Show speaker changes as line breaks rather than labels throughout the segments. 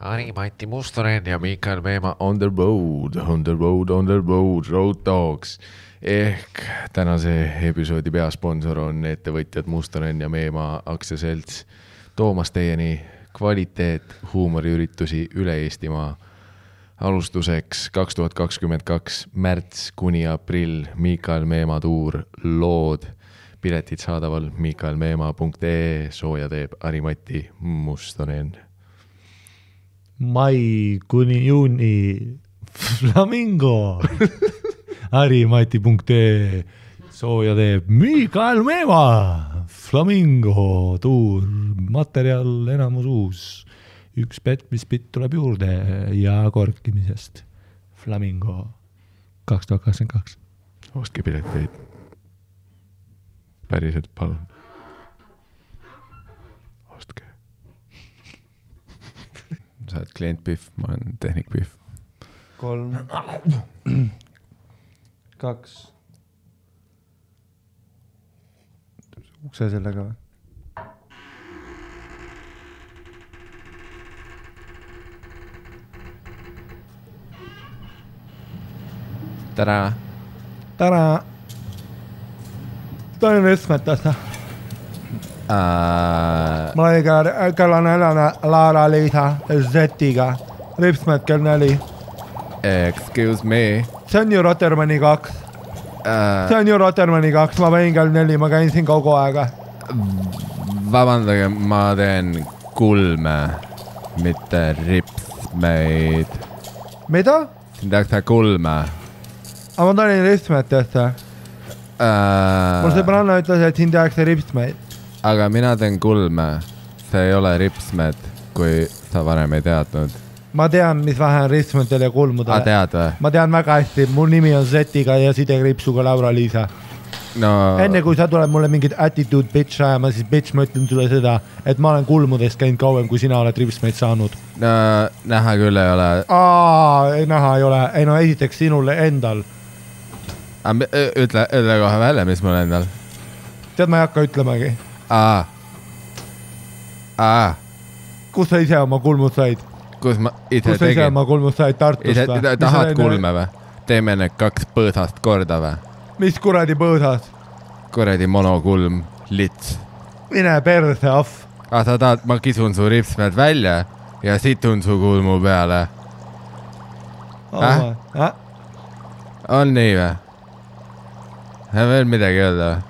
Mati Mustonen ja Mikael Meemaa on the road, Road Dogs. Ehk tänase episoodi peasponsor on ettevõtjad Mustonen ja Meemaa aktsiaselts. Toomas teieni kvaliteet huumoriüritusi üle Eestimaa. Alustuseks 2022 märts kuni aprill Mikael Meemaa tuur lood. Piletid saadaval mikaelmeemaa.ee, sooja teeb Mati Mustonen.
Mai kuni juuni Flamingo Mati.ee, sooja teeb Mikael Meemaa. Flamingo tuur, materjal enamus uus. Üks petmispitt tuleb juurde ja korkimisest. Flamingo 2022.
Ostke pileteid. Päriselt palun. Ostke. Sa oled klient Pihv, ma olen tehnik Pihv.
3, 2. Ukse sellega või?
Tere!
Tere! Toin rüsmetassa. Ma olin kella 4 Laara-Liisa Zetiga. Ripsmet kell 4.
Excuse me.
See on ju Rotermanni 2. Ma võin kell 4, ma käin siin kogu aega.
Vabandage, ma teen kulme, mitte ripsmeid.
Mida?
Siin tehakse kulme.
Aga ma tulin ripsmetesse. Mul sõbranna ütles, et siin tehakse ripsmeid.
Aga mina teen kulme. See ei ole ripsmed, kui sa varem ei teadnud.
Ma tean, mis vähe on ripsmetel ja kulmudel.
Tead või?
Ma tean väga hästi. Mul nimi on Zetiga ja sidekriipsuga Laura-Liisa.
No.
Enne kui sa tuleb mulle mingit attitude bitch ajama, siis bitch ma ütlen sulle seda, et ma olen kulmudest käinud kauem, kui sina oled ripsmeid saanud.
No, näha küll ei ole.
Näha ei ole. Ei no esiteks sinule endal.
Ütle kohe välja, mis mul endal.
Tead, ma ei hakka ütlemagi. Kus sa ise oma kulmud said?
Kus ma ise
tegin? Kus sa ise oma kulmud said Tartust või?
Tahad kulme või? Teeme need 2 põõsast korda või?
Mis kuradi põõsast?
Kuradi monokulm, lits.
Mine perse, ahv.
Sa tahad, ma kisun su ripsmed välja ja situn su kulmu peale. On nii või? Veel midagi öelda või?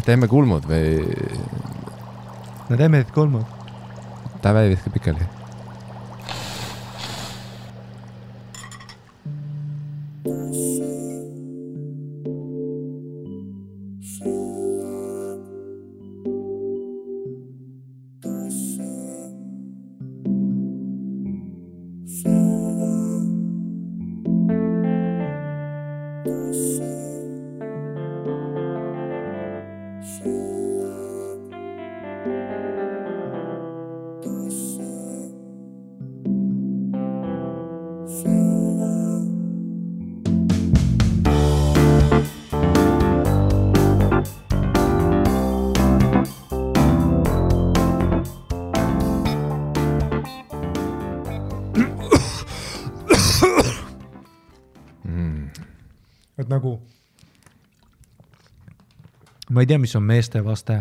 Teeme kulmud või?
No teeme need kulmud.
Ta väi viska pikali.
Et nagu ma ei tea, mis on meeste vaste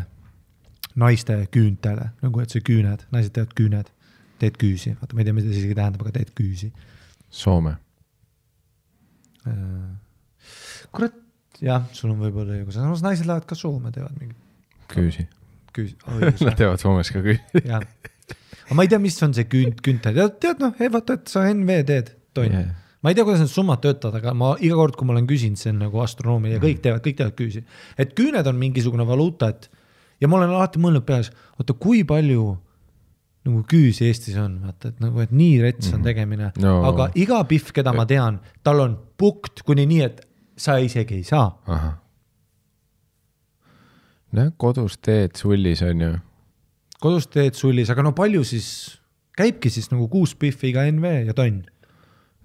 naiste küüntele, nagu et see küüned, naised teevad küüned, teed küüsi, vaata, ma ei tea, mida see isegi tähendab, aga teed küüsi.
Soome.
Kurat, jah, sul on võib-olla õigus, samas naised lähevad ka Soome, teevad mingi
küüsi. Nad teevad Soomes ka küüsi.
Jah. Aga ma ei tea, mis on see küüntel. Tead, noh, vaata, et sa NV teed, toin. Yeah. Ma ei tea, kuidas need summad töötavad, aga ma iga kord, kui ma olen küsinud, see on nagu astronoomia ja kõik teevad küüsi. Et küüned on mingisugune valuuta, ja ma olen alati mõelnud peas, oota, kui palju nagu küüsi Eestis on, vaata, et nagu, et nii rets on tegemine. No. Aga iga Pihv, keda ma tean, tal on pukt kuni nii, et sa isegi ei saa.
Aha. No, kodus teed sullis on ju.
Kodus teed sullis, aga no palju siis, käibki siis nagu 6 Pihviga NV ja tonn.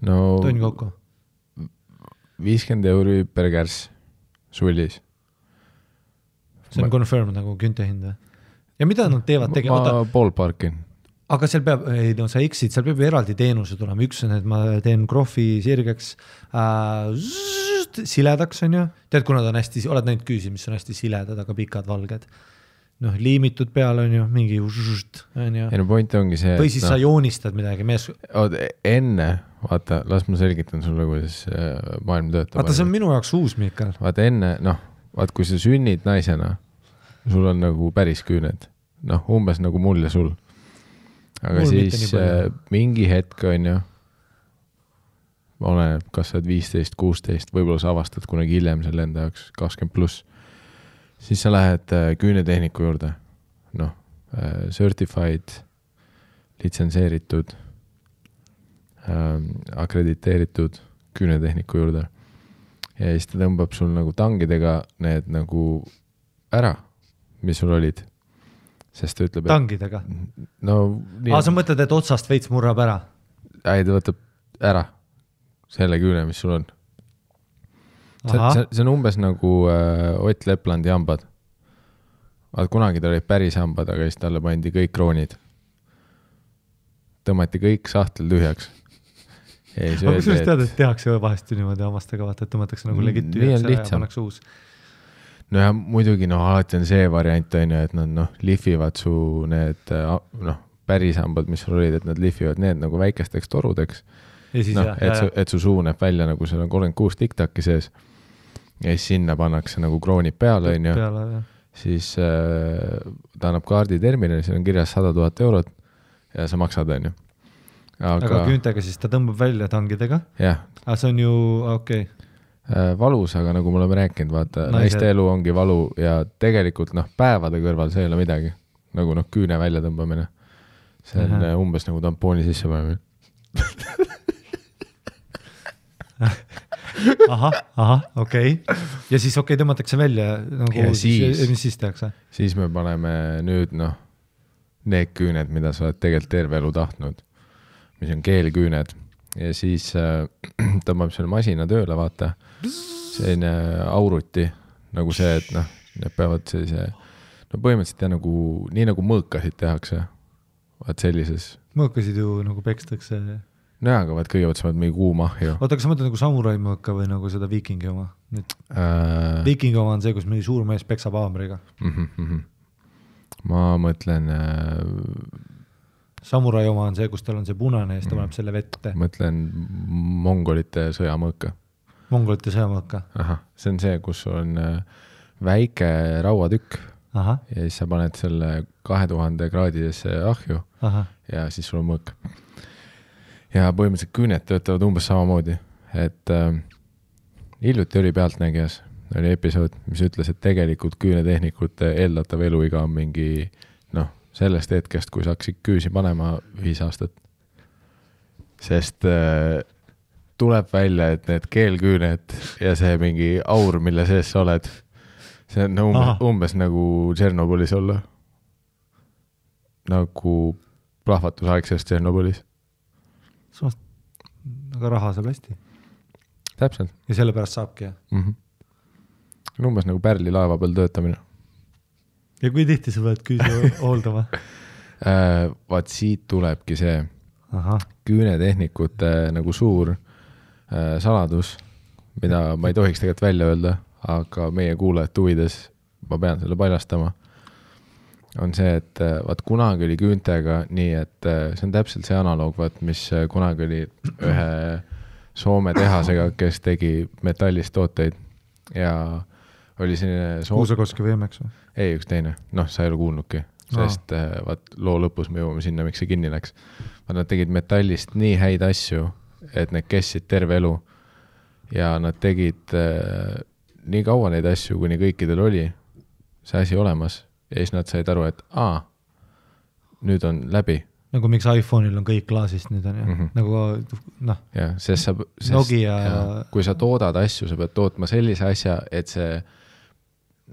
No,
tonn kokku.
50 euri per kärss sullis.
See on confirmed nagu künte hind või? ja mida nad teevad
ma ballparkin.
Aga seal peab, ei no sa eksid, seal peab eraldi teenuse tulema, üks on, et ma teen krohvi sirgeks siledaks, on ju, tead, kuna ta on hästi, oled näinud küüsi, mis on hästi siledad, aga pikad valged, noh, liimitud peale on ju, mingi on ju.
Ei no point ongi see,
või siis sa joonistad midagi mees.
Enne, vaata, las ma selgitan sulle, kuidas maailm töötab.
Vaata, see on minu jaoks uus, Mikael.
Vaata enne, vaata, kui sa sünnid naisena, sul on nagu päris küüned, umbes nagu mul ja sul. Aga mul siis mingi hetk on ju, oleneb, kas sa oled 15, 16, võib-olla sa avastad kunagi hiljem selle enda jaoks 20+, siis sa lähed küünetehniku juurde, certified, litsenseeritud, akrediteeritud küünetehniku juurde ja siis ta tõmbab sul nagu tangidega need nagu ära, mis sul olid. Sest ta ütleb,
tangidega? Sa mõtled, et otsast veits murrab ära?
Ei, ta võtab ära selle küüne, mis sul on. See on umbes nagu Ott Leplandi hambad. Vaat kunagi ta olid päris hambad, aga siis talle pandi kõik kroonid. Tõmmati kõik sahtel tühjaks.
Aga kui sa tead, et tehakse vahest niimoodi hammastega, vaata, et tõmmatakse nagu legit tühjaks ära ja pannakse uus.
No ja muidugi, alati on see variant, on ju, et nad lihvivad su need päris hambad, mis sul olid, et nad lihvivad need nagu väikesteks torudeks. Et su suu näeb välja, nagu seal on 36 tiktaki sees. Ja siis sinna pannakse nagu kroonid peale, on ju. Siis ta annab kaardi terminali, seal on kirjas 100 000 eurot ja sa maksad, on ju.
Aga küüntega siis ta tõmbab välja tangidega?
Jah.
Aga see on ju, okei.
Valus, aga nagu me oleme rääkinud, vaata, naiste elu ongi valu ja tegelikult päevade kõrval see ei ole midagi. Nagu küüne välja tõmbamine. See on umbes nagu tampooni sisse panemine.
okei. Ja siis tõmmatakse välja nagu, mis siis tehakse?
Siis me paneme nüüd need küüned, mida sa oled tegelikult terve elu tahtnud, mis on keelküüned ja siis tõmbab selle masina tööle, vaata, selline auruti, nagu see, et need peavad sellise, põhimõtteliselt nagu, nii nagu mõõkasid tehakse, vaat sellises.
Mõõkasid ju nagu pekstakse.
Aga vaat kõigepealt sa oled mingi kuumahju.
Oota, kas sa mõtled nagu samurai mõõka või nagu seda viikingi oma? Viikingi oma on see, kus mingi suur mees peksab haamriga.
Ma mõtlen...
Samurai oma on see, kus tal on see punane ja siis ta paneb selle vette.
Mõtlen mongolite sõjamõõka.
Mongolite sõjamõõka?
See on see, kus on väike rauatükk.
Ja
siis sa paned selle 2000 kraadidesse ahju ja siis sul on mõõk. Ja põhimõtteliselt küüned töötavad umbes samamoodi, et hiljuti oli Pealtnägijas, oli episood, mis ütles, et tegelikult küünetehnikute eeldatav eluiga on mingi, sellest hetkest, kui sa hakkasid küüsi panema 5 aastat. Sest tuleb välja, et need keelküüned ja see mingi aur, mille sees sa oled, see on umbes nagu Tšernobõlis olla. Nagu plahvatusaegsest Tšernobõlis.
Aga raha saab hästi.
Täpselt.
Ja selle pärast saabki, jah?
Umbes nagu Pärli laeva peal töötamine.
Ja kui tihti sa pead küüsi hooldama?
Vaat siit tulebki see küünetehnikute nagu suur saladus, mida ma ei tohiks tegelikult välja öelda, aga meie kuulajate huvides ma pean selle paljastama. On see, et vaat kunagi oli küüntega nii, et see on täpselt see analoog, vaat, mis kunagi oli ühe Soome tehasega, kes tegi metallist tooteid ja oli selline
Kuusakoski võimeks või?
Ei, üks teine. Sa ei ole kuulnudki, sest vaat loo lõpus me jõuame sinna, miks see kinni läks. Nad tegid metallist nii häid asju, et need kestsid terve elu ja nad tegid nii kaua neid asju, kuni kõikidel oli see asi olemas ja siis nad said aru, et nüüd on läbi.
Nagu miks iPhone'il on kõik klaasist nüüd on ju, nagu
ja, sest
Nokia
kui sa toodad asju, sa pead tootma sellise asja, et see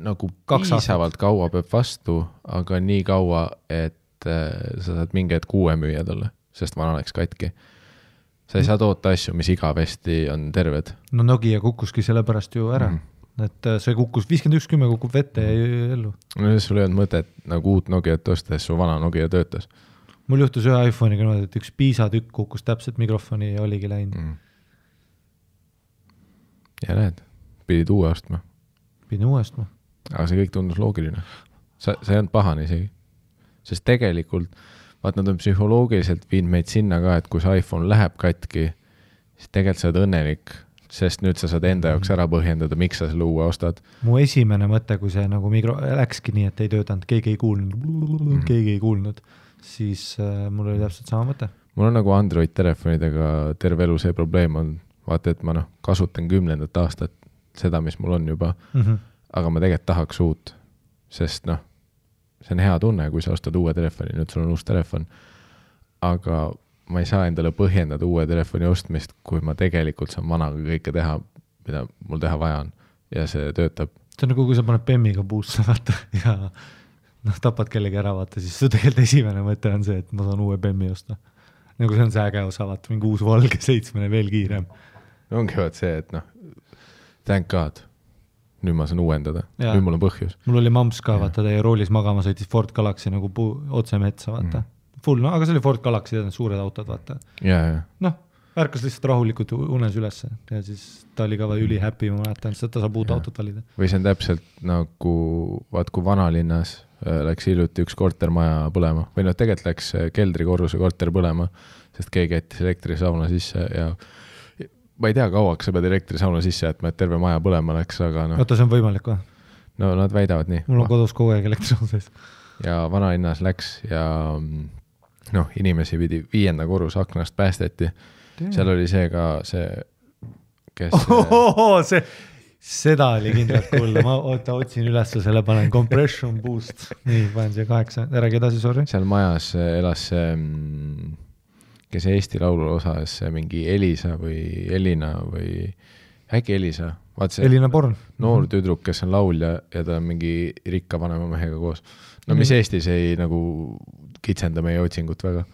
nagu piisavalt kaua peab vastu, aga nii kaua, et sa saad mingi hetk uue müüa talle, sest vana läks katki. Sa ei saa toota asju, mis igavesti on terved.
Nokia kukkuski selle pärast ju ära. et see kukkus, 5110 kukub vette ja ellu.
No sul ei olnud mõtet nagu uut Nokiat ostes, su vana Nokia töötas.
Mul juhtus ühe iPhone'iga niimoodi, et üks piisatükk kukkus täpselt mikrofoni ja oligi läinud.
Ja näed, pidid uue ostma.
Pidin uue ostma.
Aga see kõik tundus loogiline. See ei olnud pahane isegi. Sest tegelikult, vaat nad on psühholoogiliselt viinud meid sinna ka, et kui see iPhone läheb katki, siis tegelikult sa oled õnnelik, sest nüüd sa saad enda jaoks ära põhjendada, miks sa selle uue ostad.
Mu esimene mõte, kui see nagu läkski nii, et ei töötanud, keegi ei kuulnud, siis mul oli täpselt sama mõte.
Mul on nagu Android telefonidega terve elu see probleem on, vaata, et ma kasutan 10. aastat seda, mis mul on juba, aga ma tegelikult tahaks uut, sest see on hea tunne, kui sa ostad uue telefoni, nüüd sul on uus telefon, aga ma ei saa endale põhjendada uue telefoni ostmist, kui ma tegelikult saan vanaga kõike teha, mida mul teha vaja on ja see töötab.
See on nagu, kui sa paned Bemmiga puusse vaata ja tapad kellegi ära vaata, siis see tegelikult esimene mõte on see, et ma saan uue Bemmi osta. Nagu see on see äge osa, vaata, mingi uus valge 7 veel kiirem.
Ongi vaat see, et thank God, nüüd ma saan uuendada, nüüd mul on põhjus.
Mul oli mamps ka, vaata, teie roolis magama sõitis Ford Galaxy nagu otse metsa, vaata. Full, aga see oli Ford Galaxy, suured autod, vaata. Ärkas lihtsalt rahulikult unes ülesse ja siis ta oli ka üli happy, ma mäletan, sest ta saab uut autot valida.
Või see on täpselt nagu, vaat kui vanalinnas läks hiljuti üks kortermaja põlema või tegelikult läks keldrikorruse korter põlema, sest keegi jättis elektrisauna sisse ja ma ei tea, kauaks sa pead elektrisauna sisse jätma, et terve maja põlema läks, aga
Oota, see on võimalik või?
No nad väidavad nii.
Mul on kodus kogu aeg elektrisauna sees.
Ja vanalinnas läks ja inimesi pidi 5. korruse aknast päästeti. Seal oli see ka see, kes...
Seda oli kindlalt kuulda. Ma otsin üles selle, panen compression boost. Nii, panen siia 8. Räägi edasi, sorry.
Seal majas elas see, kes Eesti laulu osas, mingi Elisa või Elina või äkki Elisa.
Elina Born.
Noor tüdruk, kes on laulja ja ta on mingi rikka vanema mehega koos. No mis Eestis ei nagu kitsenda meie otsingut väga.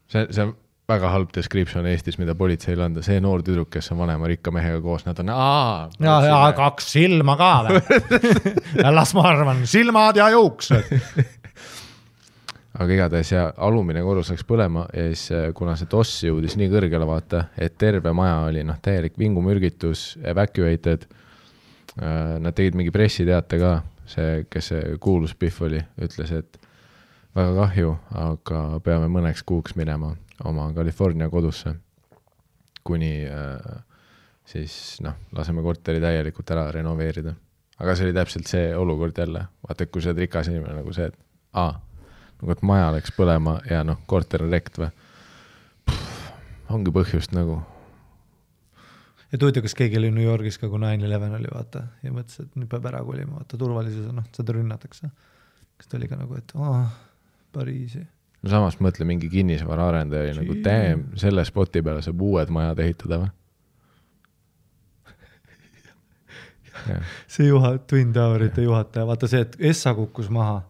See on väga halb description Eestis, mida politseil anda. See noor tüdruk, kes on vanema rikka mehega koos, nad on
ja 2 silma ka või? Las ma arvan, silmad ja juuksed.
Aga igatahes ja alumine korrus läks põlema ja siis kuna see toss jõudis nii kõrgele vaata, et terve maja oli täielik vingumürgitus, evacuated, nad tegid mingi pressiteate ka, see, kes see kuulus Pihv oli, ütles, et väga kahju, aga peame mõneks kuuks minema oma California kodusse, kuni siis laseme korteri täielikult ära renoveerida. Aga see oli täpselt see olukord jälle. Vaata, et kui see oled rikas inimene nagu see, et nagu et maja läks põlema ja korter on rekt või. Ongi põhjust nagu.
Ja tuuti, kas keegi oli New Yorgis ka, kui 9/11 oli, vaata, ja mõtles, et nüüd peab ära kolima, vaata, turvalisus, seda rünnatakse. Kas ta oli ka nagu, et Pariisi.
No samas mõtle mingi kinnisvara arendaja nagu selle spoti peale saab uued majad ehitada või?
See Twin Towerite juhataja, vaata see, et Essa kukkus maha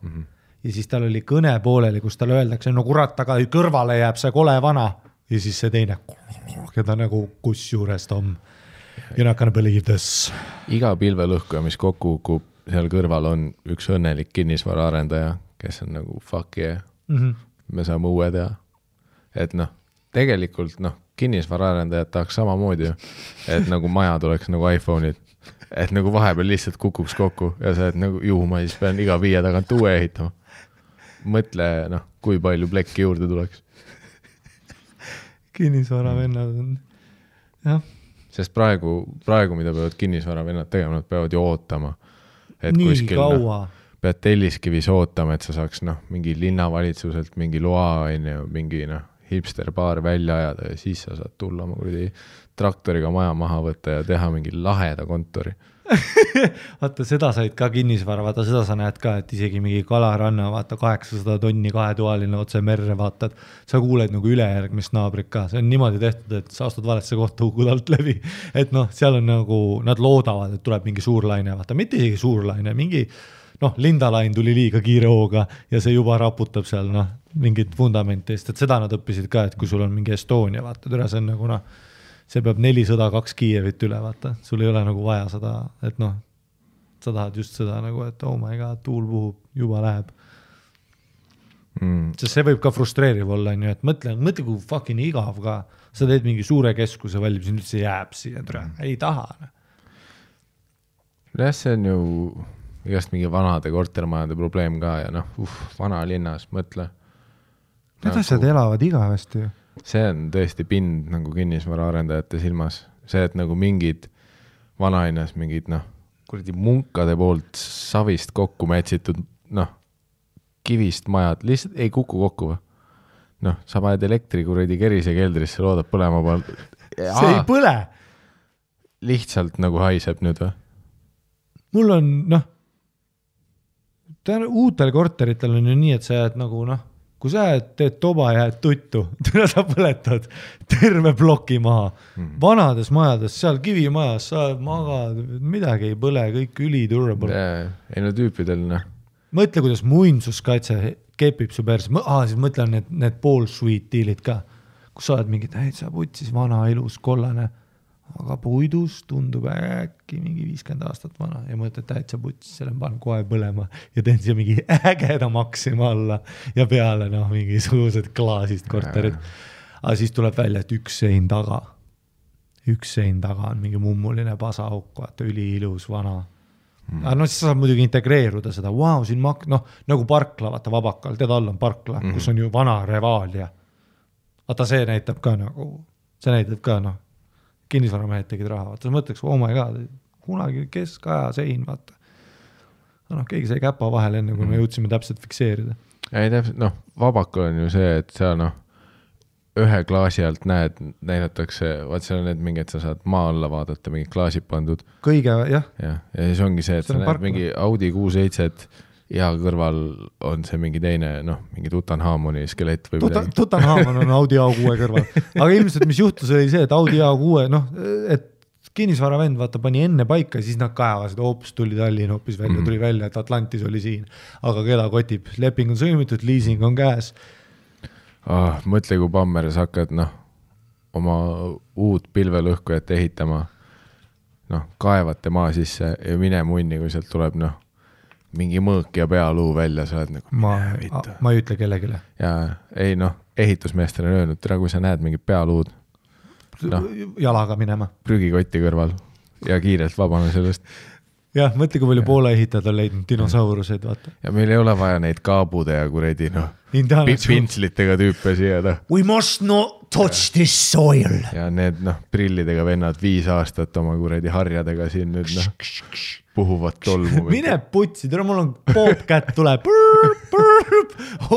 ja siis tal oli kõne pooleli, kus tal öeldakse, no kurat, aga kõrvale jääb see kole vana ja siis see teine, keda nagu kus juures Tom. You're not gonna believe this.
Iga pilvelõhkuja, mis kokku kukub, seal kõrval on üks õnnelik kinnisvara arendaja, kes on nagu fuck yeah. Me saame uue teha. Et tegelikult kinnisvara arendajad tahaks samamoodi, et nagu maja tuleks nagu iPhone'id, et nagu vahepeal lihtsalt kukuks kokku ja sa et nagu ma siis pean iga 5 tagant uue ehitama. Mõtle, kui palju plekki juurde tuleks.
Kinnisvara vennad on, jah.
Sest praegu, mida peavad kinnisvara vennad tegema, nad peavad ju ootama. Et
nii
kuskil,
kaua.
Pead Telliskivis ootama, et sa saaks mingi linnavalitsuselt mingi loa, mingi hipsterbaar välja ajada ja siis sa saad tulla oma traktoriga maja maha võtta ja teha mingi laheda kontori.
Vaata, seda said ka kinnisvara, vaata, seda sa näed ka, et isegi mingi Kalaranna, vaata, 800 tonni 2-toaline otse merre, vaata, sa kuuled nagu ülejärgmist naabrit ka. See on niimoodi tehtud, et sa astud valesse kohta hukud alt läbi. Et seal on nagu, nad loodavad, et tuleb mingi suur laine, vaata, mitte isegi suur laine, mingi lindalain tuli liiga kiire hooga ja see juba raputab seal mingit fundamentist, et seda nad õppisid ka, et kui sul on mingi Estonia, vaata, see on nagu see peab 402 Kiievit üle, vaata, sul ei ole nagu vaja seda, et noh, sa tahad just seda nagu, et oh my god, tuul puhub, juba läheb. Sest see võib ka frustreeriv olla, on ju, et mõtle kui fucking igav ka, sa teed mingi suure keskuse valib, siin üldse jääb siia, ei taha.
jah, see on ju igast mingi vanade kortermajade probleem ka ja noh, vana linnas, mõtle.
Need asjad elavad igavesti ju.
See on tõesti pind nagu kinnisvara arendajate silmas. See, et nagu mingid vanainas, mingid noh, kuradi munkade poolt savist kokku mätsitud, noh, kivist majad, lihtsalt ei kuku kokku või? Noh, sa paned elektri kuradi kerise keldrisse, loodab põlema poolt.
See ei põle!
Lihtsalt nagu haiseb nüüd või?
Mul on, noh, uutel korteritel on ju nii, et sa jääd nagu, noh, kui sa teed toba ja jääd tuttu, sa põletad terve ploki maha. Vanades majades, seal kivimajas, sa magad, midagi ei põle, kõik üli-durable.
Ei no tüüpidel, noh.
Mõtle, kuidas muinsuskaitse kepib su perse. Siis mõtlen need pool-sweet dealid ka, kus sa oled mingi, sa putsis vana ilus kollane, aga puidus tundub äkki mingi 50 aastat vana ja mõtled täitsa putsis, selle panen kohe põlema ja teen siia mingi ägeda maksima alla ja peale noh, mingisugused klaasist korterid. Aga siis tuleb välja, et üks sein taga on mingi mummuline pasauk, vaata üliilus vana. Aga no siis saab muidugi integreeruda seda, siin nagu parkla, vaata Vabakal, tead all on parkla, kus on ju vana Revaalia. Vaata see näitab ka noh, kinnisvaramehed tegid raha, vaata, sa mõtleks, oh my god, kunagi keskaja sein, vaata. No, keegi sai käpa vahel enne, kui me jõudsime täpselt fikseerida.
Ei täpselt, noh, Vabakal on ju see, et seal noh, ühe klaasi alt näidatakse, vaat seal on need mingid, sa saad maa alla vaadata, mingid klaasid pandud.
Kõige, jah.
Ja siis ongi see, et sa näed mingi Audi 6-7 ja kõrval on see mingi teine, noh, mingi Tutanhamoni skelett või midagi.
Tutanhamon on Audi A6 kõrval. Aga ilmselt, mis juhtus, oli see, et Audi A6, noh, et kinnisvaravend vaata pani enne paika, siis nad kaevasid, tuli Tallinn hoopis välja, tuli välja, et Atlantis oli siin. Aga keda kotib? Leping on sõlmitud, leasing on käes.
Mõtle, kui Pammeres hakkad, noh, oma uut pilvelõhkujat ehitama, noh, kaevate maa sisse ja mine munni, kui sealt tuleb, noh, mingi mõõk ja pealuu välja, sa oled nagu
ma ei ütle kellegile.
Ja ei, noh, ehitusmeestele on öelnud, kui sa näed mingit pealuud, noh,
jalaga minema.
Prügikotti kõrval ja kiirelt vabane sellest.
Jah, mõtle, kui palju poole ehitajad on leidnud dinosauruseid, vaata.
Ja meil ei ole vaja neid kaabude ja kuredi, noh, pintslitega tüüpe siia, noh.
We must not touch this soil.
Ja need, noh, prillidega vennad 5 aastat oma kuredi harjadega siin nüüd, noh, puhuvad tolmu.
Mine putsi, tere, mul on Bobcat tuleb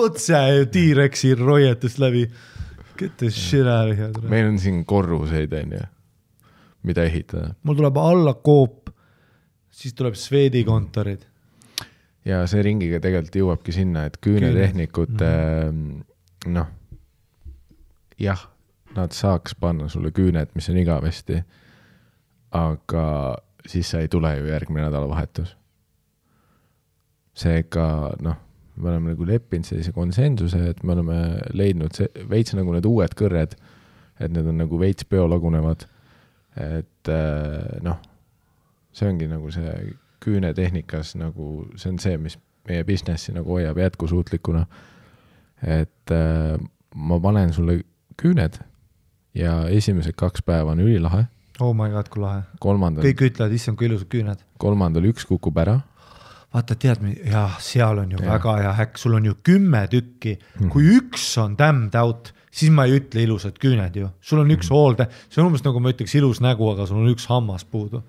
otse T-Rexi roietust läbi. Get the shit out of here.
Meil on siin korruseid, mida ehitada.
Mul tuleb alla koop, siis tuleb Sveedi kontorid.
Ja see ringiga tegelikult jõuabki sinna, et küünetehnikud, noh, jah, nad saaks panna sulle küüned, mis on igavesti, aga siis sa ei tule ju järgmine nädalavahetus. Seega, noh, me oleme nagu leppinud sellise konsensuse, et me oleme leidnud veits nagu need uued kõrred, et need on nagu veits biolagunevad, et noh, see ongi nagu see küünetehnikas, nagu see on see, mis meie businessi nagu hoiab jätkusuutlikuna, et ma panen sulle küüned ja esimesed 2 päeva on ülilahe.
Oh my god, kui lahe. Kõik ütlevad, issand, kui ilusad küüned.
3. 1 kukub ära.
Vaata, tead, jah, seal on ju väga hea häkk, sul on ju 10 tükki, kui üks on damned out, siis ma ei ütle ilusad küüned ju. Sul on üks hoolde, see on umbes nagu ma ütleks ilus nägu, aga sul on üks hammas puudu.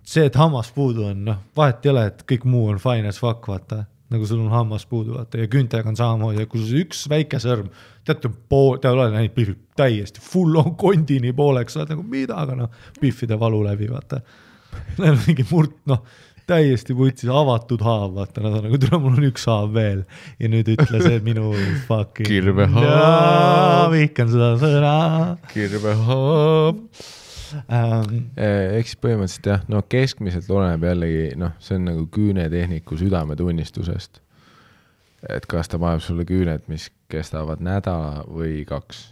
See, et hammas puudu on, noh, vahet ei ole, et kõik muu on fine as fuck, vaata, nagu sul on hammas puudu, vaata, ja küüntega on samamoodi, ja kui sul üks väike sõrm, teate, te olete näinud pihvi täiesti full on kondini pooleks, sa oled nagu mida, aga noh, pihvide valu läbi, vaata. Neil on mingi noh, täiesti putsis avatud haav, vaata, nad on nagu, tule, mul on üks haav veel ja nüüd ütle see minu fucking
kirvehaav.
Vihkan seda sõna.
Kirvehaav. Eks põhimõtteliselt jah, no keskmiselt oleneb jällegi, noh, see on nagu küünetehniku südametunnistusest. Et kas ta paneb sulle küüned, mis kestavad nädala või 2.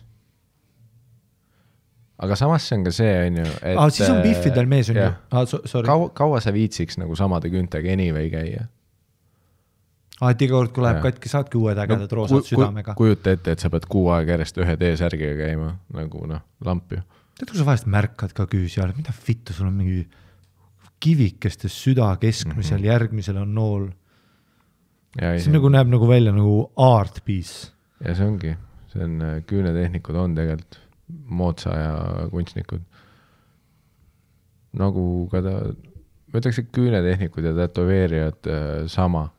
aga samas see on ka see, on ju, et
siis on Biffidel mees on ju.
Kaua sa viitsiks nagu samade küntega anyway käia?
Et iga kord, kui läheb katki, saadki uued ägedad roosad südamega.
Kujuta ette, et sa pead 6 aega järjest ühe T-särgiga käima, nagu lamp ju.
Tead, kui sa vahest märkad ka küüsi all, mida vittu, sul on mingi kivikestes süda keskmisel, järgmisel on nool. See nagu näeb nagu välja nagu art piece.
Ja see ongi, see on küünetehnikud on tegelikult moodsa ja kunstnikud. Nagu ka ma ütleks, et küünetehnikud ja tätoveerijad sama.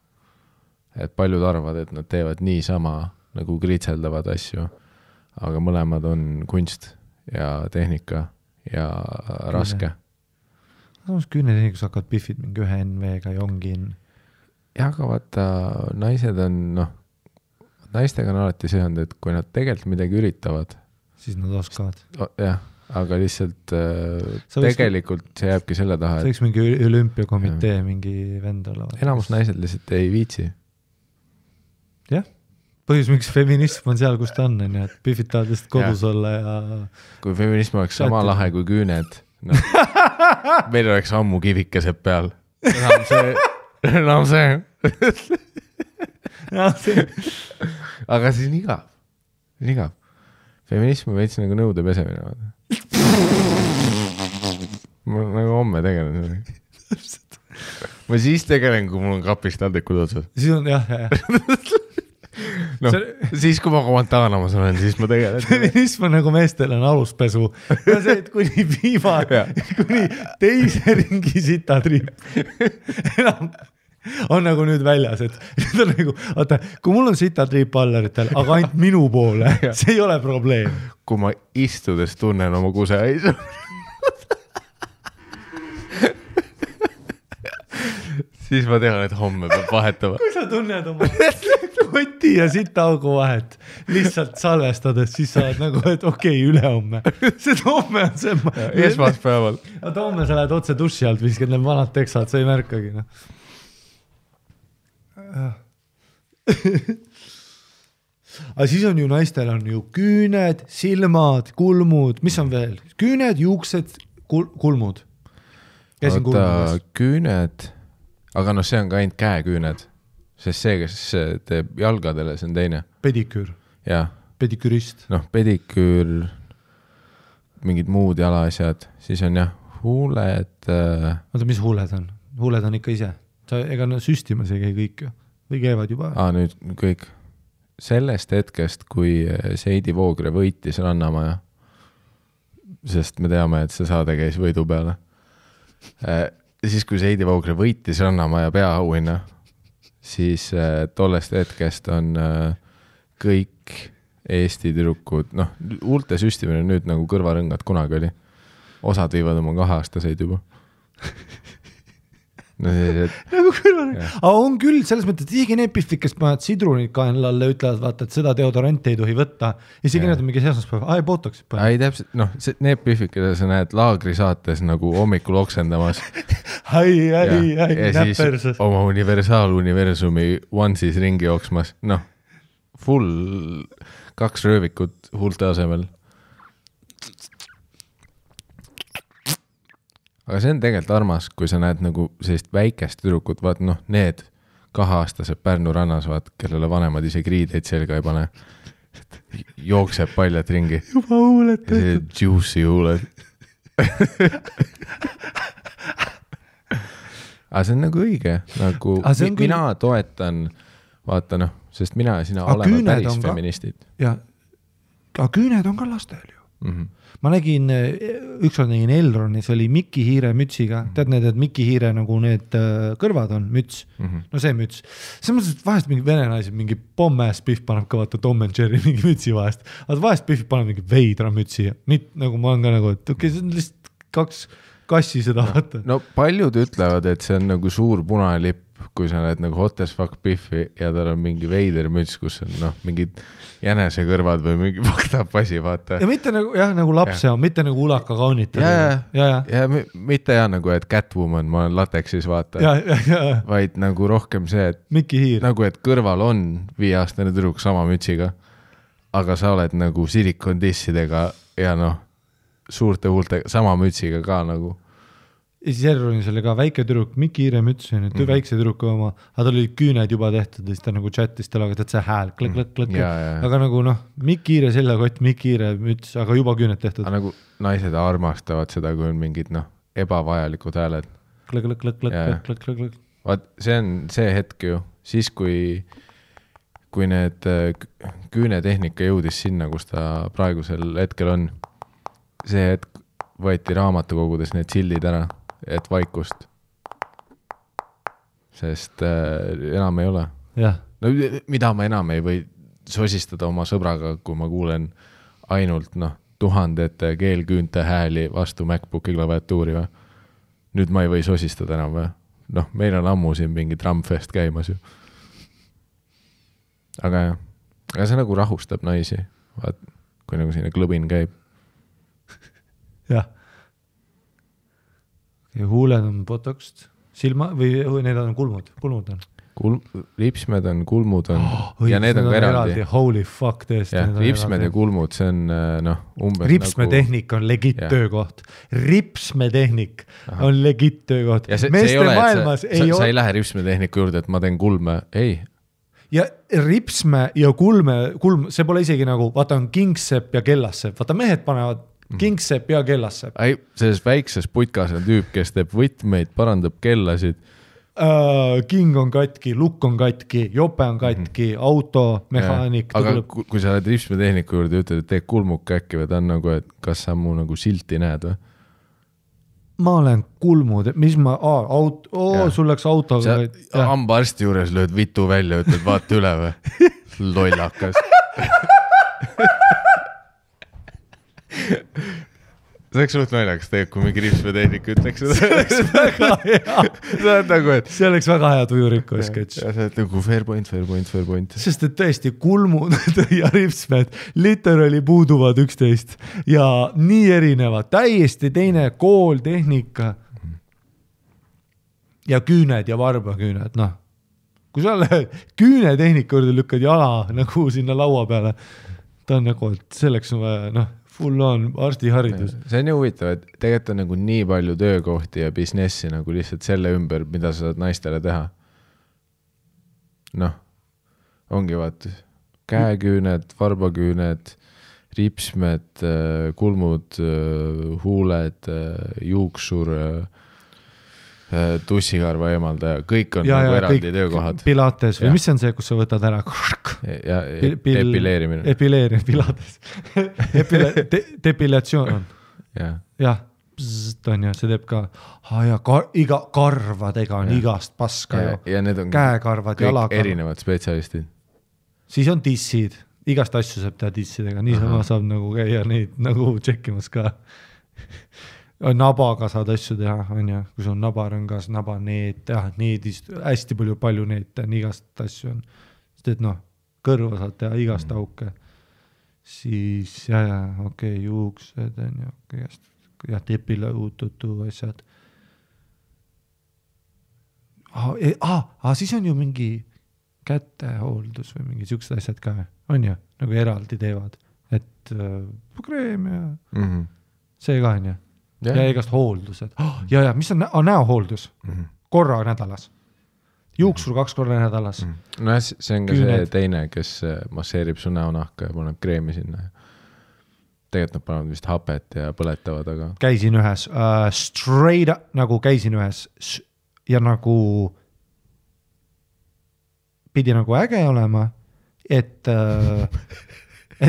Et paljud arvad, et nad teevad nii sama nagu kritseldavad asju, aga mõlemad on kunst ja tehnika ja raske.
Samas küünetehnikus hakkavad Biffid mingi ühe NV-ga ja ongi
ja aga vaata, naised on, naistega on alati see olnud, et kui nad tegelikult midagi üritavad,
siis nad oskavad.
Jah, aga lihtsalt tegelikult see jääbki selle taha.
See võiks mingi olümpiakomitee mingi vend olla.
Enamus naised lihtsalt ei viitsi.
Jah, põhjus miks feminism on seal, kus ta on, et Biffid tahavad lihtsalt kodus olla ja...
Kui feminism oleks sama lahe kui küüned, meil oleks ammu kivikesed peal. Enam see. Aga siis igav. Feminism on veits nagu nõude pesemine. Ma nagu homme tegelen. Ma siis tegelen, kui mul on kapist taldrikud otsas.
Siis on, jah.
Siis kui ma Guantanamas olen, siis ma tegelen.
Feminism on nagu meestel on aluspesu. Ja see, et kuni kuni teise ringi sitatriip. Enam on nagu nüüd väljas, et on nagu, oota, kui mul on sitatriip allaritel, aga ainult minu poole, see ei ole probleem.
Kui ma istudes tunnen oma kuseaisu. Siis ma tean, et homme peab vahetama.
Kui sa tunned oma koti ja sitaugu vahet lihtsalt salvestades, siis sa oled nagu, et okei, ülehomme. See homme on see...
Esmaspäeval.
Aga homme sa lähed otse duši alt, viskad need vanad teksad, sa ei märkagi. Aga siis on ju naistel on ju küüned, silmad, kulmud, mis on veel? Küüned, juuksed, kulmud. Käisin kulmudes.
Küüned, aga see on ka ainult käeküüned, sest see, kes teeb jalgadele, see on teine.
Pediküür.
Jah.
Pedikürist.
Pediküür, mingid muud jalaasjad, siis on huuled.
Oota, mis huuled on? Huuled on ikka ise. Ega süstimas ei käi kõik ju. Või käivad juba?
Nüüd kõik. Sellest hetkest, kui Seidi Voogre võitis Rannamaja, sest me teame, et see saade käis võidu peale. Siis, kui Seidi Voogre võitis Rannamaja peaauhinna, siis tollest hetkest on kõik Eesti tüdrukud, huulte süstimine nüüd nagu kõrvarõngad kunagi oli. Osad viivad oma 2-aastaseid juba.
Nagu kõrvarõngad. Aga on küll, selles mõttes, et isegi need Biffid, kes paned sidrunid kaenlalle, ütlevad, vaata, et seda deodoranti ei tohi võtta. Isegi need on mingi esmaspäev. Ei, botoks.
Ei, täpselt, need Biffid, keda sa näed laagrisaates nagu hommikul oksendamas. Ja siis oma universaaluniversumi onesies ringi jooksmas. Full 2 röövikut huulte asemel. Aga see on tegelikult armas, kui sa näed nagu sellist väikest tüdrukut, vaat need 2-aastased Pärnu rannas, vaat, kellele vanemad isegi riideid selga ei pane. Jookseb paljad ringi.
Juba huuled.
See juicy huuled. Aga see on nagu õige. Nagu mina toetan, vaata sest mina ja sina oleme päris feministid.
Ja, aga küüned on ka lastel ju. Ma nägin, ükskord nägin Elronis, oli Mikki Hiire mütsiga. Tead need, et Mikki Hiire nagu need kõrvad on müts. No see müts. See mõttes, et vahest mingi vene naised, mingi Pommes Biff paneb ka vaata Tom and Jerry mingi mütsi vahest. Aga vahest Biff paneb mingi veidra mütsi. Nagu ma olen ka nagu, et okei, see on lihtsalt 2 kassi seda vaata.
Paljud ütlevad, et see on nagu suur punalipp, kui sa näed nagu hot as fuck Biffi ja tal on mingi veider müts, kus on mingid jänese kõrvad või mingi vaktab asi, vaata. Ja
mitte nagu lapse on, mitte nagu ulaka kaunitada.
Ja mitte nagu, et Catwoman, ma olen lateksis, vaata. Vaid nagu rohkem see, et
Mikki Hiir.
Nagu, et kõrval on 5-aastane tüdruk sama mütsiga, aga sa oled nagu silikondissidega ja suurte huultega, sama mütsiga ka nagu.
Ja siis Erronis oli ka väike tüdruk, Mikki Hiire müts, väikse tüdruku oma, aga tal olid küüned juba tehtud ja siis ta nagu chatis tallaga, et see hääl, klõk. Aga nagu Mikki Hiire seljakott, Mikki Hiire müts, aga juba küüned tehtud.
Aga nagu naised armastavad seda, kui on mingid ebavajalikud hääled.
Klõk.
Vaat see on see hetk ju, siis kui need küünetehnika jõudis sinna, kus ta praegusel hetkel on, see hetk võeti raamatukogudes need sildid ära, et vaikust. Sest enam ei ole. No, mida ma enam ei või sosistada oma sõbraga, kui ma kuulen ainult tuhandete keelküünte hääli vastu MacBooki klaviatuuri või? Nüüd ma ei või sosistada enam või? Meil on ammu siin mingi Drumfest käimas ju. Aga see nagu rahustab naisi, vaat, kui nagu sinna klõbin käib.
Jah. Ja huuled on botoxed, silma või need on kulmud on.
Ripsmed on, kulmud on ja need on ka eraldi.
Holy fuck, tõesti.
Ripsmed ja kulmud, see on umbes
Ripsmetehnik on legit töökoht. Ripsmetehnik on legit töökoht.
Ja see ei ole, sa ei lähe ripsmetehniku juurde, et ma teen kulme. Ei.
Ja ripsme ja kulm, see pole isegi nagu, vaata on kingsepp ja kellassepp. Vaata mehed panevad kingsepp ja kellassepp.
Selles väikses putkas on tüüp, kes teeb võtmeid, parandab kellasid.
King on katki, lukk on katki, jope on katki, auto, mehaanik.
Aga kui sa oled ripsmetehniku juurde ja ütled, et tee kulmuk äkki või ta on nagu, et kas sa mu nagu silti näed või?
Ma olen kulmud, mis ma, sul läks autoga.
Hambaarsti juures lööd vitu välja, ütled vaata üle või? Lollakas. See oleks suht naljakas tegelikult, kui mingi ripsmetehnik ütleks seda.
See oleks väga hea. See oleks väga hea tujuriku sketš.
Ja see on nagu fair point.
Sest et tõesti kulmud ja ripsmed literally puuduvad üksteist ja nii erinevad, täiesti teine kool, tehnika ja küüned ja varbaküüned, kui sa lähed küünetehnika juurde lükkad jala nagu sinna laua peale, ta on nagu, et selleks on vaja, full on arstiharidus.
See on ju huvitav, et tegelikult on nagu nii palju töökohti ja businessi nagu lihtsalt selle ümber, mida sa saad naistele teha. Ongi vaat käeküüned, varbaküüned, ripsmed, kulmud, huuled, juuksur, tussikarva eemaldaja, kõik on nagu eraldi töökohad.
Pilates või mis on see, kus sa võtad ära?
Ja epileerimine.
Pilates. Depilatsioon on. Jah, on ja see teeb ka iga karvadega on igast paska ju.
Ja need on
käekarvad,
kõik erinevad spetsialistid.
Siis on dissid, igast asju saab teha dissidega, niisama saab nagu käia neid nagu tšekkimas ka. Nabaga saad asju teha, on ja, kui sul on nabarõngas, nabaneet, needist, hästi palju neet, igast asju on. Sest et kõrva saad teha igast auke. Siis, juuksed on ja tepile uututu asjad. Siis on ju mingi kätehooldus või mingi siuksed asjad ka, on ju, nagu eraldi teevad. Et kreem ja see ka on ju. Ja igast hooldused. Ja mis on näohooldus? Korra nädalas. Juuksur 2 korra nädalas.
No see on ka see teine, kes masseerib su näonahka ja paneb kreemi sinna. Tegelikult nad panevad vist hapet ja põletavad, aga...
Käisin ühes, straight up, nagu käisin ühes ja nagu pidi nagu äge olema, et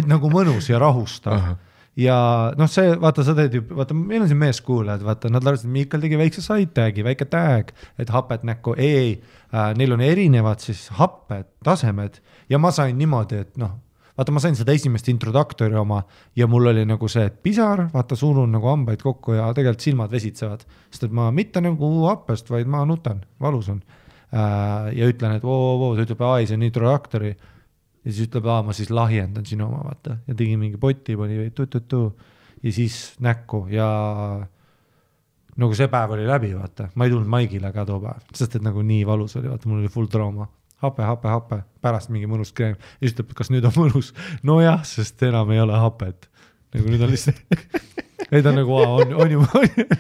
nagu mõnus ja rahustav. Ja see, vaata, sa teed ju, vaata, meil on siin meeskuulajad, vaata, nad arvasid, et Miikal tegi väikse side-tagi, väike tag, et hapet näkku, neil on erinevad siis happed, tasemed ja ma sain niimoodi, et vaata, ma sain seda esimest introduktori oma ja mul oli nagu see, et pisar, vaata, suunun nagu hambaid kokku ja tegelikult silmad vesitsevad, sest et ma mitte nagu happest, vaid ma nutan, valus on ja ütlen, et ta ütleb, see on introduktori ja siis ütleb, ma siis lahjendan sinu oma, vaata. Ja tegi mingi poti, pani ja siis näkku ja nagu see päev oli läbi, vaata. Ma ei tulnud Maigile ka too päev, sest et nagu nii valus oli, vaata, mul oli full trauma. Hape, pärast mingi mõnus kreem. Ja siis ütleb, kas nüüd on mõnus? No jah, sest enam ei ole hapet. Nagu nüüd on lihtsalt ei ta nagu, on ju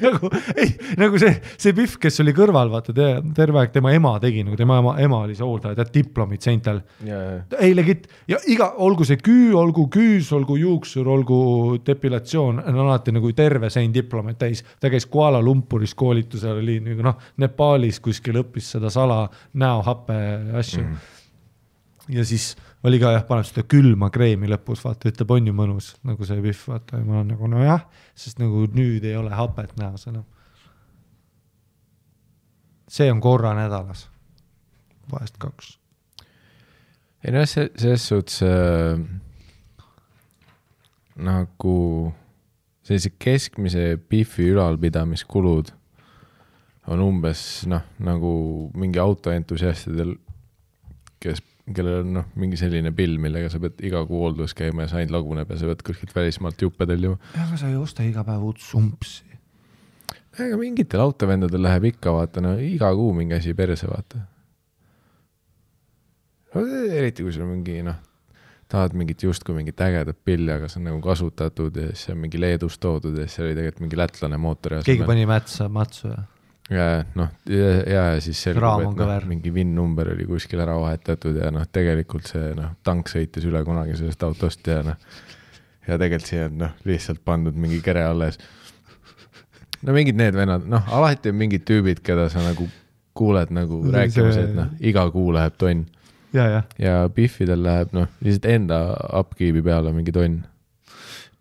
nagu, ei, nagu see Pihv, kes oli kõrval, vaata, terve aeg tema ema tegi, nagu tema ema oli see hooldaja, tead, diplomid seintel. Ei legit, ja olgu see küü, olgu küüs, olgu juuksur, olgu depilatsioon, on alati nagu terve sein diplomeid täis. Ta käis Kuala Lumpuris koolitusel, oli nagu Nepaalis kuskil õppis seda sala näohappe asju. Ja siis oli ka paneb seda külma kreemi lõpus, vaata, ütleb, on ju mõnus, nagu see Pihv, vaata, ja ma olen nagu, no jah, sest nagu nüüd ei ole hapet näos enam. See on korra nädalas, vahest 2.
Ei no, selles suhtes nagu sellise keskmise Pihvi ülalpidamiskulud on umbes, nagu mingi autoentusiastidel, kellel on mingi selline pill, millega sa pead iga kuu hooldus käima ja sa ainult laguneb ja sa pead kuskilt välismaalt juppe tellima.
Aga sa ei osta iga päev uut sumpsi.
Aga mingitel autovendadel läheb ikka, vaata, iga kuu mingi asi perse, vaata. Eriti kui sul mingi, tahad mingit justkui mingit ägedat pilli, aga see on nagu kasutatud ja siis on mingi Leedust toodud ja siis oli tegelikult mingi lätlane mootori.
Keegi pani matsu ja?
Ja siis selgub, et mingi VIN-number oli kuskil ära vahetatud ja tegelikult see tank sõitis üle kunagi sellest autost ja tegelikult siia on lihtsalt pandud mingi kere alles. Mingid need vennad, alati on mingid tüübid, keda sa nagu kuuled nagu rääkimas, et iga kuu läheb tonn. Ja Pihvidel läheb lihtsalt enda upkeepi peale mingi tonn.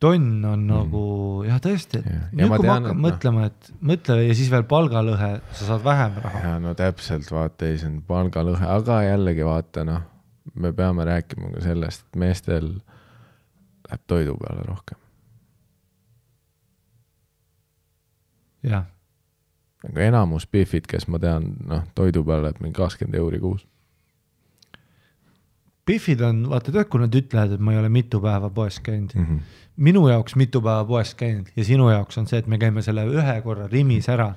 Tonn on nagu, jah tõesti, nüüd kui ma hakkan mõtlema, et mõtle ja siis veel palgalõhe, sa saad vähem raha.
Ja no täpselt, vaata, ei see on palgalõhe, aga jällegi vaata, me peame rääkima ka sellest, et meestel läheb toidu peale rohkem.
Jah.
Aga enamus Pihvid, kes ma tean, toidu peale läheb mingi 20 € kuus.
Pihvid on, vaata tead, kui nad ütlevad, et ma ei ole mitu päeva poes käinud. Minu jaoks mitu päeva poes käinud ja sinu jaoks on see, et me käime selle ühe korra rimis ära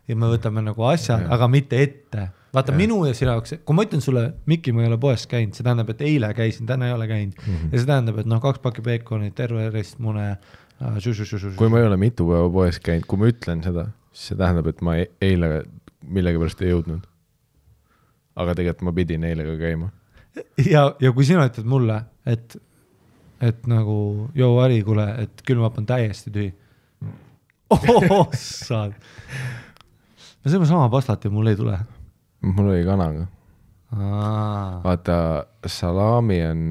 ja me võtame nagu asjad, aga mitte ette. Vaata minu ja sinu jaoks, kui ma ütlen sulle, Mikki, ma ei ole poes käinud, see tähendab, et eile käisin, täna ei ole käinud. Ja see tähendab, et 2 pakki peekonit, terve ristmune.
Kui ma ei ole mitu päeva poes käinud, kui ma ütlen seda, siis see tähendab, et ma eile millegi pärast ei jõudnud. Aga tegelikult ma pidin eile ka käima.
Ja kui sina ütled mulle, et nagu, joo Ari, kuule, et külmap on täiesti tühi. Saad. Me saime sama pastat ja mul ei tule.
Mul oli kanaga. Vaata, salami on,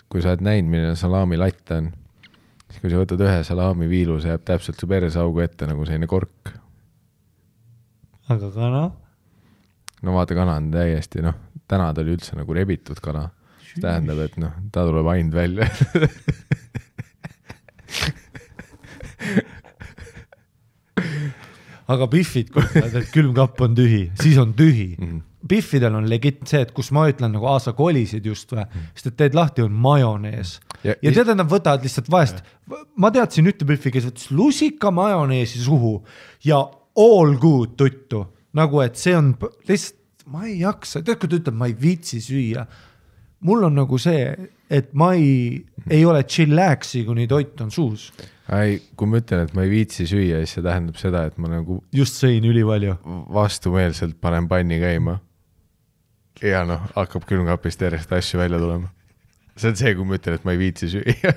kui sa oled näinud, milline salami latt on, siis kui sa võtad ühe salami viilu, see jääb täpselt su peresaugu ette nagu selline kork.
Aga kana?
No vaata, kana on täiesti, täna ta oli üldse nagu rebitud kana. See tähendab, et ta tuleb ainult välja.
Aga Pihvid, et külmkapp on tühi, siis on tühi. Pihvidel on legit see, et kus ma ütlen nagu sa kolisid just või, sest et teed lahti on majonees. Ja tead, nad võtavad lihtsalt vahest. Ma teadsin ühte Pihvi, kes võttis lusika majoneesi suhu ja all good tuttu. Nagu, et see on lihtsalt, ma ei jaksa, tead, kui ta ütleb, ma ei viitsi süüa. Mul on nagu see, et ma ei ole chillaxi, kuni toit on suus.
Kui ma ütlen, et ma ei viitsi süüa, siis see tähendab seda, et ma nagu
just sõin ülipalju.
Vastumeelselt panen panni käima. Ja hakkab külmkapist järjest asju välja tulema. See on see, kui ma ütlen, et ma ei viitsi süüa.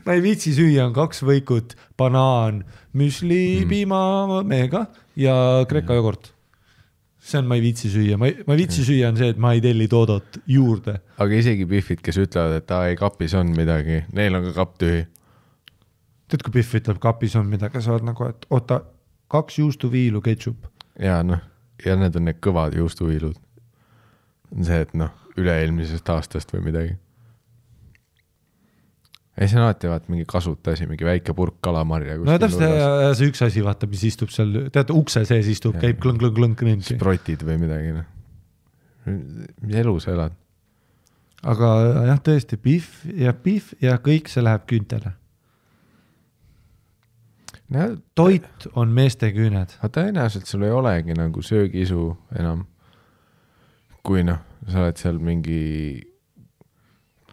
Ma ei viitsi süüa on 2 võikut, banaan, müsli, piima, meega ja kreka jogurt. See on, ma ei viitsi süüa. Ma ei viitsi süüa on see, et ma ei telli toodot juurde.
Aga isegi Pihvid, kes ütlevad, et ei kapis on midagi, neil on ka kapp tühi.
Tead, kui Pihv ütleb, kapis on midagi, sa oled nagu, et oota, 2 juustuviilu ketšup.
Ja ja need on need kõvad juustuviilud. On see, et üle-eelmisest aastast või midagi. Ei, see on alati vaat mingi kasuta asi, mingi väike purk kalamarja.
No täpselt see üks asi, vaata, mis istub seal, teate, ukse sees istub, käib klõng.
Sprotid või midagi. Mis elu sa elad?
Aga jah, tõesti, Pihv ja kõik see läheb küüntele. Toit on meeste küüned.
Aga tõenäoliselt sul ei olegi nagu söögiisu enam. Kui sa oled seal mingi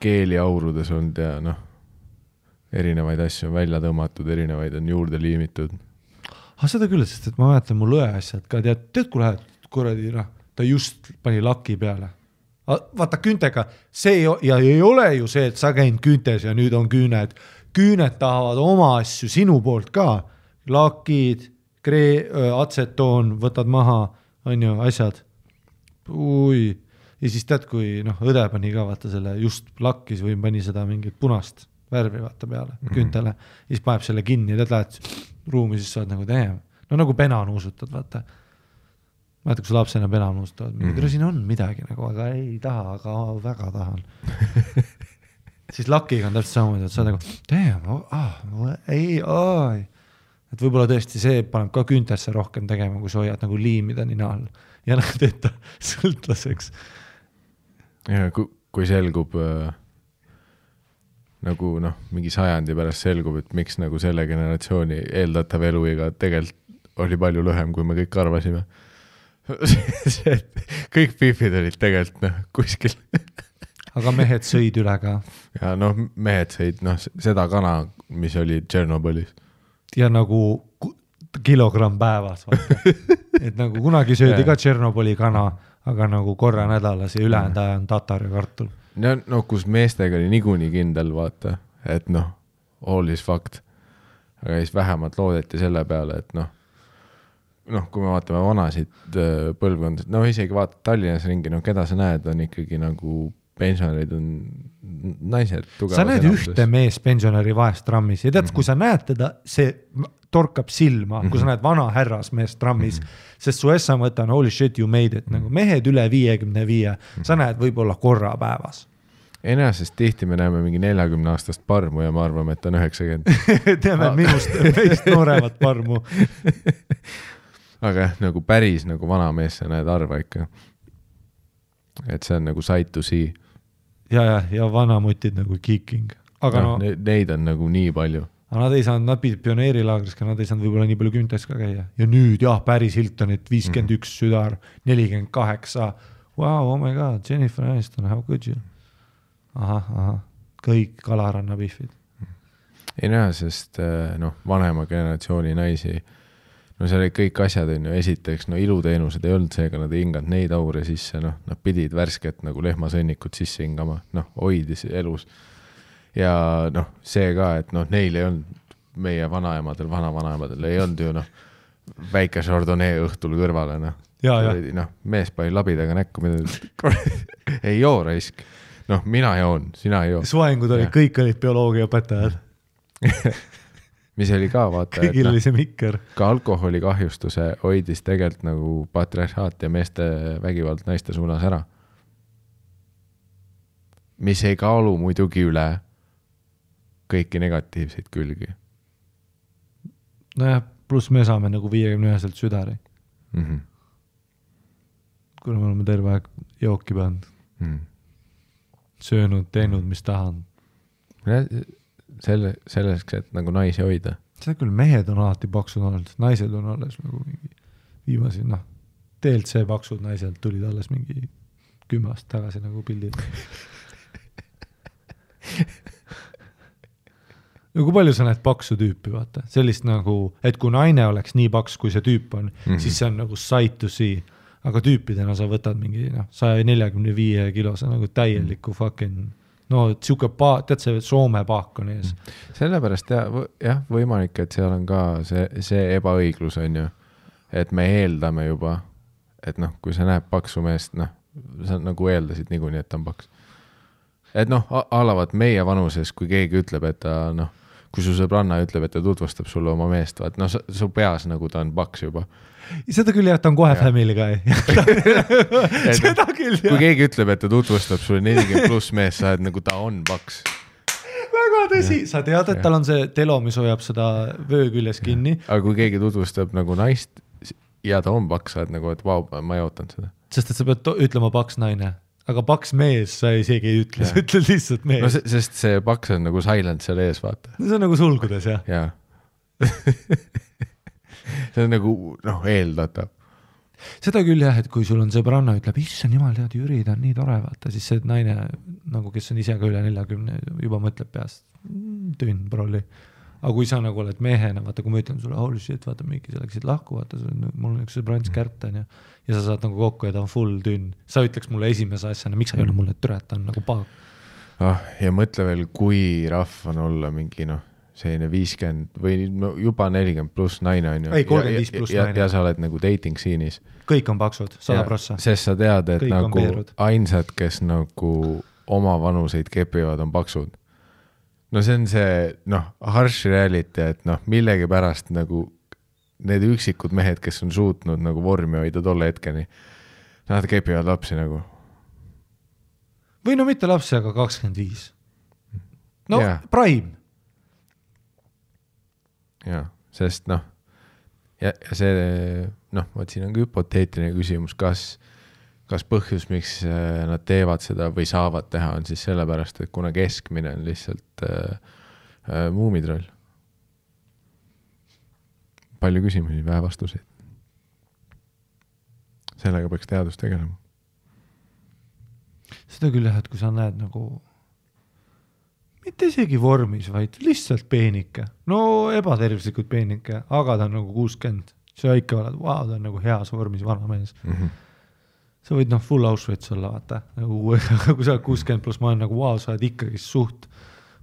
keeliaurudes olnud ja erinevaid asju on välja tõmmatud, erinevaid on juurde liimitud.
Seda küll, sest et ma mäletan mu lõe asjad ka, tead kui lähed kuradi, ta just pani laki peale. Vaata küntega, see ei ole ju see, et sa käinud küntes ja nüüd on küüned. Küüned tahavad oma asju sinu poolt ka. Lakid, atsetoon, võtad maha, on ju, asjad. Ja siis tead, kui õde pani ka vaata selle just lakkis või pani seda mingit punast värvi vaata peale küntele. Ja siis paneb selle kinni ja tead lähed ruumi, siis saad nagu teema. No nagu pena nuusutad, vaata. Vaata, kui sa lapsena pena nuusutavad. Siin on midagi nagu, aga ei taha, aga väga tahan. Siis lakiga on täpselt samamoodi, et sa nagu et võib-olla tõesti see paneb ka küntesse rohkem tegema, kui sa hoiad nagu liimida nina all ja teeta sõltlaseks.
Ja kui selgub nagu mingi sajandi pärast selgub, et miks nagu selle generatsiooni eeldatav eluiga tegelikult oli palju lühem, kui me kõik arvasime. Kõik pifid olid tegelikult kuskil.
Aga mehed sõid üle ka.
Ja mehed sõid seda kana, mis oli Tšernobõlis.
Ja nagu kilogramm päevas. Et nagu kunagi söödi ka Tšernobõli kana, aga nagu korra nädalas ja ülejäänud aja on tatar ja kartul.
Kus meestega oli niikuinii kindel, vaata, et all is fact. Aga siis vähemalt loodeti selle peale, et kui me vaatame vanasid põlvkondad, isegi vaatad Tallinnas ringi, keda sa näed, on ikkagi nagu pensionärid on naised tugevas
sa näed enamuses. Ühte mees pensionäri vahest trammis ja tead, kui sa näed teda, see torkab silma, kui sa näed vana härras mees trammis, sest su essa mõte on holy shit you made it, nagu mehed üle 55, sa näed võib-olla korra päevas.
Enäsest tihti me näeme mingi 40-aastast parmu ja me arvame, et on 90.
Teame meist nooremat parmu.
Aga nagu päris nagu vana mees sa näed arva ikka. Et see on nagu sight to see.
Ja vanamutid nagu kicking. Aga
neid on nagu nii palju.
Aga nad ei saanud, nad pidid pioneerilaagris, nad ei saanud võib-olla nii palju küntes ka käia. Ja nüüd Paris Hiltonit 51 südar, 48. Wow, oh my god, Jennifer Aniston, how could you? Aha, kõik Kalaranna pihvid.
Ei näe, sest vanema generatsiooni naisi, see oli kõik asjad, esiteks, iluteenused ei olnud seega, nad ei hinganud neid aure sisse, nad pidid värsket nagu lehmasõnnikut sisse hingama, hoidis elus. Ja see ka, et neil ei olnud, meie vanaemadel, vanavanaemadel ei olnud ju väike Chardonnay õhtul kõrvale. Mees pani labidaga näkku, ei joo raisk. Mina joon, sina ei joo.
Suengud olid, kõik olid bioloogiaõpetajad.
Mis oli ka, vaata,
kõigil oli see mikker.
Ka alkoholi kahjustuse hoidis tegelikult nagu patriarhaat ja meeste vägivald naiste suunas ära. Mis ei kaalu muidugi üle kõiki negatiivseid külgi.
Pluss me saame nagu 51 südari. Kuna me oleme terve aeg jooki pannud. Söönud, teinud, mis tahan.
Selleks, et nagu naisi hoida.
See küll, mehed on alati paksud olnud, naised on alles nagu mingi viimasi, TLC paksud naised tulid alles mingi 10 aastat tagasi nagu pildid. Kui palju sa näed paksu tüüpi, vaata? Sellist nagu, et kui naine oleks nii paks, kui see tüüp on, siis see on nagu sight to see. Aga tüüpidena sa võtad mingi 145 kilose nagu täieliku fucking tsuke tead see Soome paak on ees.
Sellepärast jah, võimalik, et seal on ka see ebaõiglus on ju, et me eeldame juba, et kui sa näeb paksu meest, sa nagu eeldasid niikuinii, et ta on paks. Et alavad meie vanuses, kui keegi ütleb, et ta kui su sõbranna ütleb, et ta tutvustab sulle oma meest, vaat su peas nagu ta on paks juba.
Seda küll jah, ta on kohe family guy. Seda küll jah.
Kui keegi ütleb, et ta tutvustab sulle 40 pluss mees, sa oled nagu ta on paks.
Väga tõsi. Sa tead, et tal on see telo, mis hoiab seda vöö küljes kinni.
Aga kui keegi tutvustab nagu naist ja ta on paks, sa oled nagu, et vau, ma ei ootanud seda.
Sest et sa pead ütlema paks naine. Aga paks mees sa isegi ei ütle, sa ütled lihtsalt mees.
Sest see paks on nagu silent seal ees, vaata.
See on nagu sulgudes, jah.
Jaa. See on nagu, eeldatav.
Seda küll jah, et kui sul on sõbranna ütleb, issand jumal, tead, Jüri, ta on nii tore, vaata, siis see naine, nagu kes on ise ka üle 40, juba mõtleb peast. tünn prolli. Aga kui sa nagu oled mehena, vaata kui ma ütlen sulle, holy shit, vaata mingi sa läksid lahku, vaata mul on üks sõbrants kärptan ja sa saad nagu kokku ja ta on full tünn. Sa ütleks mulle esimese asjana, miks sa ei ole mulle türeta, on nagu paag.
Ja mõtle veel, kui rahv on olla mingi selline 50 või juba 40 pluss naine on ju.
Ei, 35 pluss naine.
Ja sa oled nagu dating siinis.
Kõik on paksud, 100%.
Sest sa tead, et
kõik
nagu ainsad, kes nagu oma vanuseid kepivad, on paksud. No see on see, harsh reality, et millegi pärast nagu need üksikud mehed, kes on suutnud nagu vormi hoida tolle hetkeni, nad kepivad lapsi nagu.
Või mitte lapsi, aga 25. Prime.
Jaa, sest ja see, võt siin on ka hüpoteetiline küsimus, kas põhjus, miks nad teevad seda või saavad teha, on siis sellepärast, et kuna keskmine on lihtsalt muumitroll. Palju küsimusi, vähe vastuseid. Sellega peaks teadus tegelema.
Seda küll jah, et kui sa näed nagu mitte isegi vormis, vaid lihtsalt peenike. Ebatervislikult peenike, aga ta on nagu 60. See ikka oled, ta on nagu heas vormis vana mees. Sa võid full Auschwitz olla, vaata. Kui sa oled 60 pluss, ma olen nagu, sa oled ikkagi suht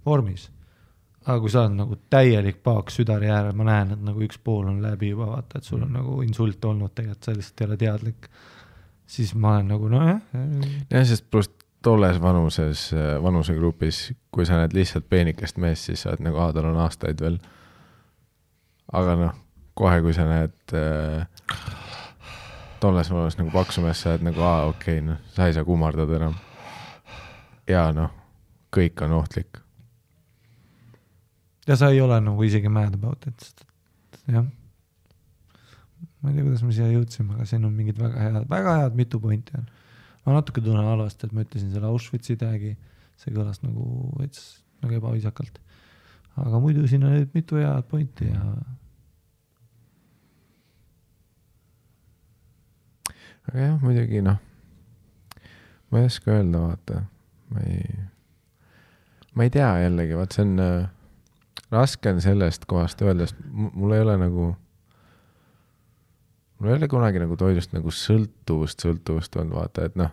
vormis. Aga kui sa oled nagu täielik paak südari äärel, ma näen, et nagu üks pool on läbi juba, vaata, et sul on nagu insult olnud tegelikult, sa lihtsalt ei ole teadlik. Siis ma olen nagu,
Ja, sest pluss tolles vanusegrupis, kui sa näed lihtsalt peenikest meest, siis sa oled nagu, tal on aastaid veel. Aga kohe, kui sa näed tolles vanus nagu paksumees, sa oled nagu, okei, sa ei saa kummardada enam. Ja kõik on ohtlik.
Ja sa ei ole nagu isegi mad about it. Jah. Ma ei tea, kuidas me siia jõudsime, aga siin on mingid väga head mitu pointi on. Ma natuke tunnen halvast, et ma ütlesin selle Auschwitzi tagi, see kõlas nagu ebaviisakalt. Aga muidu siin on mitu head pointi ja
aga jah, muidugi ma ei oska öelda, vaata. Ma ei tea jällegi, vaat see on raske on sellest kohast öelda, sest mul ei ole kunagi nagu toidust nagu sõltuvust olnud, vaata, et ma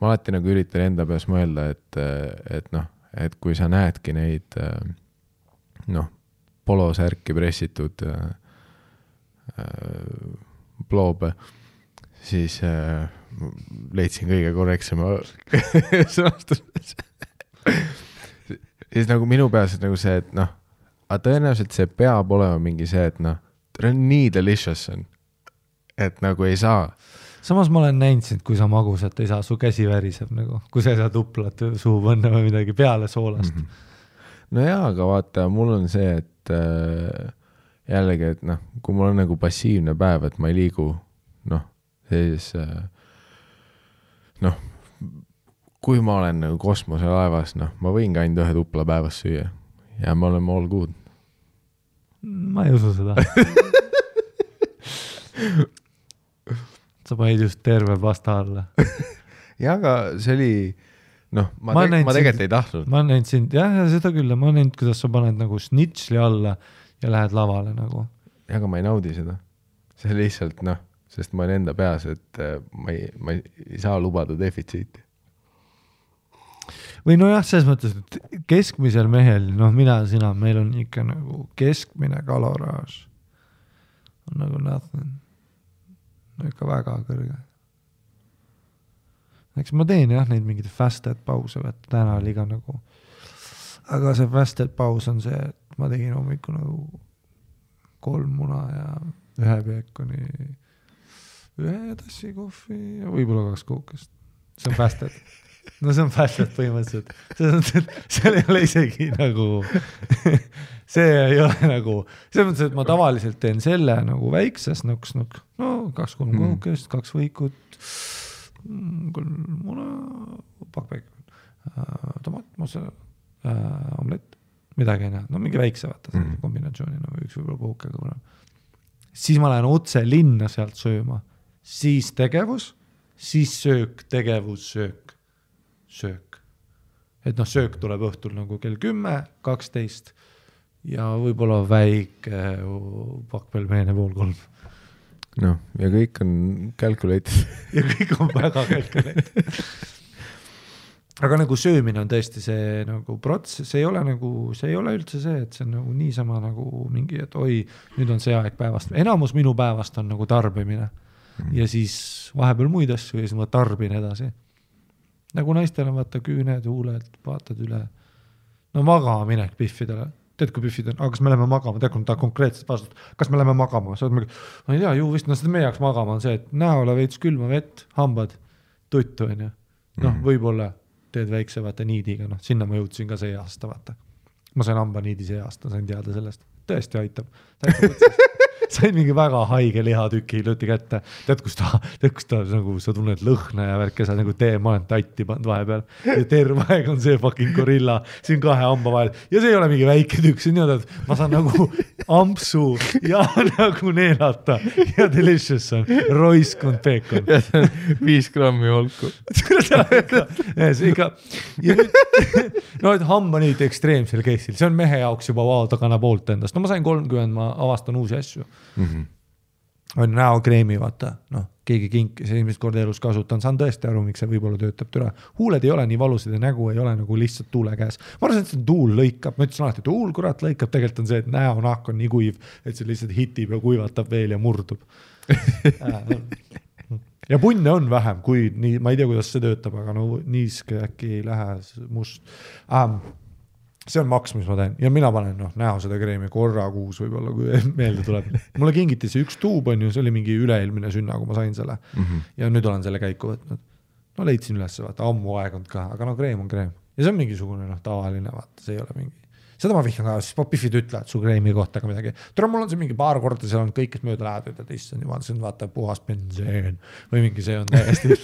alati nagu üritan enda peas mõelda, et kui sa näedki neid polosärki pressitud ploobe, siis leidsin kõige korrektsema sõnastus. Siis nagu minu peas nagu see, et aga tõenäoliselt see peab olema mingi see, et ta on nii delicious on, et nagu ei saa.
Samas ma olen näinud sind, kui sa magusat ei saa, su käsi väriseb nagu, kui sa ei saa tuplat suhu panna või midagi peale soolast.
No jaa, aga vaata, mul on see, et jällegi, et kui mul on nagu passiivne päev, et ma ei liigu, siis kui ma olen nagu kosmoselaevas, ma võin ka ainult ühe tupla päevas süüa ja me oleme all good.
Ma ei usu seda. Sa panid just terve pasta alla.
Ja, aga see oli, ma tegelikult ei tahtnud.
Ma näinud sind, jah, seda küll, ma näinud, kuidas sa paned nagu snitsli alla ja lähed lavale nagu.
Ja, aga ma ei naudi seda. See lihtsalt, sest ma olen enda peas, et ma ei saa lubada defitsiiti.
Või selles mõttes, et keskmisel mehel, sina, meil on ikka nagu keskmine kaloraaž. On nagu nothing. Ikka väga kõrge. Eks ma teen neid mingid fasted pause, et täna oli ka nagu, aga see fasted paus on see, et ma tegin hommiku nagu 3 muna ja 1 peekoni, 1 tassi kohvi ja võib-olla 2 kookest. See on fasted. See on fasted põhimõtteliselt. See ei ole isegi nagu, see ei ole nagu, see mõttes, et ma tavaliselt teen selle nagu väikses 2-3 kookest, 2 võikut, 3 muna, pakpäik, tomat, mosa, omlett, midagi ei näe. Mingi väikse vaata kombinatsiooni, üks võib-olla kookega kuna. Siis ma lähen otse linna sealt sööma, siis tegevus, siis söök, tegevus, söök. et noh, söök tuleb õhtul nagu kell 10, 12 ja võib-olla väike pakk-pelmeene 2:30.
noh, ja kõik on calculated.
ja kõik on väga calculated. aga nagu söömine on tõesti see nagu protsess, see ei ole üldse see, et see on nagu niisama nagu mingi, et oi, nüüd on see aeg päevast. Enamus minu päevast on nagu tarbimine ja siis vahepeal muid asju ja siis ma tarbin edasi. Nagu naistel on vaata küüned, huuled, vaatad üle. No magama minek Biffidele. Tead, kui Biffid on, aga kas me läheme magama? Tead, kui ta konkreetselt vastust, kas me läheme magama? Sa oled mingi, ma ei tea, ju vist, seda meie jaoks magama on see, et näole veits külma vett, hambad, tuttu on ju. Noh, võib-olla teed väikse vaata niidiga, noh, sinna ma jõudsin ka see aasta, vaata. Ma sain hamba niidi see aasta, sain teada sellest. Tõesti aitab. Sain mingi väga haige lihatüki lõti kätte. Tead, kus ta nagu, sa tunned lõhna ja värke, sa nagu ma olen tatti pand vahepeal. Ja terve aeg on see fucking gorilla siin 2 hamba vahel. Ja see ei ole mingi väike tükk, see on nii, et ma saan nagu ampsu ja nagu neelata. Ja delicious on. Roiskund peekon.
5 grammi holku.
No, et hamba nüüd ekstreemsel keissil. See on mehe jaoks juba tagana poolt endast. No ma sain 30, ma avastan uusi asju. On näokreemi, vaata, noh, keegi kinkis esimest korda elus kasutan, saan tõesti aru, miks see võib-olla töötab türa. Huuled ei ole nii valusad ja nägu ei ole nagu lihtsalt tuule käes. Ma arvan, et see tuul lõikab, ma ütlesin alati, et tuul kurat lõikab, tegelikult on see, et näonahk on nii kuiv, et see lihtsalt hitib ja kuivatab veel ja murdub. Ja punne on vähem, kui nii, ma ei tea, kuidas see töötab, aga no niiske äkki ei lähe must. See on maks, mis ma teen. Ja mina panen näo seda kreemi korra kuus võib-olla, kui meelde tuleb. Mulle kingiti see 1 tuub on ju, see oli mingi üleilmine sünna, kui ma sain selle. Ja nüüd olen selle käiku võtnud. No leidsin üles, vaata, ammu aegund ka, aga no kreem on kreem. Ja see on mingisugune tavaline, vaata, see ei ole mingi. Seda ma vihkan ka, siis Biffid ütlevad su kreemi kohta ka midagi. Tule, mul on see mingi paar korda, seal on kõik, kes mööda lähevad, ütled, issand jumal, see on vaata puhas benseen või mingi see on täiesti,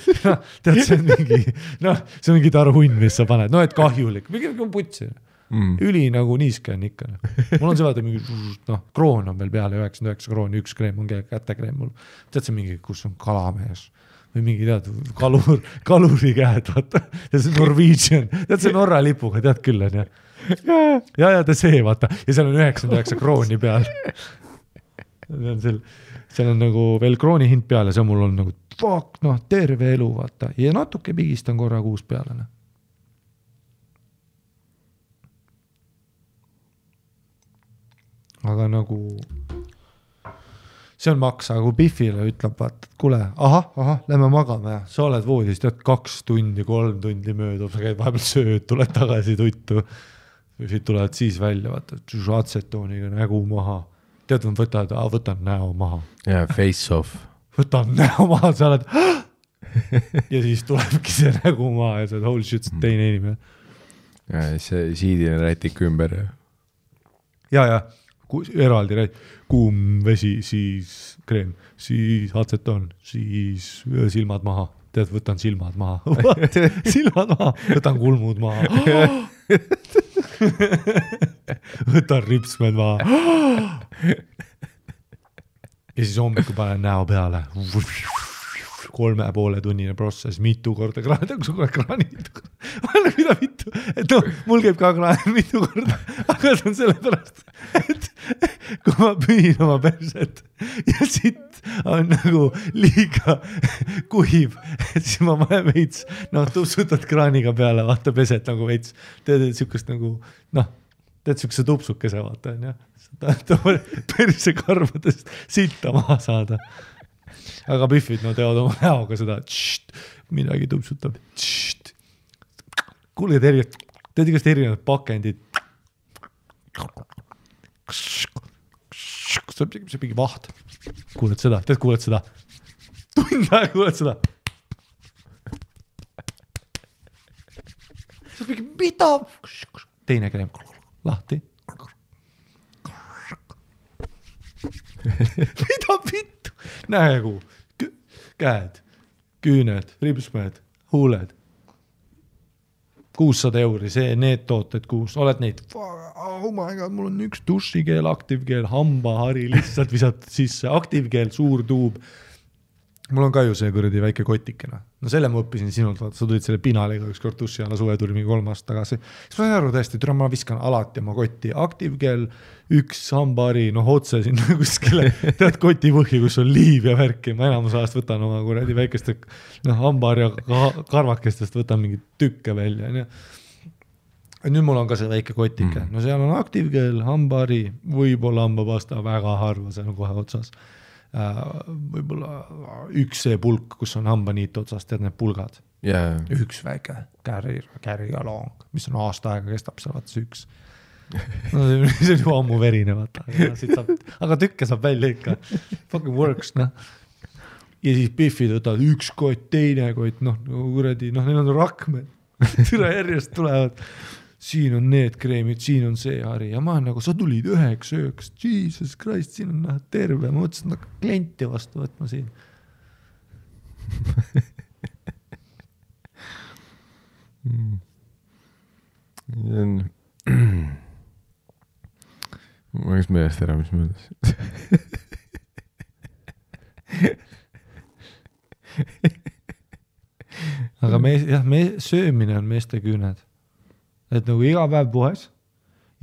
tead, see on mingi, see on mingi tarhunn, mis sa paned, et kahjulik, mingi putsi. Üli nagu niiske on ikka. Mul on see vaata mingi, kroon on veel peale, 99 krooni, 1 kreem on kätekreem mul. Tead see mingi, kus on kalamees või mingi tead, kaluri käed, vaata. Ja see Norwegian, tead see Norra lipuga, tead küll on ja. Ja ta see, vaata. Ja seal on 99 krooni peal. Seal on nagu veel krooni hind peal ja see on mul on nagu fuck, terve elu, vaata. Ja natuke pigistan korra kuus peale. Aga nagu see on maks, aga kui Biffile ütleb, vaata, et kuule, lähme magama ja sa oled voodis, tead 2 tundi, 3 tundi möödub, sa käid vahepeal sööd, tuled tagasi tuttu, Biffid tulevad siis välja, vaata, atsetooniga nägu maha, tead, võtan näo maha.
Ja face off.
Võtan näo maha, sa oled ja siis tulebki see nägu maha ja sa oled holy shit, teine inimene.
Ja see siidine rätik ümber.
Ja. Eraldi kuum vesi, siis kreem, siis atsetoon, siis silmad maha. Tead, võtan silmad maha. Silmad maha. Võtan kulmud maha. Võtan ripsmed maha. Ja siis hommikul panen näo peale. 3,5 tunnine protsess, mitu korda kraanid. Mida mitu? Et mul käib ka kraan mitu korda, aga see on sellepärast, et kui ma pühin oma perset ja sitt on nagu liiga kuiv, et siis ma panen veits, tupsutad kraaniga peale, vaata peset nagu veits, teed sükust nagu, teed sükse tupsukese, vaata, on ja, perse karvadest sitta maha saada. Aga Biffid, teevad oma näoga seda, midagi tupsutab. Kuule, teed igast erinevad pakendid. See mingi vaht. Kuuled seda, kuuled seda. Tund aega kuuled seda. See mingi, mida? Teine kreem, lahti. Mida vittu? Näegu, käed, küüned, ripsmed, huuled. 600 €, need tooted 6, oled neid, oh my god, mul on 1 dušikeel, aktiivkeel, hambahari, lihtsalt visad sisse, aktiivkeel, suur tuub, mul on ka ju see kuradi väike kotikene. No selle ma õppisin sinult, vaata, sa tulid selle pinaliga üks kord tussi alla suve tuli mingi 3 aastat tagasi. Siis ma sain aru tõesti, et ma viskan alati oma kotti aktiivkeel, üks hambari, otse sinna kuskile, tead koti põhja, kus on liiv ja värki. Ma enamus ajast võtan oma kuradi väikeste hambari ja karvakestest võtan mingi tükke välja. Nüüd mul on ka see väike kotike. No seal on aktiivkeel, hambari, võib-olla hambapasta, väga harva, see on kohe otsas. Võib-olla üks see pulk, kus on hambaniit otsas, tead need pulgad. Üks väike carry along, mis on aasta aega kestab seal, vaata see üks. No, see on ju ammu verine, vaata. Aga tükke saab välja ikka. Fucking works, noh. Ja siis Biffid võtavad üks kott, teine kott, kuradi, neil on rakmed. Türa järjest tulevad. Siin on need kreemid, siin on see hari ja ma olen sa tulid 9 ööks, Jesus Christ, siin on terve, ma mõtlesin klienti vastu võtma siin.
Ma oleks meelest ära, mis mõeldes.
Aga söömine on meeste küüned. Et nagu iga päev puhes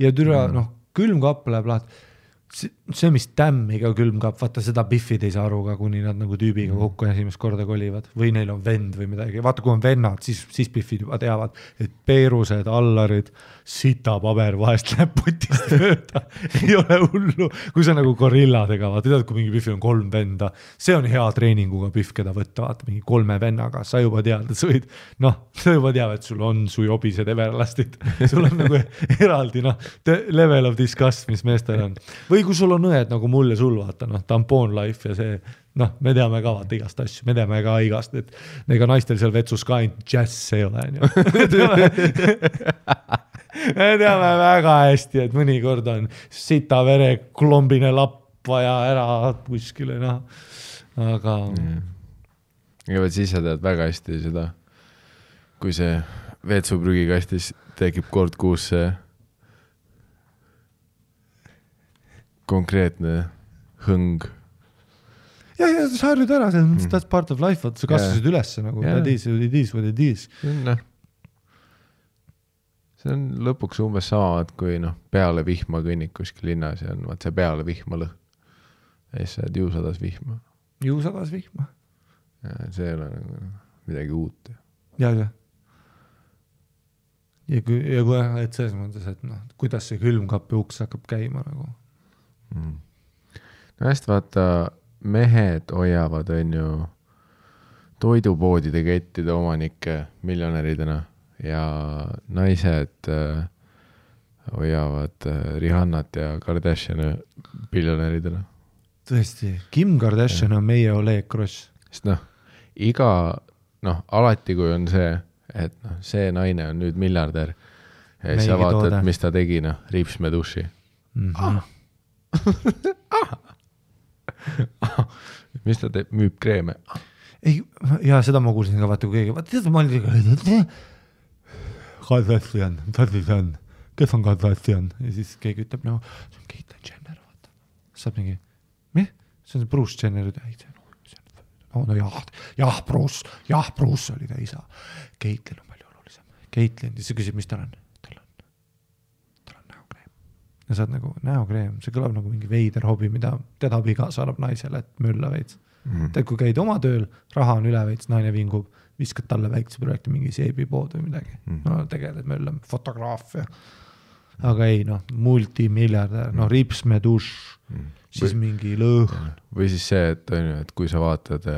ja türa, külmkapp läheb lahti. See, mis tämmiga külmkapp, vaata seda Biffid ei saa aru ka, kuni nad nagu tüübiga kokku esimest korda kolivad. Või neil on vend või midagi. Vaata, kui on vennad, siis Biffid juba teavad, et peerused, allarid, sita paber vahest läheb potist mööda. Ei ole hullu. Kui sa nagu gorilladega, vaata, tead, kui mingi Biffil on 3 venda, see on hea treeninguga Biff, keda võtta, vaata, mingi 3 vennaga. Sa juba tead, et sa võid, sa juba tead, et sul on su jobised everlastid. Sul on nagu eraldi, level of disgust, mis meestel on. Või kui sul on õed nagu mul ja sul, vaata, tampon life ja see, me teame ka vaata igast asju, me teame ka igast, et ega naistel seal vetsus ka ainult jazz ei ole. Me teame väga hästi, et mõnikord on sita vere klombine lapp vaja ära kuskile, aga...
Ja võt siis sa tead väga hästi seda, kui see vetsuprügikastis tekib kord kuus see konkreetne hõng.
Ja sa harjud ära, that's part of life, sa kasvasid üles nagu, that is what it is.
See on lõpuks umbes sama, et kui peale vihma kõnnik kuskil linnas ja on see peale vihma lõh. Ja siis sa oled juusadas vihma.
Juusadas vihma.
Ja see ei ole nagu midagi uut.
Ja. Ja kui et selles mõttes, et kuidas see külmkapi uks hakkab käima nagu.
No hästi vaata, mehed hoiavad on ju toidupoodide kettide omanikke miljonäridena ja naised hoiavad Rihannat ja Kardashiani biljonäridena.
Tõesti, Kim Kardashian on meie Oleg Kross.
Sest alati kui on see, et see naine on nüüd miljardär ja sa vaatad, mis ta tegi, Riipsme duši. Mis ta teeb? Müüb kreeme?
Ei, ja seda ma kuulsin ka, vaata kui keegi, vaata, ma olin Kardashian, kes on Kardashian? Ja siis keegi ütleb, see on Caitlyn Jenner, vaata. Saab mingi, see on Bruce Jenner, Bruce oli ta isa. Caitlyn on palju olulisem. Caitlyn, siis sa küsib, mis tal on? Ja sa oled nagu näokreem, see kõlab nagu mingi veider hobi, mida teda abikaasa annab naisele, et mölla veits. Tead, kui käid oma tööl, raha on üle veits, naine vingub, viskad talle väikse projekti mingi seebipood või midagi. Tegeled mölla, fotograafia. Aga ei, multimiljardär, Riipsme duš, siis mingi lõhn.
Või siis see, et kui sa vaatad...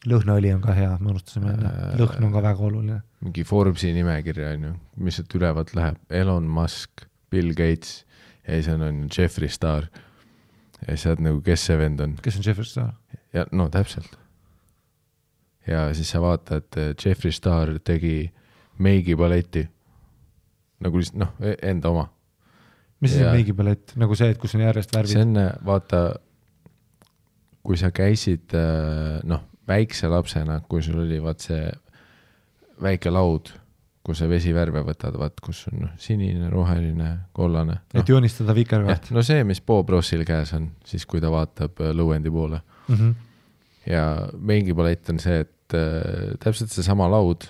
Lõhnaõli on ka hea, ma unustasime, lõhn on ka väga oluline.
Mingi Forbesi nimekirja, mis sealt ülevalt läheb, Elon Musk, Bill Gates... Ja siis on Jeffree Star. Ja siis saad nagu, kes see vend on.
Kes on Jeffree Star?
Ja täpselt. Ja siis sa vaatad, et Jeffree Star tegi meigipaleti. Nagu lihtsalt, enda oma.
Mis see on meigipalett? Nagu see, et kus on järjest värvid?
See on, vaata, kui sa käisid, väikse lapsena, kui sul oli see väike laud, kus see vesivärve võtad, kus on sinine, roheline, kollane.
Et joonistada vikerväärt.
See, mis Bob Rossil käes on, siis kui ta vaatab lõuendi poole. ja mingi palett on see, et täpselt see sama laud,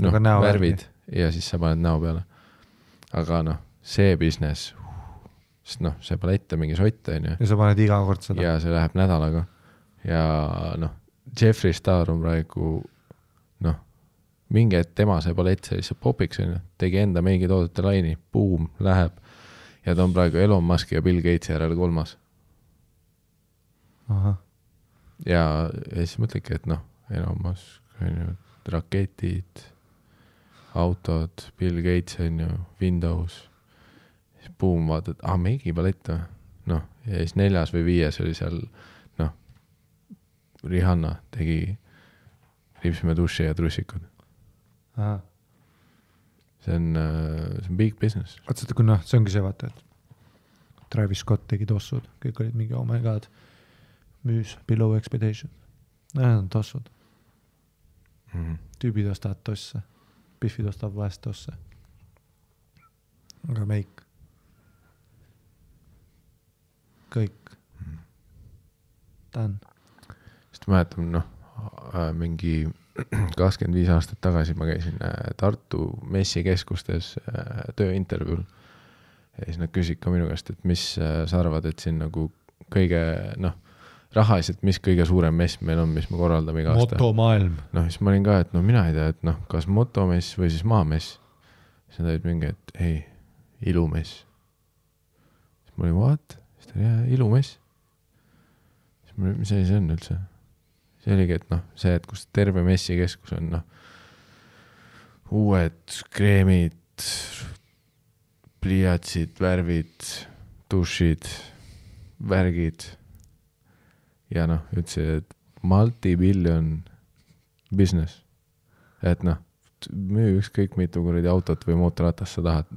noh, värvid ja siis sa paned näo peale. Aga noh, see business, sest noh, see palett on mingi sott, on ju.
Ja sa paned iga kord seda.
Ja see läheb nädalaga. Ja noh, Jeffree Star on praegu, noh, mingi, et tema see palett see lihtsalt popiks, on ju. Tegi enda mingi toodete laini, boom, läheb. Ja ta on praegu Elon Musk ja Bill Gatesi järel 3.
Aha.
Ja siis mõtledki, et noh, Elon Musk, on ju, raketid, autod, Bill Gates, on ju, Windows, siis boom, vaatad, mingi palett, noh, ja siis 4. või 5. oli seal, noh, Rihanna tegi ripsime duši ja trussikud.
Aha.
See on big business.
Vaat kui noh, see ongi see vaata, et Travis Scott tegi tossud, kõik olid mingi, oh my god, müüs below expectation. Need on tossud. Tüübid ostavad tosse, Biffid ostavad vahest tosse. Aga meik. Kõik. Ta on.
Sest mäletan, noh, mingi 25 aastat tagasi ma käisin Tartu messikeskustes tööintervjuul ja siis nad küsid ka minu käest, et mis sa arvad, et siin nagu kõige, noh, rahaliselt, mis kõige suurem mess meil on, mis me korraldame iga aasta.
Motomaailm.
Noh, siis ma olin ka, et no mina ei tea, et noh, kas motomess või siis maamess. Siis nad olid mingi, et ei, ilumess. Siis ma olin, what? Siis ta oli, ilumess. Siis ma olin, mis see on üldse? See oligi, et noh, see, et kus terve messikeskus on, noh, uued kreemid, pliiatsid, värvid, dušid, värgid ja noh, ütlesin, et multi-billion business. Et noh, müü ükskõik mitu kuradi autot või mootorratast sa tahad,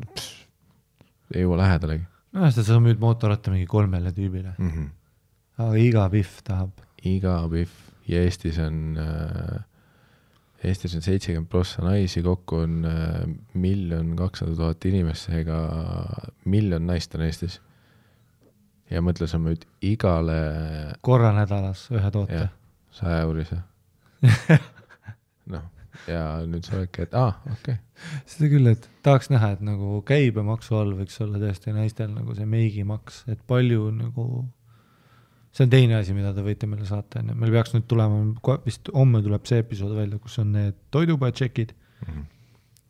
ei jõua lähedalegi.
No, sa müüd mootorratta mingi 3 tüübile. Aga iga Biff tahab.
Iga Biff. Ja Eestis on 70% naisi, kokku on 1 200 000 inimest, ega 1 miljon naist on Eestis. Ja mõtle, sa müüd igale...
Korra nädalas ühe toote.
100 eurise. noh, ja nüüd sa oledki, et okei.
Seda küll, et tahaks näha, et nagu käibemaksu all võiks olla tõesti naistel nagu see meigimaks, et palju nagu... See on teine asi, mida te võite meile saata. Meil peaks nüüd tulema, vist homme tuleb see episood välja, kus on need toidupatšekid.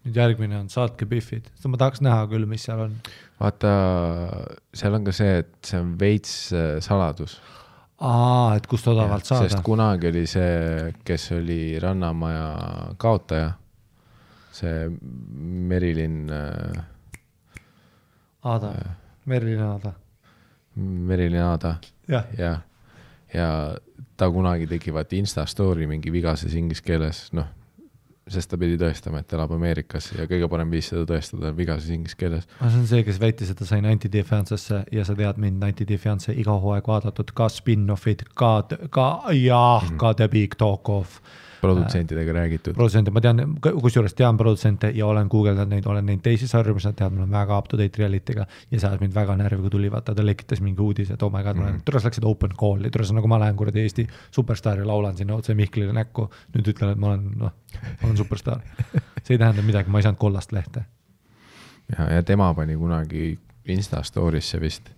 Nüüd järgmine on saatke Biffid. Ma tahaks näha küll, mis seal on.
Vaata, seal on ka see, et see on veits saladus.
Et kust odavalt saada.
Sest kunagi oli see, kes oli Rannamaja kaotaja. See Merilin...
Merilin Aada.
Merilin Aada. Ja ta kunagi tegi vaat Insta story mingi vigases inglise keeles, noh, sest ta pidi tõestama, et elab Ameerikas ja kõige parem viis seda tõestada vigases inglise keeles.
See on see, kes väitis, et ta sai 90 Day Fiancesse ja sa tead mind 90 Day Fiance iga hooaeg vaadatud, ka spin-offid, ka The Big Talk Off.
Produtsentidega räägitud.
Ma tean, kusjuures tean produtsente ja olen googeldanud neid, olen neid teisi sarju, mis nad teavad, mul on väga up-to-date reality'ga ja see mind väga närvi, kui tuli, vaata, ta lekitas mingi uudis, et oh my god, türas läksid open call'i, türas nagu ma lähen kuradi Eesti superstar ja laulan sinna otse Mihklile näkku, nüüd ütlen, et ma olen superstar. See ei tähenda midagi, ma ei saanud kollast lehte.
Ja tema pani kunagi Insta story'sse vist,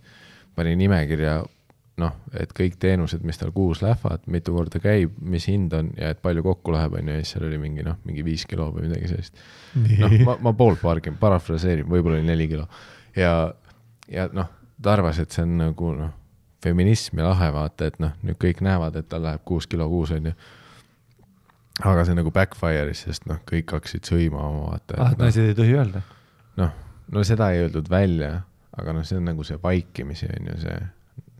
pani nimekirja, noh, et kõik teenused, mis tal kuus lähevad, mitu korda käib, mis hind on ja et palju kokku läheb, on ja siis seal oli mingi 5 kilo või midagi sellist. Noh, ma poolpargin, parafraseerin, võib-olla oli 4 kilo. Ja noh, ta arvas, et see on nagu feminism ja lahe vaata, et noh, nüüd kõik näevad, et tal läheb 6 kilo kuus, on ju. Aga see nagu backfire'is, sest noh, kõik hakkasid sõima oma vaata.
Et naised ei tohi öelda?
No seda ei öeldud välja, aga noh, see on nagu see vaikimisi, on ju see.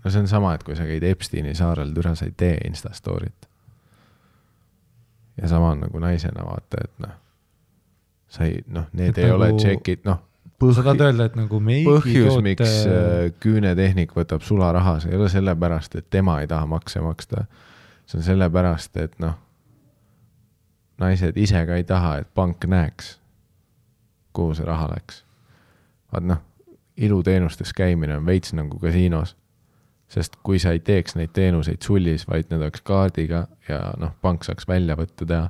No see on sama, et kui sa käid Epsteini saarel, türa sa ei tee Insta story't. Ja sama on nagu naisena vaata, et noh, sa ei, noh, need et ei nagu, ole tšekid, noh,
sa tahad öelda, et nagu
põhjus, miks küünetehnik võtab sularaha, see ei ole sellepärast, et tema ei taha makse maksta. See on sellepärast, et noh, naised ise ka ei taha, et pank näeks, kuhu see raha läks. Vaat noh, iluteenustes käimine on veits nagu kasiinos. sest kui sa ei teeks neid teenuseid sullis, vaid need oleks kaardiga ja noh, pank saaks välja võtta teha,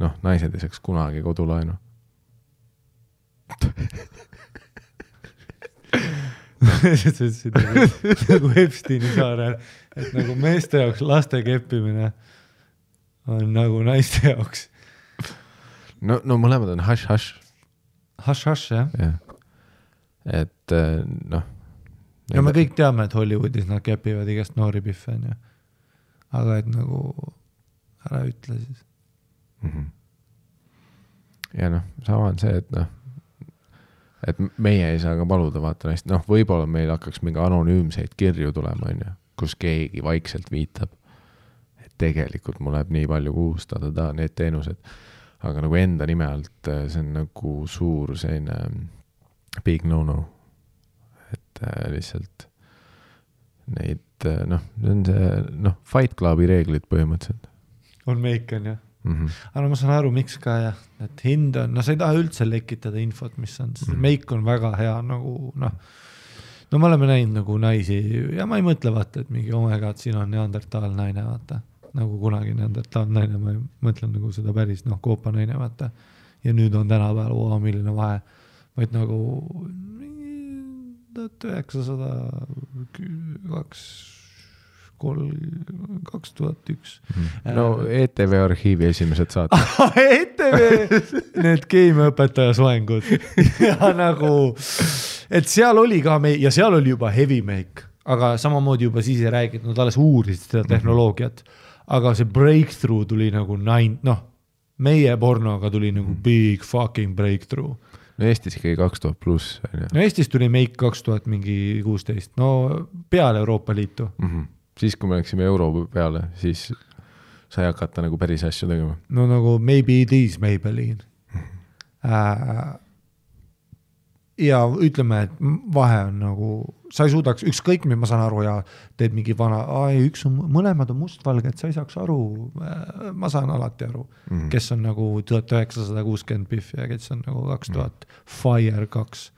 noh, naised ei saaks kunagi kodulaenu.
nagu Epsteini saarel, et nagu meeste jaoks laste keppimine on nagu naiste jaoks.
No mõlemad on hush-hush.
Hush-hush, jah.
Et noh.
Ja me kõik teame, et Hollywoodis nad kepivad igast noori pihve, on ju. Aga et nagu ära ütle siis.
Ja noh, sama on see, et noh, et meie ei saa ka paluda vaata neist, noh, võib-olla meil hakkaks mingi anonüümseid kirju tulema, on ju, kus keegi vaikselt viitab, et tegelikult mul läheb nii palju kuustada need teenused, aga nagu enda nime alt see on nagu suur selline big no-no, et lihtsalt neid, noh, see on see, noh, Fight Clubi reeglid põhimõtteliselt.
On meik, on ju. Aga ma saan aru, miks ka jah, et hind on, no sa ei taha üldse lekitada infot, mis on, meik on väga hea nagu noh, no me oleme näinud nagu naisi ja ma ei mõtle vaata, et mingi omega, et siin on neandertaal naine vaata, nagu kunagi neandertaal naine, ma ei mõtlen nagu seda päris noh, koopa naine vaata ja nüüd on tänapäeval milline vahe, vaid nagu 2001
No ETV arhiivi esimesed saate.
ETV, need keemiaõpetaja soengud ja nagu, et seal oli ka ja seal oli juba heavy make, aga samamoodi juba siis ei räägid, nad alles uurisid seda tehnoloogiat, aga see breakthrough tuli nagu meie pornoga tuli nagu big fucking breakthrough.
No Eestis ikkagi 2000 pluss.
No Eestis tuli make 2016, no peale Euroopa Liitu.
Siis kui me läksime euro peale, siis sai hakata nagu päris asju tegema.
No nagu maybe it is Maybelline. Ja ütleme, et vahe on nagu, sa ei suudaks, ükskõik mis ma saan aru ja teed mingi vana, mõlemad on mustvalged, sa ei saaks aru, ma saan alati aru, kes on nagu 1960 pihv ja kes on nagu 2000 Fire 2.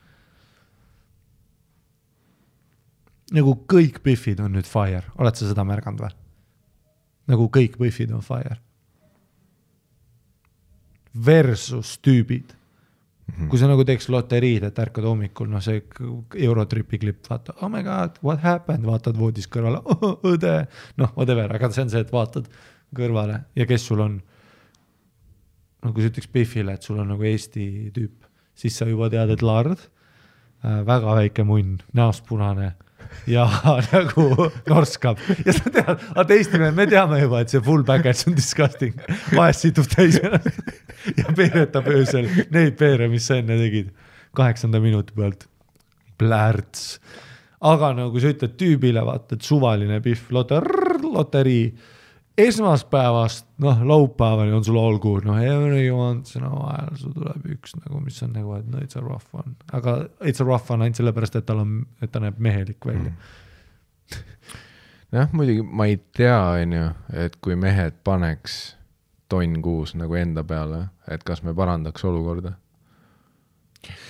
Nagu kõik pihvid on nüüd Fire, oled sa seda märganud või? Nagu kõik pihvid on Fire. Versus tüübid. Kui sa nagu teeks loteriid, et ärkad hommikul, no see Eurotripi klipp, vaata, oh my god, what happened, vaatad voodis kõrvale, õde, noh, whatever, aga see on see, et vaatad kõrvale ja kes sul on, no kui sa ütleks pihvile, et sul on nagu Eesti tüüp, siis sa juba tead, et lard, väga väike munn, näost punane ja nagu norskab ja sa tead, aga teistime, me teame juba, et see full package on disgusting, vahest situb täis ja peeretab öösel neid peere, mis sa enne tegid 8. minuti pealt plärts, aga nagu sa ütled tüübile, vaata, et suvaline pihv, loterii esmaspäevast, noh, laupäevani on sul all good, noh, every once in a while sul tuleb üks nagu, mis on nagu, et no it's a rough one, aga it's a rough one ainult sellepärast, et ta näeb mehelik välja.
Jah, muidugi ma ei tea, et kui mehed paneks tonn kuus nagu enda peale, et kas me parandaks olukorda?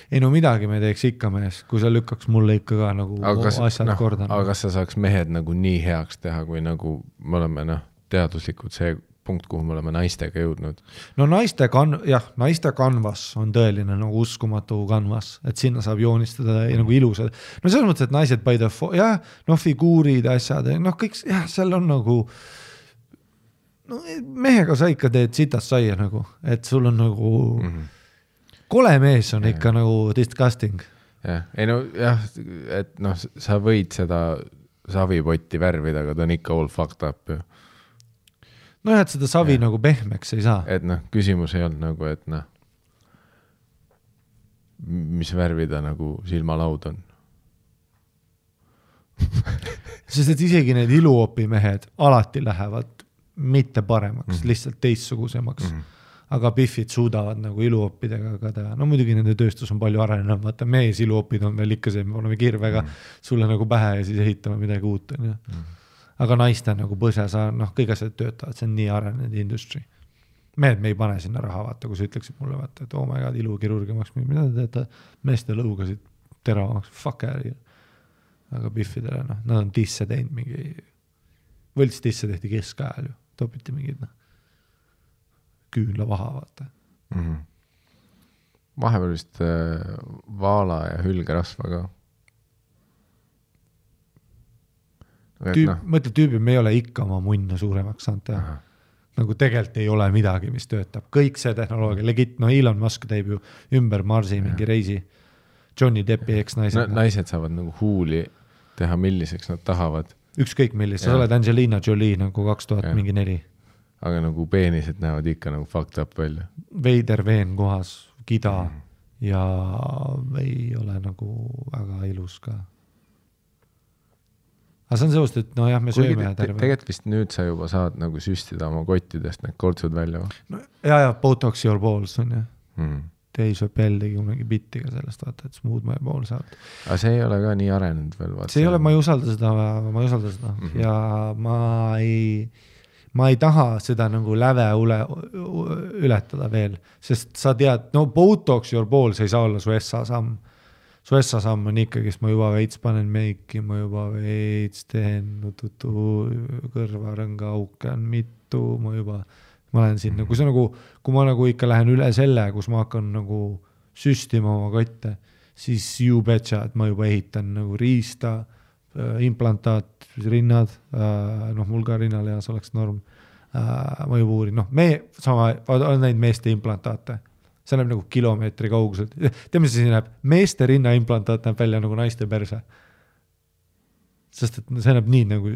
Ei no midagi me teeks ikka mees, kui sa lükkaks mulle ikka ka nagu asjad korda.
Aga kas sa saaks mehed nagu nii heaks teha, kui nagu me oleme teaduslikud see punkt, kuhu me oleme naistega jõudnud?
No naiste kanvas on tõeline nagu uskumatu kanvas, et sinna saab joonistada nagu ilusad. No selles mõttes, et naised by the figuurid, asjad, noh kõik, seal on nagu no, mehega sa ikka teed sitast saia nagu, et sul on nagu kole mees on ikka nagu disgusting.
Ei no jah, et noh, sa võid seda savipotti värvida, aga ta on ikka all fucked up ju.
No et seda savi nagu pehmeks ei saa.
Et noh, küsimus ei olnud nagu, et noh, mis värvida nagu silmalaud on.
Sest et isegi need iluopimehed alati lähevad mitte paremaks, lihtsalt teistsugusemaks. Aga pihvid suudavad nagu iluopidega ka teha. No muidugi nende tööstus on palju arenenud, vaata mees iluopid on veel ikka see, me oleme kirvega sulle nagu pähe ja siis ehitame midagi uut. Aga naiste nagu põse, noh, kõik asjad töötavad, see on nii arenenud industry. Me ei pane sinna raha, vaata, kui sa ütleksid mulle, vaata, et oh my god, ilukirurgia maks, mida te teete, meeste lõugasid teravamaks, fuck ääri. aga Biffidele, noh, nad on tisse teinud mingi, võlts tisse tehti keskajal ju, topiti mingid, noh, küünla vaha, vaata.
Vahepeal vist vaala ja hülgerasva ka.
Mõtle tüübi, me ei ole ikka oma munna suuremaks saanud teha. Nagu tegelikult ei ole midagi, mis töötab. Kõik see tehnoloogia, legit, no Elon Musk teeb ju ümber Marsi mingi reisi. Johnny Deppi eks-naised.
Naised saavad nagu huuli teha, milliseks nad tahavad.
Ükskõik millis, sa oled Angelina Jolie nagu 2004.
Aga nagu peenised näevad ikka nagu fucked up välja.
Veider veen kohas, kida ja ei ole nagu väga ilus ka. Aga see on seost, et no jah, me sööme terve.
Tegelikult vist nüüd sa juba saad nagu süstida oma kottidest need kortsud välja.
No, ja, Botox your balls on ja. Dave Chappelle tegi kunagi bittiga sellest, vaata, et smooth my balls out.
Aga see ei ole ka nii arenenud veel.
See ei ole, ma ei usalda seda. Ja ma ei taha seda nagu läve ületada veel, sest sa tead, no Botox your balls ei saa olla su S-samm. Su S-samm on ikkagi, ma juba veits panen meiki, ma juba veits teen kõrvarõnga auke on mitu, ma olen siin, kui see nagu, kui ma nagu ikka lähen üle selle, kus ma hakkan nagu süstima oma kotte, siis you betcha, et ma juba ehitan nagu riista, implantaat, rinnad, noh, mul ka rinnaleas oleks norm, ma juba uurin, noh, on neid meeste implantaate. See näeb nagu kilomeetri kauguselt. Teeme see näeb, meeste rinnaimplantaat näeb välja nagu naiste perse. Sest et see näeb nii nagu,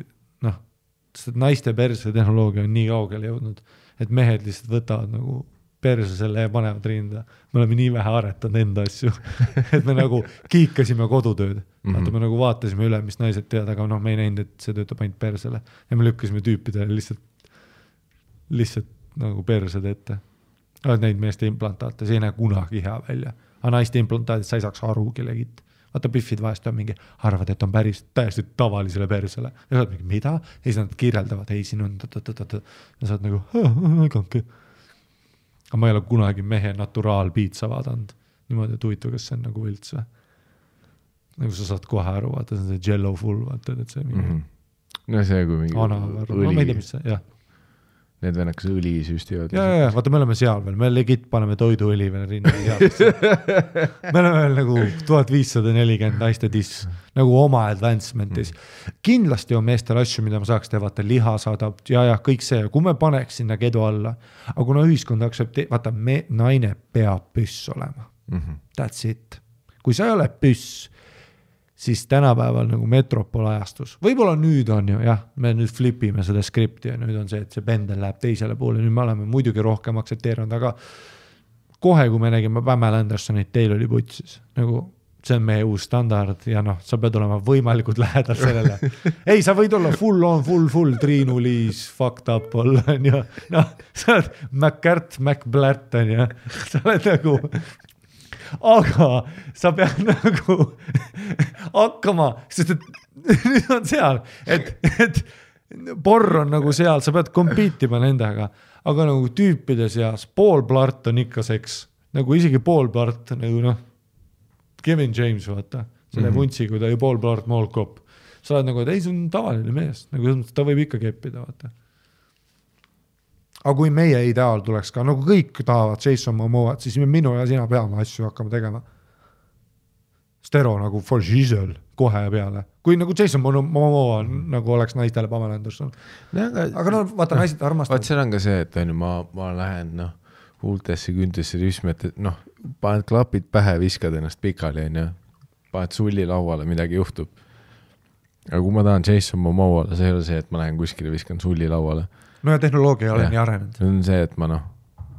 noh, sest et naiste perse tehnoloogia on nii kaugele jõudnud, et mehed lihtsalt võtavad nagu perse selle ja panevad rinda. Me oleme nii vähe aretanud enda asju, et me nagu kiikasime kodutööd. Vaata, me nagu vaatasime üle, mis naised tead, aga noh, me ei näinud, et see töötab ainult persele. Ja me lükkasime tüüpidele lihtsalt nagu persed ette. Oled neid meeste implantaate, see ei näe kunagi hea välja. Aga naiste implantaadid sa ei saaks arugi legit. Vaata, Biffid vahest on mingi, arvad, et on päris täiesti tavalisele persele. Ja sa oled mingi, mida? Ja siis nad kirjeldavad, ei, siin on ja sa oled nagu, äganke. Aga ma ei ole kunagi mehe naturaalpiitsa vaadanud. Niimoodi, et huvitav, kas see on nagu võlts või? Nagu sa saad kohe aru, vaata, see on see jello full, vaata, et see mingi
no see kui mingi
õli. Ma ei tea, mis see, jah.
Need vennakas õli süstivad.
Ja, vaata, me oleme seal veel, me legit paneme toiduõli veel rinna seadesse. Me oleme veel nagu 1540 naiste tiss, nagu oma advancementis. Kindlasti on meestel asju, mida ma saaks teha, vaata, liha saadab, ja kõik see, kui me paneks sinna kedu alla, aga kuna ühiskond vaata, naine peab püss olema. That's it. Kui sa ei ole püss, siis tänapäeval nagu metropolajastus. Võib-olla nüüd on ju, jah, me nüüd flipime seda skripti ja nüüd on see, et see pendel läheb teisele poole. Nüüd me oleme muidugi rohkem aktsepteerinud, aga kohe, kui me nägime Pamela Andersonit, teil oli putsis. Nagu see on meie uus standard ja noh, sa pead olema võimalikult lähedal sellele. Ei, sa võid olla full, Triinu Liis, fucked up olla, ja noh, sa oled McBlart, ja sa oled nagu... Aga sa pead nagu hakkama, sest et nüüd on seal, et porr on nagu seal, sa pead kompiitima nendega, aga nagu tüüpide seas pool plart on ikka seks, nagu isegi pool plart, nagu noh, Kevin James, vaata, selle vuntsi, kui ta oli pool plart moolkopp, sa oled nagu, et ei, see on tavaline mees, nagu ta võib ikka keppida, vaata. Aga kui meie ideaal tuleks ka, nagu kõik tahavad Jason Momoat, siis minu ja sina peame asju hakkama tegema. Stero nagu for Giselle kohe peale. Kui nagu Jason Momoa nagu oleks naistele Pamela Anderson. Aga no vaata, naised armastavad.
Vaat seal on ka see, et ma lähen huultesse, küntesse rüsme, et noh, paned klapid pähe, viskad ennast pikali, paned sulli lauale, midagi juhtub. Aga kui ma tahan Jason Momoale, see ei ole see, et ma lähen kuskile, viskan sulli lauale.
No ja tehnoloogia ei ole nii arenenud.
See on see, et ma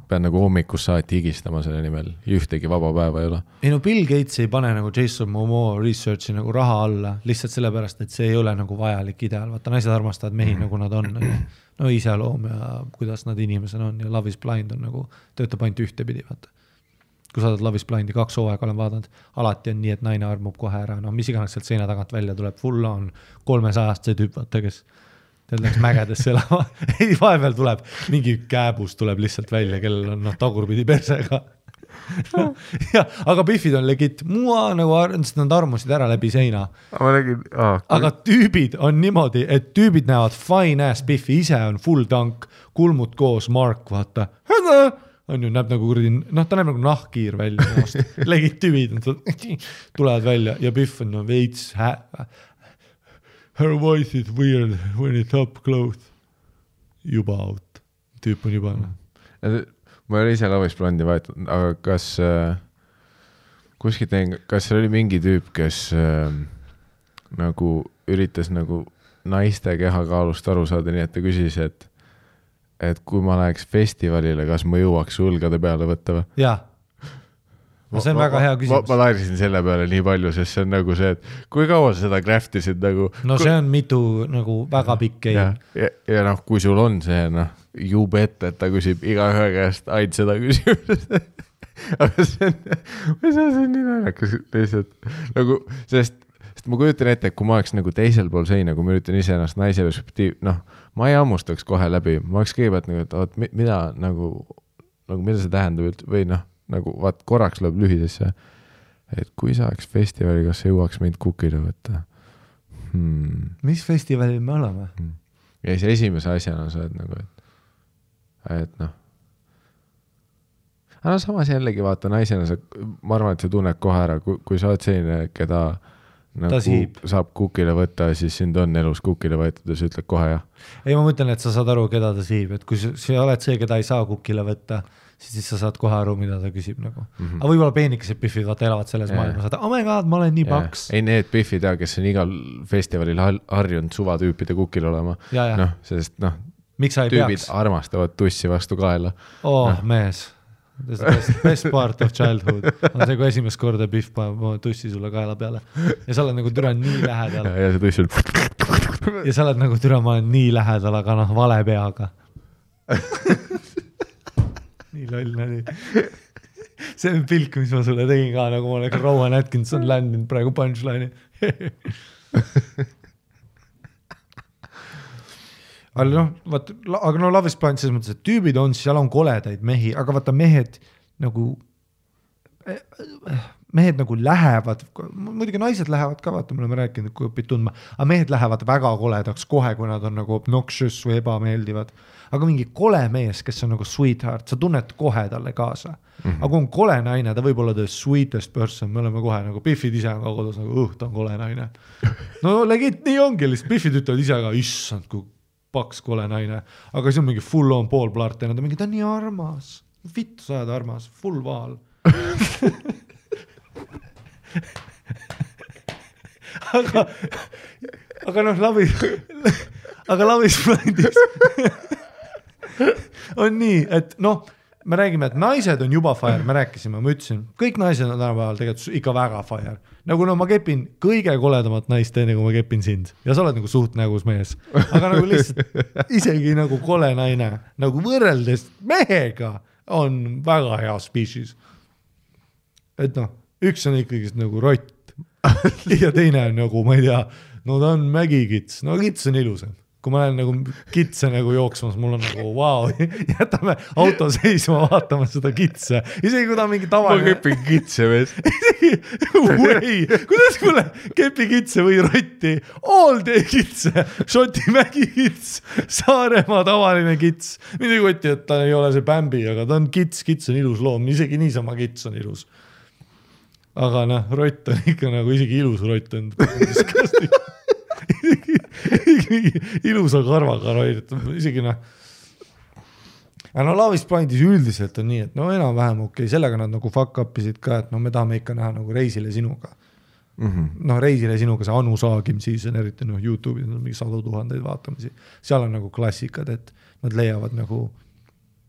pean nagu hommikus saati higistama selle nimel. Ühtegi vaba päeva ei ole.
Ei no Bill Gates ei pane nagu Jason Momoa researchi nagu raha alla, lihtsalt sellepärast, et see ei ole nagu vajalik ideaal. Vaata, naised armastavad mehi nagu nad on. No iseloom ja kuidas nad inimesed on ja Love is Blind on nagu, töötab ainult ühtepidi, vaata. Kui sa oled Love is Blindi 2 hooaega olen vaadanud, alati on nii, et naine armub kohe ära. No mis iganes sealt seina tagant välja tuleb, full on 300 see tüüp, vaata, kes teil läks mägedesse elama. Ei, vahepeal tuleb mingi kääbus tuleb lihtsalt välja, kellel on tagurpidi persega. ja, aga Biffid on legit, mua nagu nad armusid ära läbi seina. Aga tüübid on niimoodi, et tüübid näevad fine ass Biffi, ise on full tank, kulmud koos, Mark, vaata. On ju, näeb nagu kurdi, ta näeb nagu nahkiir välja. Legit tüübid tulevad välja ja Biff on veits her voice is weird when it's up close. Juba out. Tüüp on juba.
Ma ei ole ise Lavisblandi vahetanud, aga kas kuskilt näin, kas oli mingi tüüp, kes nagu üritas nagu naiste kehakaalust aru saada, nii et ta küsis, et kui ma läheks festivalile, kas ma jõuaks sulgade peale võtta või?
Jaa. See on väga hea küsimus.
Ma lairisin selle peale nii palju, sest see on nagu see, et kui kaua sa seda craftisid nagu...
No see on mitu nagu väga pikk game.
Ja noh, kui sul on see, jube ette, et ta küsib iga ühe käest ainult seda küsimust. Aga see on nii naljakas lihtsalt. Nagu, sest ma kujutan ette, et kui ma oleks nagu teisel pool seina, kui ma üritan ise ennast naise perspektiiv, ma ei ammustaks kohe läbi. Ma oleks kõigepealt nagu, et mida nagu mida see tähendab või nagu vaat korraks lööb lühidesse, et kui sa oleks festivali, kas sa jõuaks meid kukile võtta?
Mis festivalil me oleme?
Ja siis esimese asjana sa oled nagu, et aga samas jällegi vaata naisena, ma arvan, et sa tunned kohe ära, kui sa oled selline, keda nagu saab kukile võtta, siis sind on elus kukile võetud ja sa ütled kohe jah.
Ei, ma mõtlen, et sa saad aru, keda ta siib, et kui sa oled see, keda ei saa kukile võtta, siis sa saad kohe aru, mida ta küsib nagu. Aga võib-olla peenikesed Biffid vaata elavad selles maailmas, et oh my god, ma olen nii paks.
Ei need Biffid, kes on igal festivalil harjunud suvatüüpide kukil olema. Sest tüübid armastavad tussi vastu kaela.
Mees. Best part of childhood on see, kui esimest korda Biff paneb tussi sulle kaela peale ja sa oled nagu türa nii lähedal
ja see tuss on
ja sa oled nagu türa, ma olen nii lähedal, aga vale peaga nii loll nali see on pilk, mis ma sulle tegin ka, nagu ma oleks Rowan Atkinson landinud praegu punchline'i aga Love is Blind selles mõttes, et tüübid on, seal on koledaid mehi, aga vaata mehed nagu lähevad, muidugi naised lähevad ka, vaata, me oleme rääkinud, kui õpid tundma, aga mehed lähevad väga koledaks kohe, kui nad on nagu obnoxious või ebameeldivad, aga mingi kole mees, kes on nagu sweetheart, sa tunned kohe talle kaasa, aga kui on kole naine, ta võib olla the sweetest person, me oleme kohe nagu Biffid ise on ka kodus nagu, ta on kole naine no legit, nii ongi, lihtsalt Biffid ütlevad ise ka, issand, kui paks kole naine, aga see on mingi full on pool plart ja nad on mingi, ta on nii armas, vittu sa oled armas, full vaal aga Love is Blindis on nii, et me räägime, et naised on juba fire, me rääkisime, ma ütlesin, kõik naised on tänapäeval tegelikult ikka väga fire. Nagu ma kepin kõige koledamat naist enne, kui ma kepin sind. Ja sa oled nagu suht nägus mees. Aga nagu lihtsalt isegi nagu kole naine, nagu võrreldes mehega on väga hea species. Et üks on ikkagi nagu rott ja teine on nagu, ma ei tea, ta on mägikits. Kits on ilusam. Kui ma olen nagu kitse nagu jooksmas, mul on nagu wow, jätame auto seisma vaatama seda kitse. Isegi kui ta on mingi tavaline...
Ma kepin kitse mees.
Kuidas mulle kepi kitse või rotti? All day kitse, Šoti mägi kits, Saaremaa tavaline kits. Mida kotti, et ta ei ole see Bambi, aga ta on kits on ilus loom. Isegi niisama kits on ilus. Aga rott on ikka nagu isegi ilus rott on. ilusa karvaga roidet, isegi aga Love is Blindis üldiselt on nii, et enam-vähem okei, sellega nad nagu fuck upisid ka, et me tahame ikka näha nagu Reisile sinuga Reisile sinuga see Anu Saagim siis on eriti YouTube'is on mingi 100 000 vaatamisi, seal on nagu klassikad, et nad leiavad nagu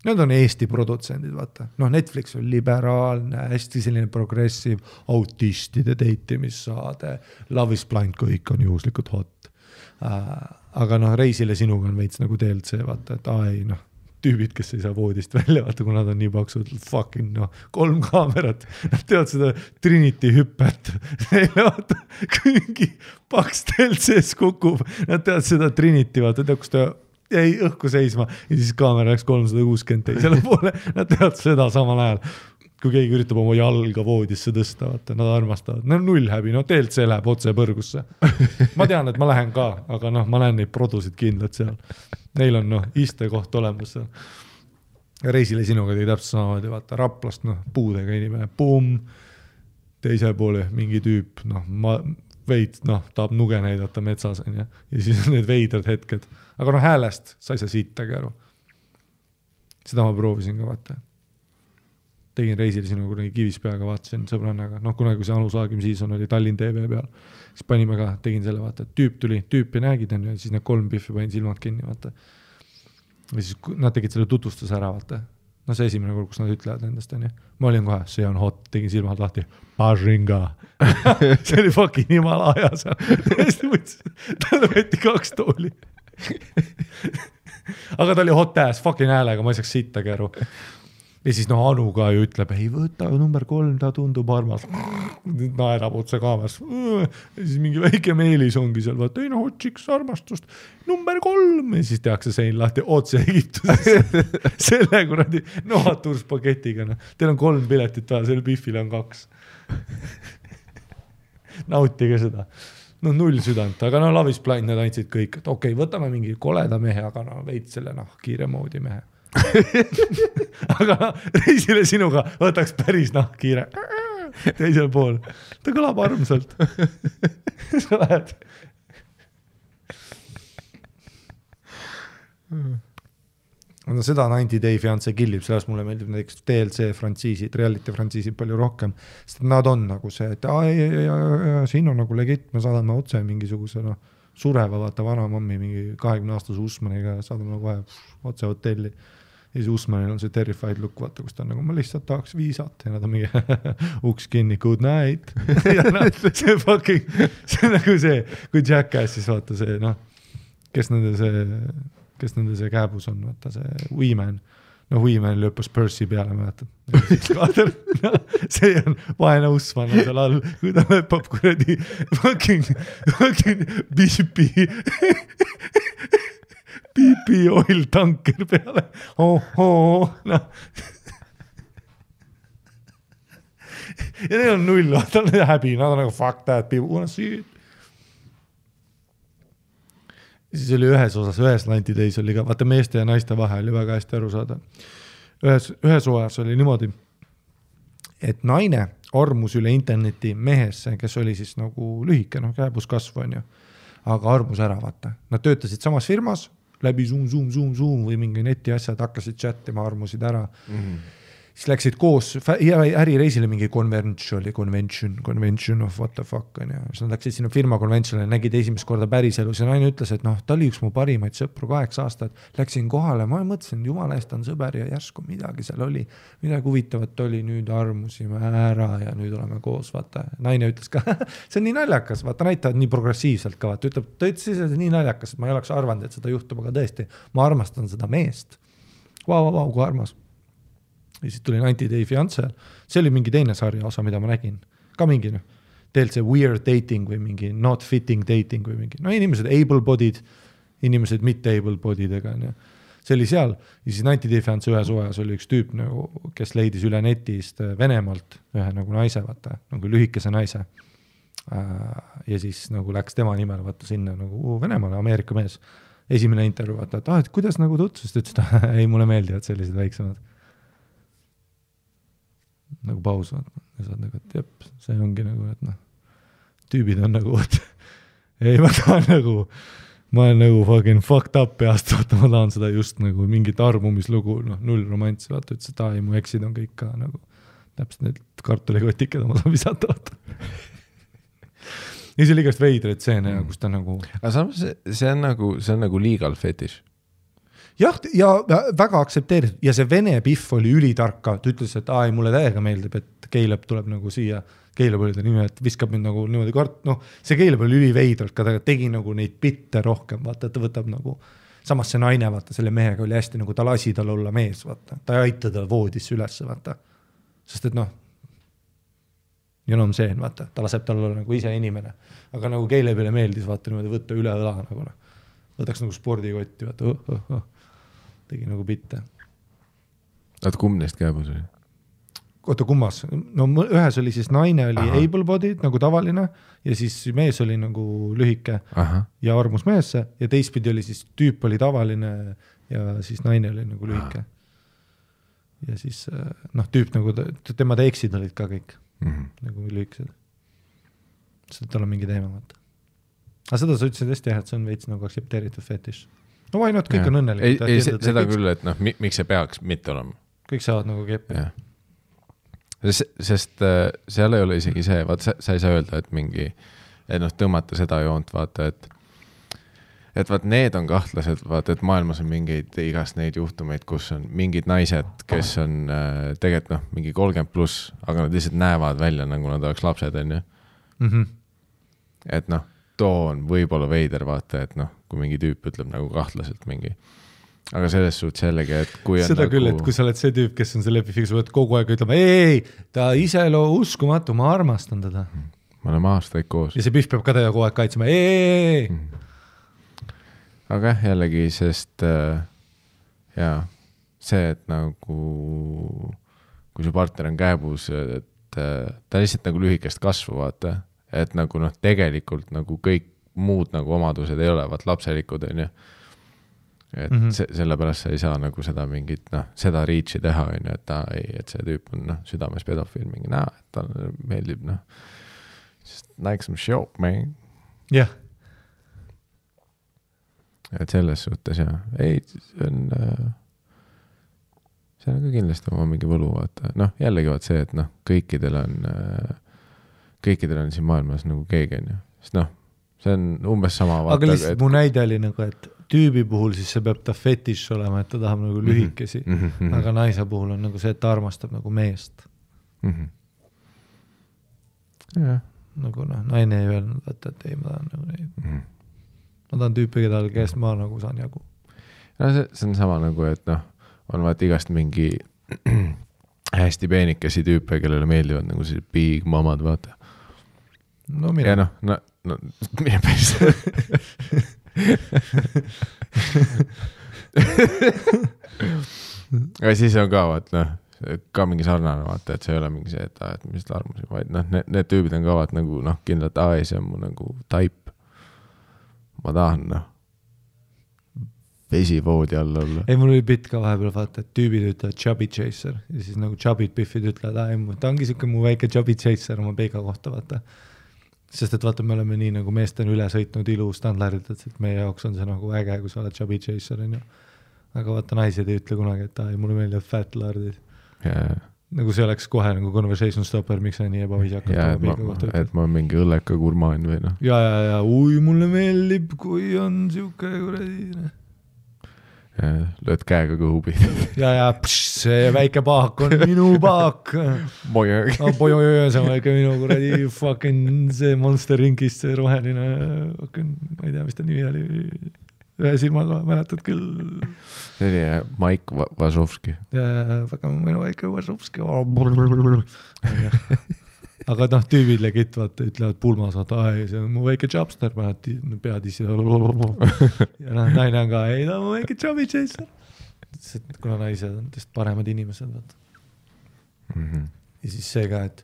need on Eesti produtsendid, vaata. Netflix on liberaalne, hästi selline progressiv, autistide date'imissaade, Love is Blind, kõik on juhuslikult hot. Aga Reisile sinuga on veits nagu DLC, vaata, et tüübid, kes ei saa voodist välja, vaata, kui nad on nii paksud, fucking 3 kaamerat, nad teevad seda Trinity hüppet, neile vaata, kui mingi paks DLC-s kukub, nad teevad seda Trinity, vaata, kus ta jäi õhku seisma ja siis kaamera läks 360 teisele poole, nad teevad seda samal ajal. kui keegi üritab oma jalga voodisse tõsta, vaata, nad armastavad. No null häbi, no DLC läheb otse põrgusse. Ma tean, et ma lähen ka, aga noh, ma lähen neid produsid kindlalt seal. Neil on istekoht olemas seal. Reisile sinuga tegi täpselt samamoodi, vaata, Raplast, puudega inimene, pumm, teise poole mingi tüüp, tahab nuge näidata metsas ja siis on need veidrad hetked. Aga häälest sa ei saa sittagi aru. Seda ma proovisin ka, vaata. Tegin reisil sinu kunagi Kivispeaga, vaatasin sõbrannaga, kunagi kui see Anu Saagim season oli Tallinn TV peal, siis panime ka, tegin selle, vaata, et tüüpi nägid, ja siis need 3 piffi panin silmad kinni, vaata. Ja siis nad tegid selle tutvustuse ära, vaata. See esimene kord, kus nad ütlevad endast, on ju. Ma olin kohe, see on hot, tegin silmad lahti, Pažinga. See oli fucking Himalaja seal. Tõesti mõtlesin, talle võeti 2 tooli. Aga ta oli hot ass, fucking häälega, ma ei saaks sittagi aru. Ja siis Anu ka ju ütleb, ei võta number 3, ta tundub armas. Naerab otse kaameras. Ja siis mingi väike meelis ongi seal, vaata, ei otsiks armastust. Number 3. Ja siis tehakse sein lahti otse Egiptuses. Selle kuradi noaturspaketiga. Teil on 3 piletit vaja, selle Biffile on 2. Nautige seda. 0 südant, aga Lavis Blind need andsid kõik. Et okei, võtame mingi koleda mehe, aga veid selle kiire moodi mehe. Aga reisile sinuga võtaks päris kiire teisel pool. Ta kõlab armsalt. Sa lähed. Seda 90 Day Fiancé killib, sellest mulle meeldib näiteks DLC frantsiisid, reality frantsiisid palju rohkem, sest nad on nagu see, et siin on nagu legit, me saadame otse mingisuguse sureva, vaata vana mammi mingi 20-aastase Usmaniga, saadame kohe otse hotelli. Ja siis Usmanil on see terrified look, vaata, kus ta on nagu, ma lihtsalt tahaks viisat ja nad on mingi uks kinni, good night. Ja see fucking, see on nagu see, kui Jackass siis vaata see, kes nende see kääbus on, vaata see Weeman. Weeman lõppes Percy peale, mäletad. See on vaene Usman on seal all, kui ta lõppab kuradi fucking piipi oil tanker peale. Ja neil on 0, ta on häbi, nad on nagu fuck that, people wanna see it. Siis oli ühes 90 Days oli ka, vaata meeste ja naiste vahe oli väga hästi aru saada. Ühes oas oli niimoodi, et naine armus üle interneti mehesse, kes oli siis nagu lühike, kääbus kasvu on ju, aga armus ära, vaata. Nad töötasid samas firmas, läbi Zoom või mingi neti asjad, hakkasid chattima, armusid ära. Siis läksid koos ärireisile mingi convention of what the fuck on ja siis nad läksid sinna firma conventionile, nägid esimest korda päriselus ja naine ütles, et ta oli üks mu parimaid sõpru 8 aastat, läksin kohale, ma mõtlesin, jumala eest on sõber ja järsku midagi seal oli, midagi huvitavat oli, nüüd armusime ära ja nüüd oleme koos, vaata. Naine ütles ka, see on nii naljakas, vaata näitavad nii progressiivselt ka, vaata, ta ütles, et nii naljakas, et ma ei oleks arvanud, et seda juhtub, aga tõesti, ma armastan seda meest. Vau, kui armas. Ja siis tuli 90 Day Fiancé, see oli mingi teine sarja osa, mida ma nägin. Ka mingi, teelt see weird dating või mingi not fitting dating või mingi, inimesed able-bodied, inimesed mitte able-bodiedega. See oli seal, ja siis 90 Day Fiancé ühes ojas oli üks tüüp, kes leidis üle netist Venemaalt ühe nagu naise, vaata, nagu lühikese naise. Ja siis nagu läks tema nimel, vaata sinna nagu Venemaale, Ameerika mees. Esimene intervjuu, vaata, et kuidas nagu tutvust, ütles, et ei, mulle meeldivad sellised väiksemad. Nagu paus, ja saad nagu, et jep, see ongi nagu, et tüübid on nagu, ei, ma olen nagu fucking fucked up peast, vaata, ma tahan seda just nagu mingit armumislugu, 0 romantsi, vaata, ütles, et mu eksid on kõik ka nagu, täpselt need kartulikotiked ma saan visata, vaata. Ja see oli igast veidreid stseene, kus ta nagu...
Aga samas see on nagu legal fetish.
Jah, ja väga aktsepteeritud ja see vene piff oli ülitarka, ta ütles, et mulle täiega meeldib, et Keileb tuleb nagu siia, Keileb oli ta nime, et viskab mind nagu niimoodi see Keileb oli üliveidralt, ka ta tegi nagu neid bitte rohkem, vaata, ta võtab nagu, samas see naine, vaata, selle mehega oli hästi nagu, ta lasi tal olla mees, vaata, ta ei aita ta voodisse ülesse, vaata, sest et see, vaata, ta laseb tal olla nagu ise inimene, aga nagu Keilebile meeldis, vaata, niimoodi võtta üle õla, nagu võtaks nagu spordikotti, vaata, tegi nagu bitte.
Kumb neist kääbus oli?
oota kummas, no ühes oli siis naine oli able-bodied nagu tavaline ja siis mees oli nagu lühike ja armus meesse ja teistpidi oli siis tüüp oli tavaline ja siis naine oli nagu lühike. Ja siis tüüp nagu, tema eksid olid ka kõik nagu lühikesed. Seda tal on mingi teema vaata. Aga seda sa ütlesid hästi jah, et see on veits nagu aktsepteeritud fetiš. No why not, kõik on õnnelikud.
Ei, seda küll, et miks see peaks mitte olema?
Kõik saavad nagu keppi.
Sest seal ei ole isegi see, vaata, sa ei saa öelda, et mingi, et tõmmata seda joont, vaata, et vaat need on kahtlased, vaata, et maailmas on mingeid igast neid juhtumeid, kus on mingid naised, kes on tegelikult mingi 30+, aga nad lihtsalt näevad välja, nagu nad oleks lapsed, on ju. Et too on võib-olla veider, vaata, et kui mingi tüüp ütleb nagu kahtlaselt mingi. Aga selles suhtes jällegi, et kui on
seda küll, et kui sa oled see tüüp, kes on see lepifiks, võid kogu aeg ütlema, ei, ta ise uskumatu, ma armastan teda.
Me oleme aastaid koos.
Ja see pühv peab ka teda kogu aeg kaitsema, ei.
Aga jällegi, sest see, et nagu kui su partner on käebus, et ta lihtsalt nagu lühikest kasvu, vaata, et nagu tegelikult nagu kõik muud nagu omadused ei ole, vaat lapselikud on ju. Et sellepärast sa ei saa nagu seda mingit, seda reachi teha, on ju, et see tüüp on südames pedofiil mingi et ta meeldib, just like some show, man.
Jah.
Et selles suhtes, ei, see on ka kindlasti oma mingi võlu, vaata. Jällegi vaat see, et kõikidel on siin maailmas nagu keegi, on ju. Sest see on umbes sama, vaata.
Aga lihtsalt mu näide oli nagu, et tüübi puhul siis see peab ta fetiš olema, et ta tahab nagu lühikesi, aga naise puhul on nagu see, et ta armastab nagu meest. Nagu naine ei öelnud, et ei, ma tahan nagu neid. Ma tahan tüüpi, kes ma nagu saan jagu.
See on sama nagu, et on vaat igast mingi hästi peenikesi tüüpe, kellele meeldivad nagu see big mamad, vaata.
No mina.
Ja mine päris. Aga siis on ka vaat, ka mingi sarnane vaata, et see ei ole mingi see, et mis armusi, vaid need tüübid on ka vaat nagu kindlalt, see on mu nagu type. Ma tahan vesivoodi all olla.
Ei, mul oli bitt ka vahepeal vaata, et tüübid ütlevad chubby chaser ja siis nagu chubbid biffid ütlevad, ta ongi siuke mu väike chubby chaser oma peega kohta, vaata. Sest et vaata, me oleme nii nagu meest on üle sõitnud ilu standardid, et meie jaoks on see nagu äge, kui sa oled chubby chaser, on ju. Aga vaata, naised ei ütle kunagi, et mulle meeldivad fat lardid. Nagu see oleks kohe nagu conversation stopper, miks sa nii ebaviisakat
oma kohta ütled. Et ma olen mingi õlleka gurmaan või
Ja, mulle meeldib, kui on siuke kuradi.
Lööd käega kõhubi.
Ja, see väike paak on minu paak.
Bojög.
See on väike minu kuradi fucking see Monster Rinkist, see roheline, ma ei tea, mis ta nimi oli. Ühe silmaga mäletad küll.
See oli Maik Vasovski.
Ja, väga minu väike Vasovski. Aga tüübid legit, vaata, ütlevad pulmas, vaata, see on mu väike chopster, pead ise. Ja naine on ka, ei, ta on mu väike chubby chaser. Kuna naised on tõest paremad inimesed, vaata. Ja siis see ka, et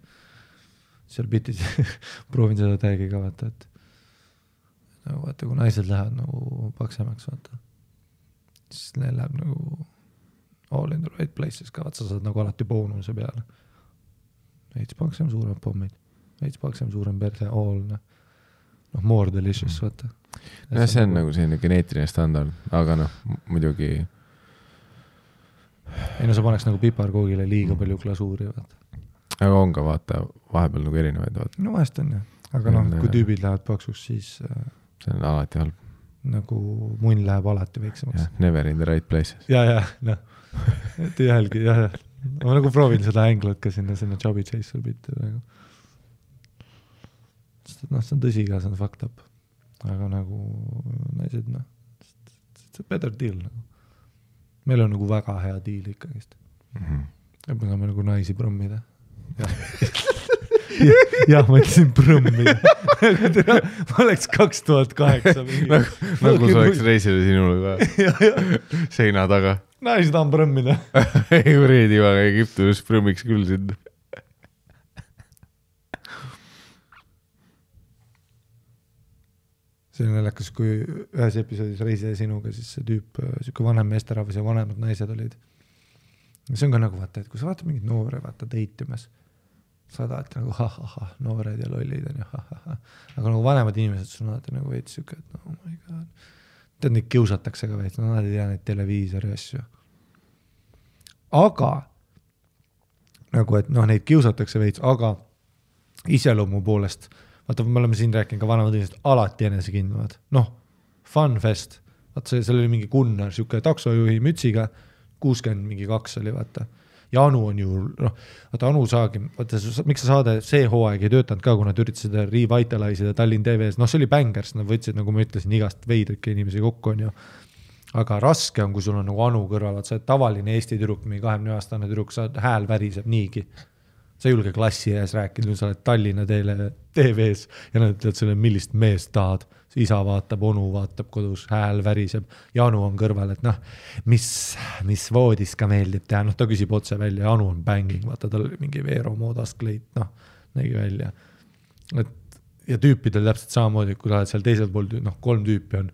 seal bitis proovin seda täiegi ka, vaata, et vaata, kui naised lähevad nagu paksemaks, vaata, siis neil läheb nagu all in the right places ka, vaata, sa saad nagu alati boonuse peale. Veits paksem suurem pommid, veits paksem suurem perse, all, more delicious, vaata.
Ja see on nagu selline geneetiline standard, aga muidugi.
Ei, sa paneks nagu piparkoogile liiga palju glasuuri, vaata.
Aga on ka, vaata, vahepeal nagu erinevaid, vaata.
No vahest on, jah. Aga kui tüübid lähevad paksuks, siis
see on alati halb.
Nagu munn läheb alati väiksemaks.
Never in the right places.
Ja, et ühelgi, jah. Ma nagu proovin seda änglat ka sinna chubby chaser bitti praegu. Sest et see on tõsi ka, see on fucked up. Aga nagu naised, it's a better deal. Meil on nagu väga hea deal ikkagist. Ja me saame nagu naisi prõmmida. Jah, ma ütlesin prõmmida. Ma oleks 2008.
Nagu sa oleks reisile sinule ka seina taga.
Naisi tahan prõmmida.
Ei, Reedi vaga Egiptus prõmmiks küll sind.
see on naljakas, kui ühes episoodis Reise sinuga, siis see tüüp, siuke vanem meesterahvas ja vanemad naised olid. See on ka nagu vaata, et kui sa vaatad mingid noore, vaata deitimas, sa tahad nagu noored ja lollid on ja aga nagu vanemad inimesed sul alati nagu veits siuke, et oh my god. Tead, neid kiusatakse ka veits, nad ei tea neid televiisori asju. Aga nagu, et neid kiusatakse veits, aga iseloomu poolest vaata, me oleme siin rääkinud ka vanemad inimesed alati enesekindlavad. Fun fest. Vaata, seal oli mingi Gunnar, siuke taksojuhi mütsiga, 62 oli, vaata. Ja Anu on ju, vaata Anu saagi, vaata, miks sa saade see hooaeg ei töötanud ka, kui nad üritasid seda revitalize'ida Tallinn TV-s, see oli bängers, nad võtsid, nagu ma ütlesin, igast veidrike inimesi kokku on ju. Aga raske on, kui sul on nagu Anu kõrval, vaata, sa tavaline Eesti tüdruk, mingi 20-aastane tüdruk, sa hääl väriseb niigi. Sa ei julge klassi ees rääkida, sa oled Tallinna TV-s ja nad ütlevad selle, millist meest tahad. Isa vaatab, onu vaatab kodus, hääl väriseb. Anu on kõrval, et mis voodis ka meeldib teha. Ta küsib otse välja, Anu on banging, vaata, tal oli mingi Veero moodast kleit, nägi välja. Ja tüüpidel täpselt samamoodi, kui sa oled seal teisel pool, 3 tüüpi on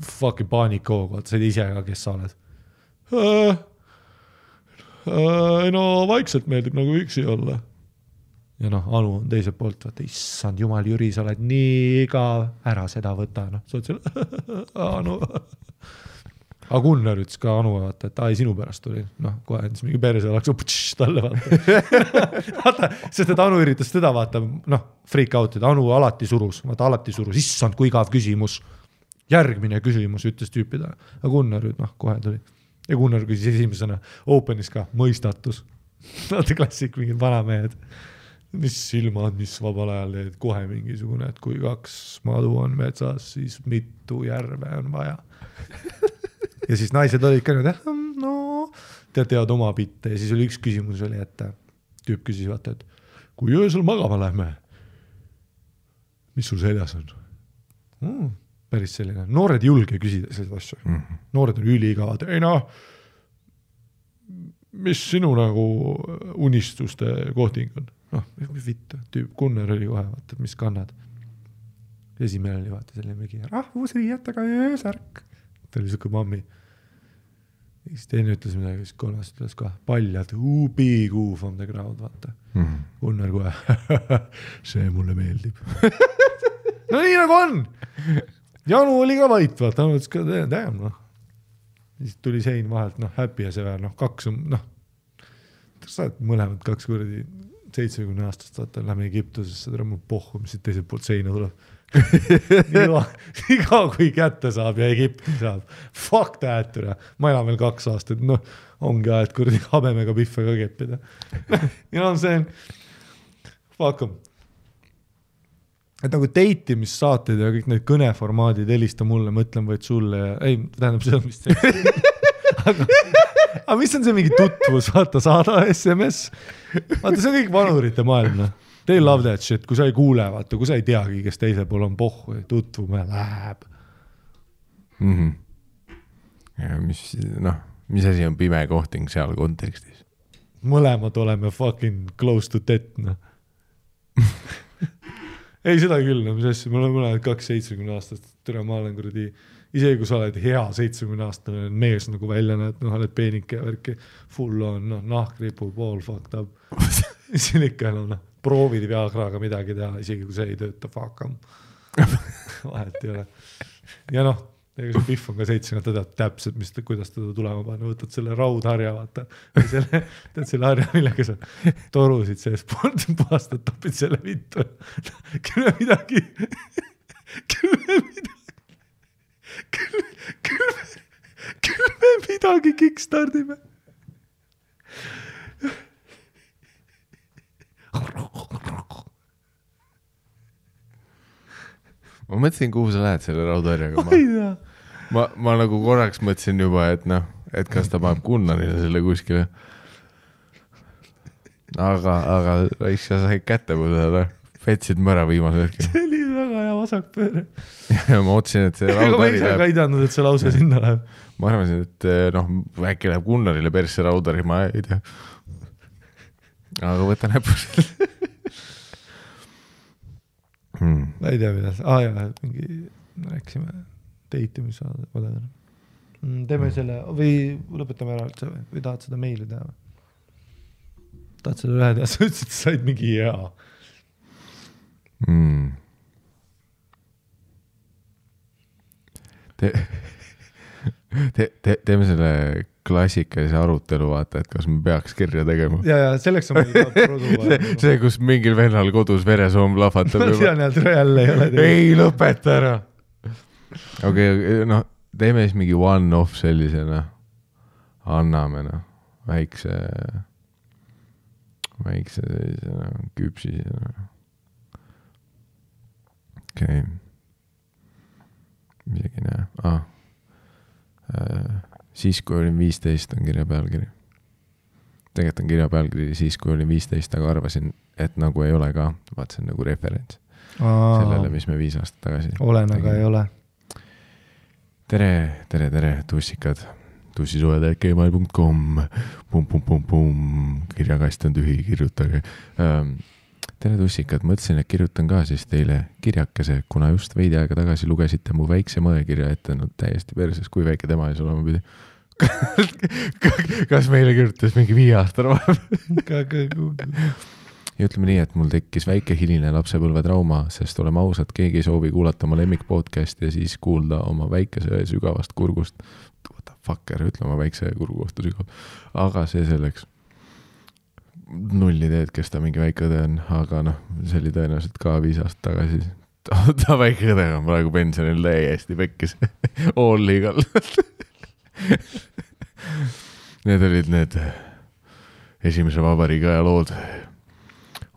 fucking paanikoog, vaata, sa ei ise ka, kes sa oled. Vaikselt meeldib nagu üksi olla. Ja Anu on teiselt poolt, vaata, issand jumal, Jüri, sa oled nii igav, ära seda võta, sa oled seal, Anu. Aga Gunnar ütles ka Anu, vaata, et sinu pärast tuli, kohe endis mingi perse oleks talle, vaata, sest et Anu üritas teda, vaata, freak out'id, Anu alati surus, issand, kui igav küsimus, järgmine küsimus, ütles tüüpida, aga Gunnar kohe tuli. Ja Gunnar küsis esimesena openis ka mõistatus. Vaata klassik, mingid vanamehed. Mis silmad, mis vabal ajal teed, kohe mingisugune, et kui 2 madu on metsas, siis mitu järve on vaja. Ja siis naised olid ka tead oma pitte. Ja siis oli üks küsimus oli, et tüüp küsis, vaata, et kui öösel magama lähme, mis sul seljas on? Päris selline. Noored ei julge küsida sellised asju. Noored on üliigavad. Mis sinu nagu unistuste kohting on? Vitt, tüüp Gunnar oli kohe, vaata, mis kannad. Esimene oli, vaata, selline mingi rahvusriietega öösärk. Ta oli siuke mammi. Siis teine ütles midagi, siis kolmas ütles ka paljad, big U from the crowd, vaata. Gunnar kohe, see mulle meeldib. Nii nagu on! Janu oli ka vait, vaata, ütles ka, damn, Siis tuli sein vahelt, happy ja see väär, 2 on, sa oled mõlemad 2 kuradi 70 aastast, vaata, lähme Egiptusesse, tere mul pohhu, mis siit teiselt poolt seina tuleb. Iga kui kätte saab ja Egipti saab. Fuck that, ma elan veel 2 aastat, ongi aed kuradi habemega pihve ka keppida. See on, fuck em. Et nagu deitimissaated ja kõik need kõneformaadid helista mulle, mõtlen vaid sulle ja tähendab seda, mis see. Aga mis on see mingi tutvus, vaata, saada SMS. Vaata, see on kõik vanurite maailm. They love that shit, kui sa ei kuule, vaata, kui sa ei teagi, kes teisel pool on pohhu ja tutvume läheb.
Ja mis asi on pime kohting seal kontekstis?
Mõlemad oleme fucking close to death, Ei, seda küll, mis asja, me oleme mõlemad 2-70 aastast, tere, ma olen kuradi, isegi kui sa oled hea 70-aastane mees nagu välja näed, oled peenike ja värki, full on, nahkripu, pool fucked up. Siin ikka proovid Viagraga midagi teha, isegi kui see ei tööta, fuck em. Vahet ei ole. Ja ega see pihv on ka 7, ta teab täpselt, kuidas teda tulema panna, võtad selle raudharja, vaata, tead selle harja, millega sa torusid sees puhastad, topid selle vittu. Küll me midagi kickstardime.
Ma mõtlesin, kuhu sa lähed selle raudharjaga. Ma nagu korraks mõtlesin juba, et kas ta paneb Gunnarile selle kuskile. Aga sa said kätte põdele. Fetsid mõra viimase hetkel.
See oli väga hea vasakpööre.
Ja ma otsin, et see raudhari
läheb. Ma ise ka ei teadnud, et see lause sinna läheb.
Ma arvasin, et äkki läheb Gunnarile persse raudhari, ma ei tea. Aga võta näpus.
ma ei tea, mida jaa, mingi rääkisime date-imise teeme selle või lõpetame ära üldse või tahad seda meili teha või? Tahad selle ühe teha, sa ütlesid, et said mingi hea
teeme selle klassikalise arutelu, vaata, et kas me peaks kirja tegema.
Ja selleks on meil produ.
see, kus mingil vennal kodus veresoom lahvatab.
Ma tean, et jälle ei ole.
Ei, lõpeta ära. Okei, noh, teeme siis mingi one-off sellisena. Anname, noh, väikse sellisena, küpsisena. Okei. Midagi näe. Siis, kui olin 15, on kirja pealkiri. Tegelikult on kirja pealkiri siis, kui olin 15, aga arvasin, et nagu ei ole ka. Vaat see on nagu referents sellele, mis me 5 aastat tagasi
olen, aga ei ole.
Tere, tussikad. tussisued@gmail.com kirjakast on tühi, kirjutage. Tere tussikad, mõtlesin, et kirjutan ka siis teile kirjakese, kuna just veidi aega tagasi lugesite mu väikse mõekirja ette, no täiesti perses, kui väike tema ees olema pidi. Kas meile kirjutas mingi 5 aastane vahepeal? Ja ütleme nii, et mul tekkis väike hiline lapsepõlve trauma, sest oleme ausad, keegi ei soovi kuulata oma lemmik podcasti ja siis kuulda oma väikese sügavast kurgust. What the fucker, ütle oma väikse kurgu kohta sügav. Aga see selleks. 0 ideed, kes ta mingi väike õde on, aga noh, see oli tõenäoliselt ka 5 aastat tagasi. Ta väike õde on praegu pensionil täiesti pekkis. All legal. Need olid need esimese vabariigi aja lood.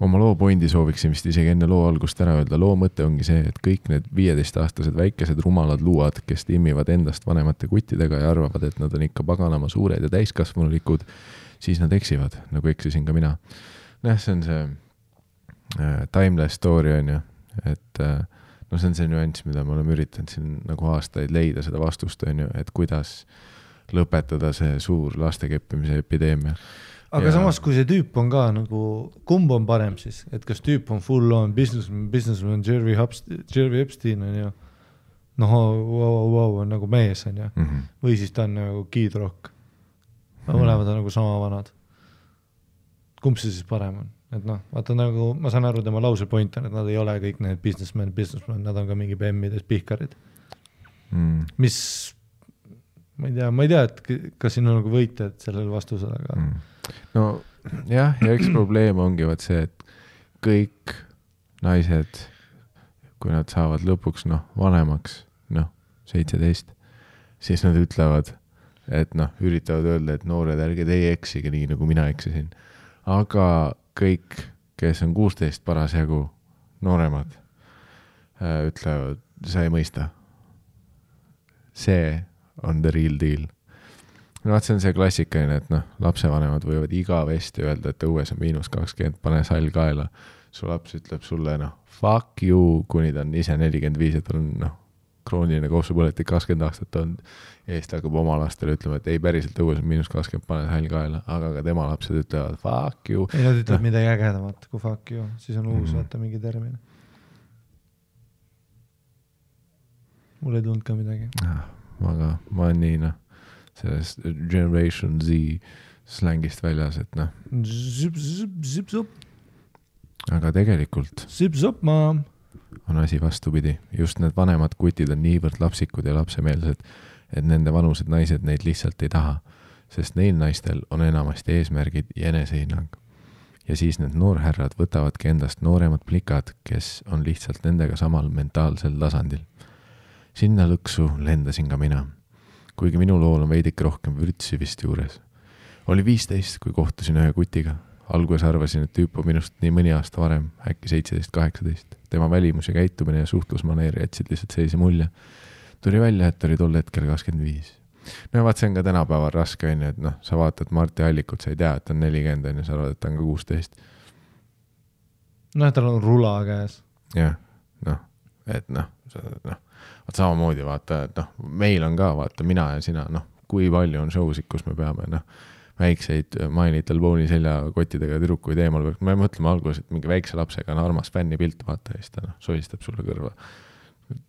Oma loo pointi sooviksin vist isegi enne loo algust ära öelda. Loo mõte ongi see, et kõik need 15-aastased väikesed rumalad luuad, kes timmivad endast vanemate kuttidega ja arvavad, et nad on ikka paganama suured ja täiskasvanulikud, siis nad eksivad, nagu eksisin ka mina. See on see timeless story on ju, et no see on see nüanss, mida me oleme üritanud siin nagu aastaid leida seda vastust on ju, et kuidas lõpetada see suur lastekeppimise epideemia.
Aga samas, kui see tüüp on ka nagu, kumb on parem siis, et kas tüüp on full on businessman Jerry Epstein on ju, wow, on nagu mees on ju, või siis ta on nagu Kid Rock. Mõlemad on nagu sama vanad. Kumb see siis parem on? Et noh, vaata nagu, ma saan aru tema lause point on, et nad ei ole kõik need businessman, nad on ka mingi BM-ides pihkarid. Mis, ma ei tea, et kas siin on nagu võitjad sellel vastusel, aga...
No jah, ja üks probleem ongi vaat see, et kõik naised, kui nad saavad lõpuks vanemaks, 17, siis nad ütlevad, et üritavad öelda, et noored ärge teie eksige nii, nagu mina eksisin. Aga kõik, kes on 16 parasjagu nooremad, ütlevad, sa ei mõista. See on the real deal. See on see klassikaline, et lapsevanemad võivad igavesti öelda, et õues on -20, pane sall kaela. Su laps ütleb sulle, fuck you, kuni ta on ise 45, et on krooniline kopsupõletik 20 aastat on. Eest hakkab oma lastele ütlema, et ei päriselt õues on -20, pane sall kaela, aga ka tema lapsed ütlevad fuck you.
Ei, nad ütlevad midagi ägedamat kui fuck you, siis on uus vaata mingi termin. Mul ei tulnud ka midagi.
Aga ma olen nii, sellest Generation Z slängist väljas, et
Zip-zop.
Aga tegelikult
Zip-zop, ma.
On asi vastupidi. Just need vanemad kutid on niivõrd lapsikud ja lapsemeelsed, et nende vanused naised neid lihtsalt ei taha, sest neil naistel on enamasti eesmärgid ja enesehinnang. Ja siis need noorherrad võtavadki endast nooremad plikad, kes on lihtsalt nendega samal mentaalsel tasandil. Sinna lõksu lendasin ka mina. Kuigi minu lool on veidik rohkem vürtsi vist juures. Oli 15, kui kohtusin ühe kutiga. Alguses arvasin, et tüüp on minust nii mõni aasta varem, äkki 17-18. Tema välimus ja käitumine ja suhtlusmaneer jätsid lihtsalt sellise mulje. Tuli välja, et oli tol hetkel 25. No vaat see on ka tänapäeval raske, et sa vaatad Marti Allikut, sa ei tea, et on 40, sa arvad, et ta on ka 16.
Tal on rula käes.
Jah, et vaat samamoodi vaata, et meil on ka vaata mina ja sina, kui palju on showsid, kus me peame väikseid My Little Pony seljakottidega tüdrukuid eemal, me mõtleme alguses, et mingi väikse lapsega on armas fänni pilt, vaata, ja siis ta sohistab sulle kõrva.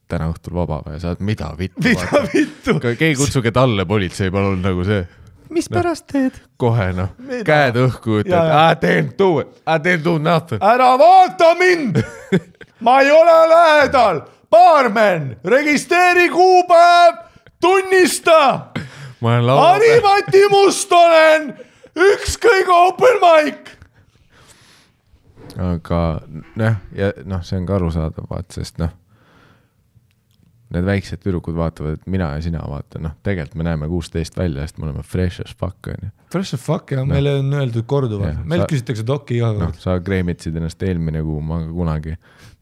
Täna õhtul vaba ja saad, mida vittu? Keegi kutsuge talle politsei, palun nagu see.
Mis pärast teed?
Kohe käed õhku, et I didn't do nothing.
Ära vaata mind! Ma ei ole lähedal! Baarmen! Registreeri kuupäev! Tunnista! Harimati Mustonen! Ükskõige open mic!
Aga see on ka arusaadav, sest need väiksed tüdrukud vaatavad, et mina ja sina vaata, tegelikult me näeme 16 välja, sest me oleme fresh as fuck.
Fresh as fuck ja meile on öeldud korduvalt. Meil küsitakse dokki iga kord.
Sa kreemitsid ennast eelmine kuu, ma kunagi.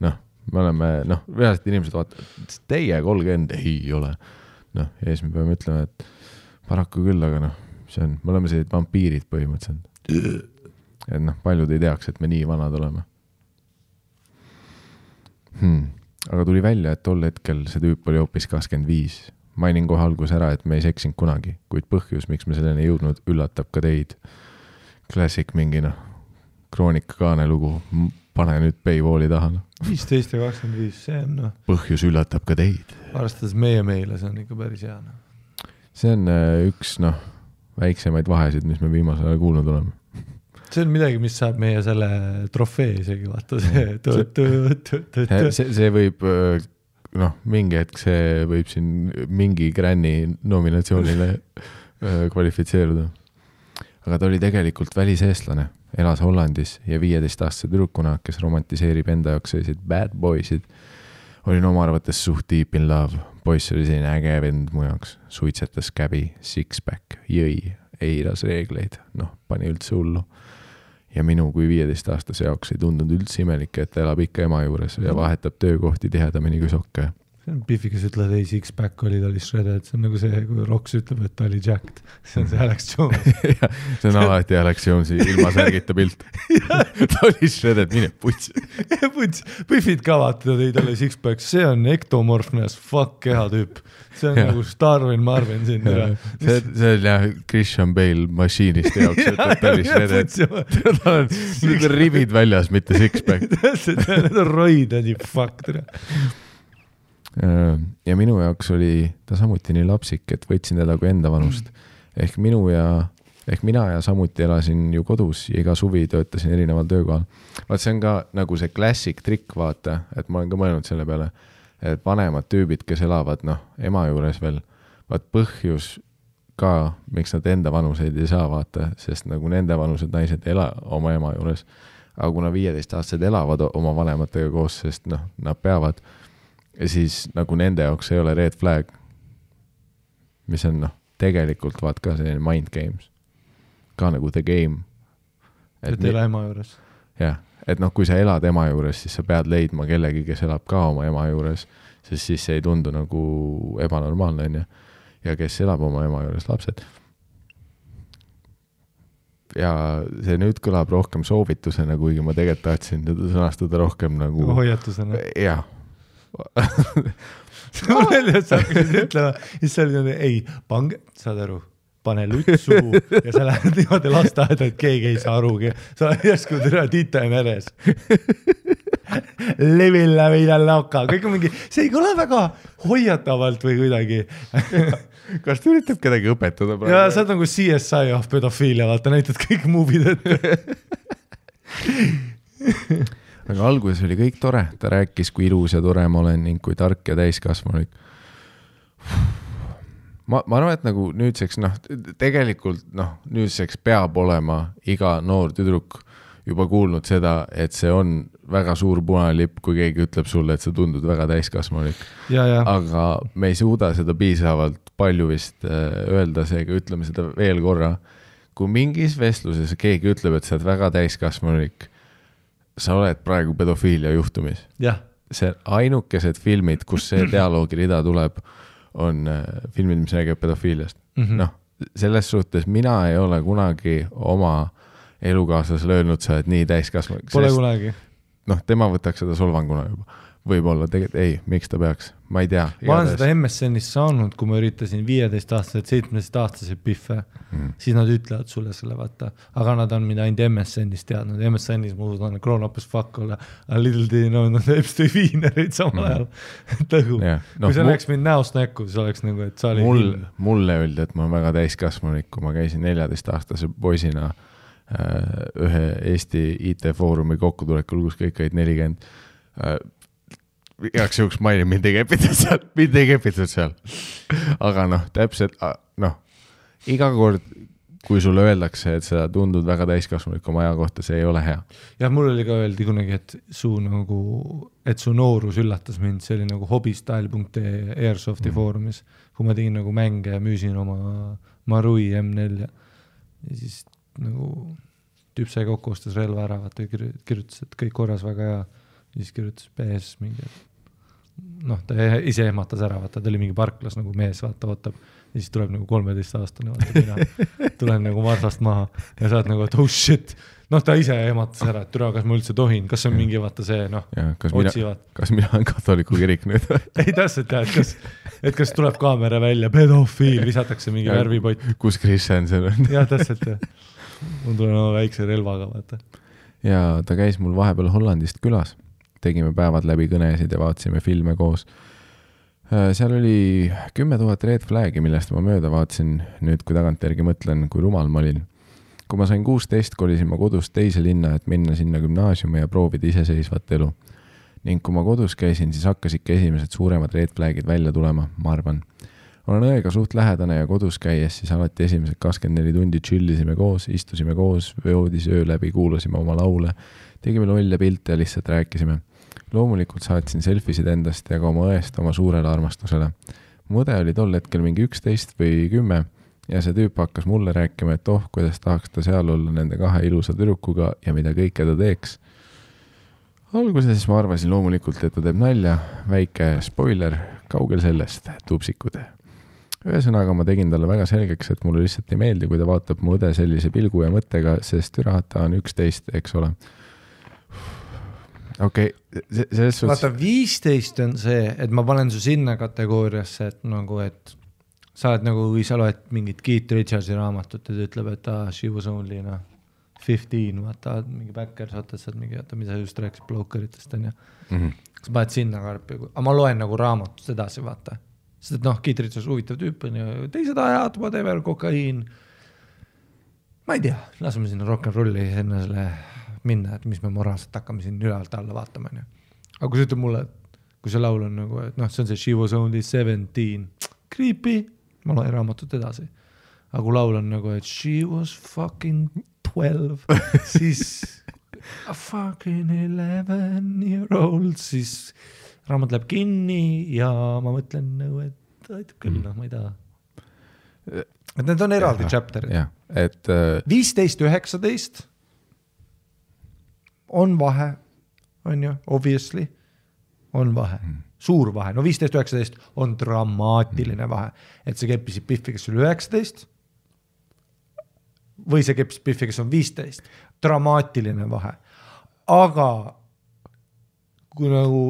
Me oleme, reaalselt inimesed vaatavad, teie 30 ei ole. Ja siis me peame ütlema, et paraku küll, aga me oleme sellised vampiirid põhimõtteliselt. Et paljud ei teaks, et me nii vanad oleme. Aga tuli välja, et tol hetkel see tüüp oli hoopis 25. Mainin kohe algus ära, et me ei seksinud kunagi, kuid põhjus, miks me selleni jõudnud, üllatab ka teid. Klassik mingi kroonika kaane lugu, pane nüüd Paywalli taha.
15 ja 25, see on
Põhjus üllatab ka teid.
Arvestades meile, see on ikka päris hea.
See on üks väiksemaid vahesid, mis me viimasel ajal kuulnud oleme.
See on midagi, mis saab meie selle trofee isegi, vaata
see võib, mingi hetk see võib siin mingi Granny nominatsioonile kvalifitseeruda. Aga ta oli tegelikult väliseestlane, elas Hollandis ja 15-aastase tüdrukuna, kes romantiseerib enda jaoks selliseid bad boysid. Olin oma arvates suht deep in love. Poiss oli selline äge vend mu jaoks. Suitsetas käbi, six-pack, jõi, eiras reegleid, pani üldse hullu. Ja minu kui 15-aastase jaoks ei tundunud üldse imelik, et ta elab ikka ema juures ja vahetab töökohti tihedamini kui sokke.
See on Biffi, kes ütleb, et ei, six-pack oli, ta oli shredded. See on nagu see, kui Roks ütleb, et ta oli jacked. See on see Alex Jones.
See on alati Alex Jonesi ilma särgita pilt. Ta oli shredded, mine puts.
Biffid ka vaata, ta oli six-pack. See on ektomorfne as fuck keha tüüp. See on nagu Starvin Marvin siin.
See on jah Christian Bale mašiinist jaoks, et ta oli shredded. Ta on ribid väljas, mitte six-pack.
Need on roided, fuck.
Ja minu jaoks oli ta samuti nii lapsik, et võtsin teda kui enda vanust. Ehk mina ja samuti elasin ju kodus ja iga suvi töötasin erineval töökohal. Vaat see on ka nagu see klassik trikk, vaata, et ma olen ka mõelnud selle peale, et vanemad tüübid, kes elavad ema juures veel, vaat põhjus ka, miks nad enda vanuseid ei saa vaata, sest nagu nende vanused naised ela oma ema juures, aga kuna 15-aastased elavad oma vanematega koos, sest nad peavad. Ja siis nagu nende jaoks ei ole red flag, mis on tegelikult vaat ka selline mind games. Ka nagu the game.
Et ela ema juures.
Jah, et kui sa elad ema juures, siis sa pead leidma kellegi, kes elab ka oma ema juures, sest siis see ei tundu nagu ebanormaalne on ja kes elab oma ema juures, lapsed. Ja see nüüd kõlab rohkem soovitusena, kuigi ma tegelikult tahtsin sõnastada rohkem nagu
hoiatusena.
Jah.
Mul välja, et sa hakkasid ütlema, siis sa olid ei, pange, saad aru, pane lutsu ja sa lähed niimoodi lasteaeda, et keegi ei saa arugi. Sa järsku türa tita ja meres. Levilla vida loka. Kõik on mingi, see ei ole väga hoiatavalt või kuidagi.
Kas ta üritab kedagi õpetada?
Ja sa oled nagu CSI of pedofiilia, vaata, näitad kõik movid ette.
Aga alguses oli kõik tore, ta rääkis, kui ilus ja tore ma olen ning kui tark ja täiskasvanulik. Ma arvan, et nagu nüüdseks, tegelikult nüüdseks peab olema iga noor tüdruk juba kuulnud seda, et see on väga suur punane lipp, kui keegi ütleb sulle, et sa tundud väga täiskasvanulik. Aga me ei suuda seda piisavalt palju vist öelda, seega ütleme seda veel korra. Kui mingis vestluses keegi ütleb, et sa oled väga täiskasvanulik, sa oled praegu pedofiilia juhtumis. See ainukesed filmid, kus see dialoogirida tuleb, on filmid, mis räägib pedofiiliast. Selles suhtes mina ei ole kunagi oma elukaaslasele öelnud, sa oled nii täiskasvanulik.
Pole kunagi.
Tema võtaks seda solvanguna juba. võib-olla tegelikult ei, miks ta peaks, ma ei tea.
Ma olen seda MSN-ist saanud, kui ma üritasin 15-aastaselt, 17-aastaselt piffe, siis nad ütlevad sulle selle vaata, aga nad on mida ainult MSN-ist teadnud. MSN-is ma usun, grown up as fuck olla, a little day, no nad Epstein Wienerid samal ajal. Tõgu. Kui see läheks mind näost näkku, siis oleks nagu, et sa oli
mulle öeldi, et ma olen väga täiskasvanulik, kui ma käisin 14-aastase poisina ühe Eesti IT-foorumi kokkutulekul, kus kõik olid 40. Igaks juhuks mainin, mind ei kepitud seal. Aga noh, täpselt, iga kord, kui sulle öeldakse, et sa tundud väga täiskasvanulik oma aja kohta, see ei ole hea.
Ja mul oli ka öeldi kunagi, et su noorus üllatas mind, see oli nagu hobistyle.ee Airsofti foorumis, kui ma tegin nagu mänge ja müüsin oma Marui M4 ja siis nagu tüüp sai kokku ostas relva ära, vaata kirjutas, et kõik korras väga hea. Siis kirjutas PS mingi, ta ise ehmatas ära, vaata, ta oli mingi parklas nagu mees, vaata, ootab. Ja siis tuleb nagu 13-aastane, vaata, mina tulen nagu marsast maha ja saad nagu, et oh shit. Ta ise ehmatas ära, et türa, kas ma üldse tohin, kas on mingi, vaata see, otsivad.
Kas mina olen katoliku kirik nüüd?
Ei täpselt, et kas tuleb kaamera välja, pedofiil, visatakse mingi värvipott.
Kus Christensen on?
Jah, täpselt, mul tulen oma väikse relvaga, vaata.
Ja ta käis mul vahepeal Hollandist külas. Tegime päevad läbi kõnesid ja vaatasime filme koos. Seal oli 10 000 red flagi, millest ma mööda vaatasin nüüd, kui tagantjärgi mõtlen, kui rumal ma olin. Kui ma sain 16, kolisin ma kodust teise linna, et minna sinna gümnaasiumi ja proovida iseseisvat elu. Ning kui ma kodus käisin, siis hakkas ikka esimesed suuremad red flagid välja tulema, ma arvan. Olen õega suht lähedane ja kodus käies, siis alati esimesed 24 tundi chillisime koos, istusime koos, voodis öö läbi, kuulasime oma laule, tegime lolle pilte ja lihtsalt rääkisime. Loomulikult saatsin selfisid endast ja ka oma õest oma suurele armastusele. Mu õde oli tol hetkel mingi 11 või 10 ja see tüüp hakkas mulle rääkima, et kuidas tahaks ta seal olla nende 2 ilusa tüdrukuga ja mida kõike ta teeks. Alguses ma arvasin loomulikult, et ta teeb nalja, väike spoiler, kaugel sellest, tupsikud. Ühesõnaga ma tegin talle väga selgeks, et mulle lihtsalt ei meeldi, kui ta vaatab mu õde sellise pilgu ja mõttega, sest türata on 11, eks ole. Okei, selles suhtes...
Vaata, 15 on see, et ma panen su sinna kategooriasse, et nagu, et sa oled nagu, kui sa loed mingit Keith Richardsi raamatut, et ütleb, et she was only 15, vaata, mingi backers, vaata, et mingi, mida sa just rääkisid blokeritest, on ju. Kas paned sinna karpi, aga ma loen nagu raamatust edasi, vaata. Sest et Keith Richards huvitav tüüp on ju, teised ajad, whatever, kokaiin. Ma ei tea, laseme sinna rock'n'rolli enne selle minna, et mis me moraalselt hakkame siin ülevalt alla vaatama. Aga kui sa ütleb mulle, kui see laul on nagu, et see on see She was only 17, creepy, ma loen raamatut edasi. Aga kui laul on nagu, et She was fucking 12, siis a fucking 11-year-old, siis raamat läheb kinni ja ma mõtlen nagu, et aitab küll, ma ei taha. Et need on eraldi chapterid. 15-19 on vahe, on ju, obviously, on vahe, suur vahe. No 15-19 on dramaatiline vahe, et see keppisid Piffi, kes oli 19 või see keppisid Piffi, kes on 15. Dramaatiline vahe. Aga kui nagu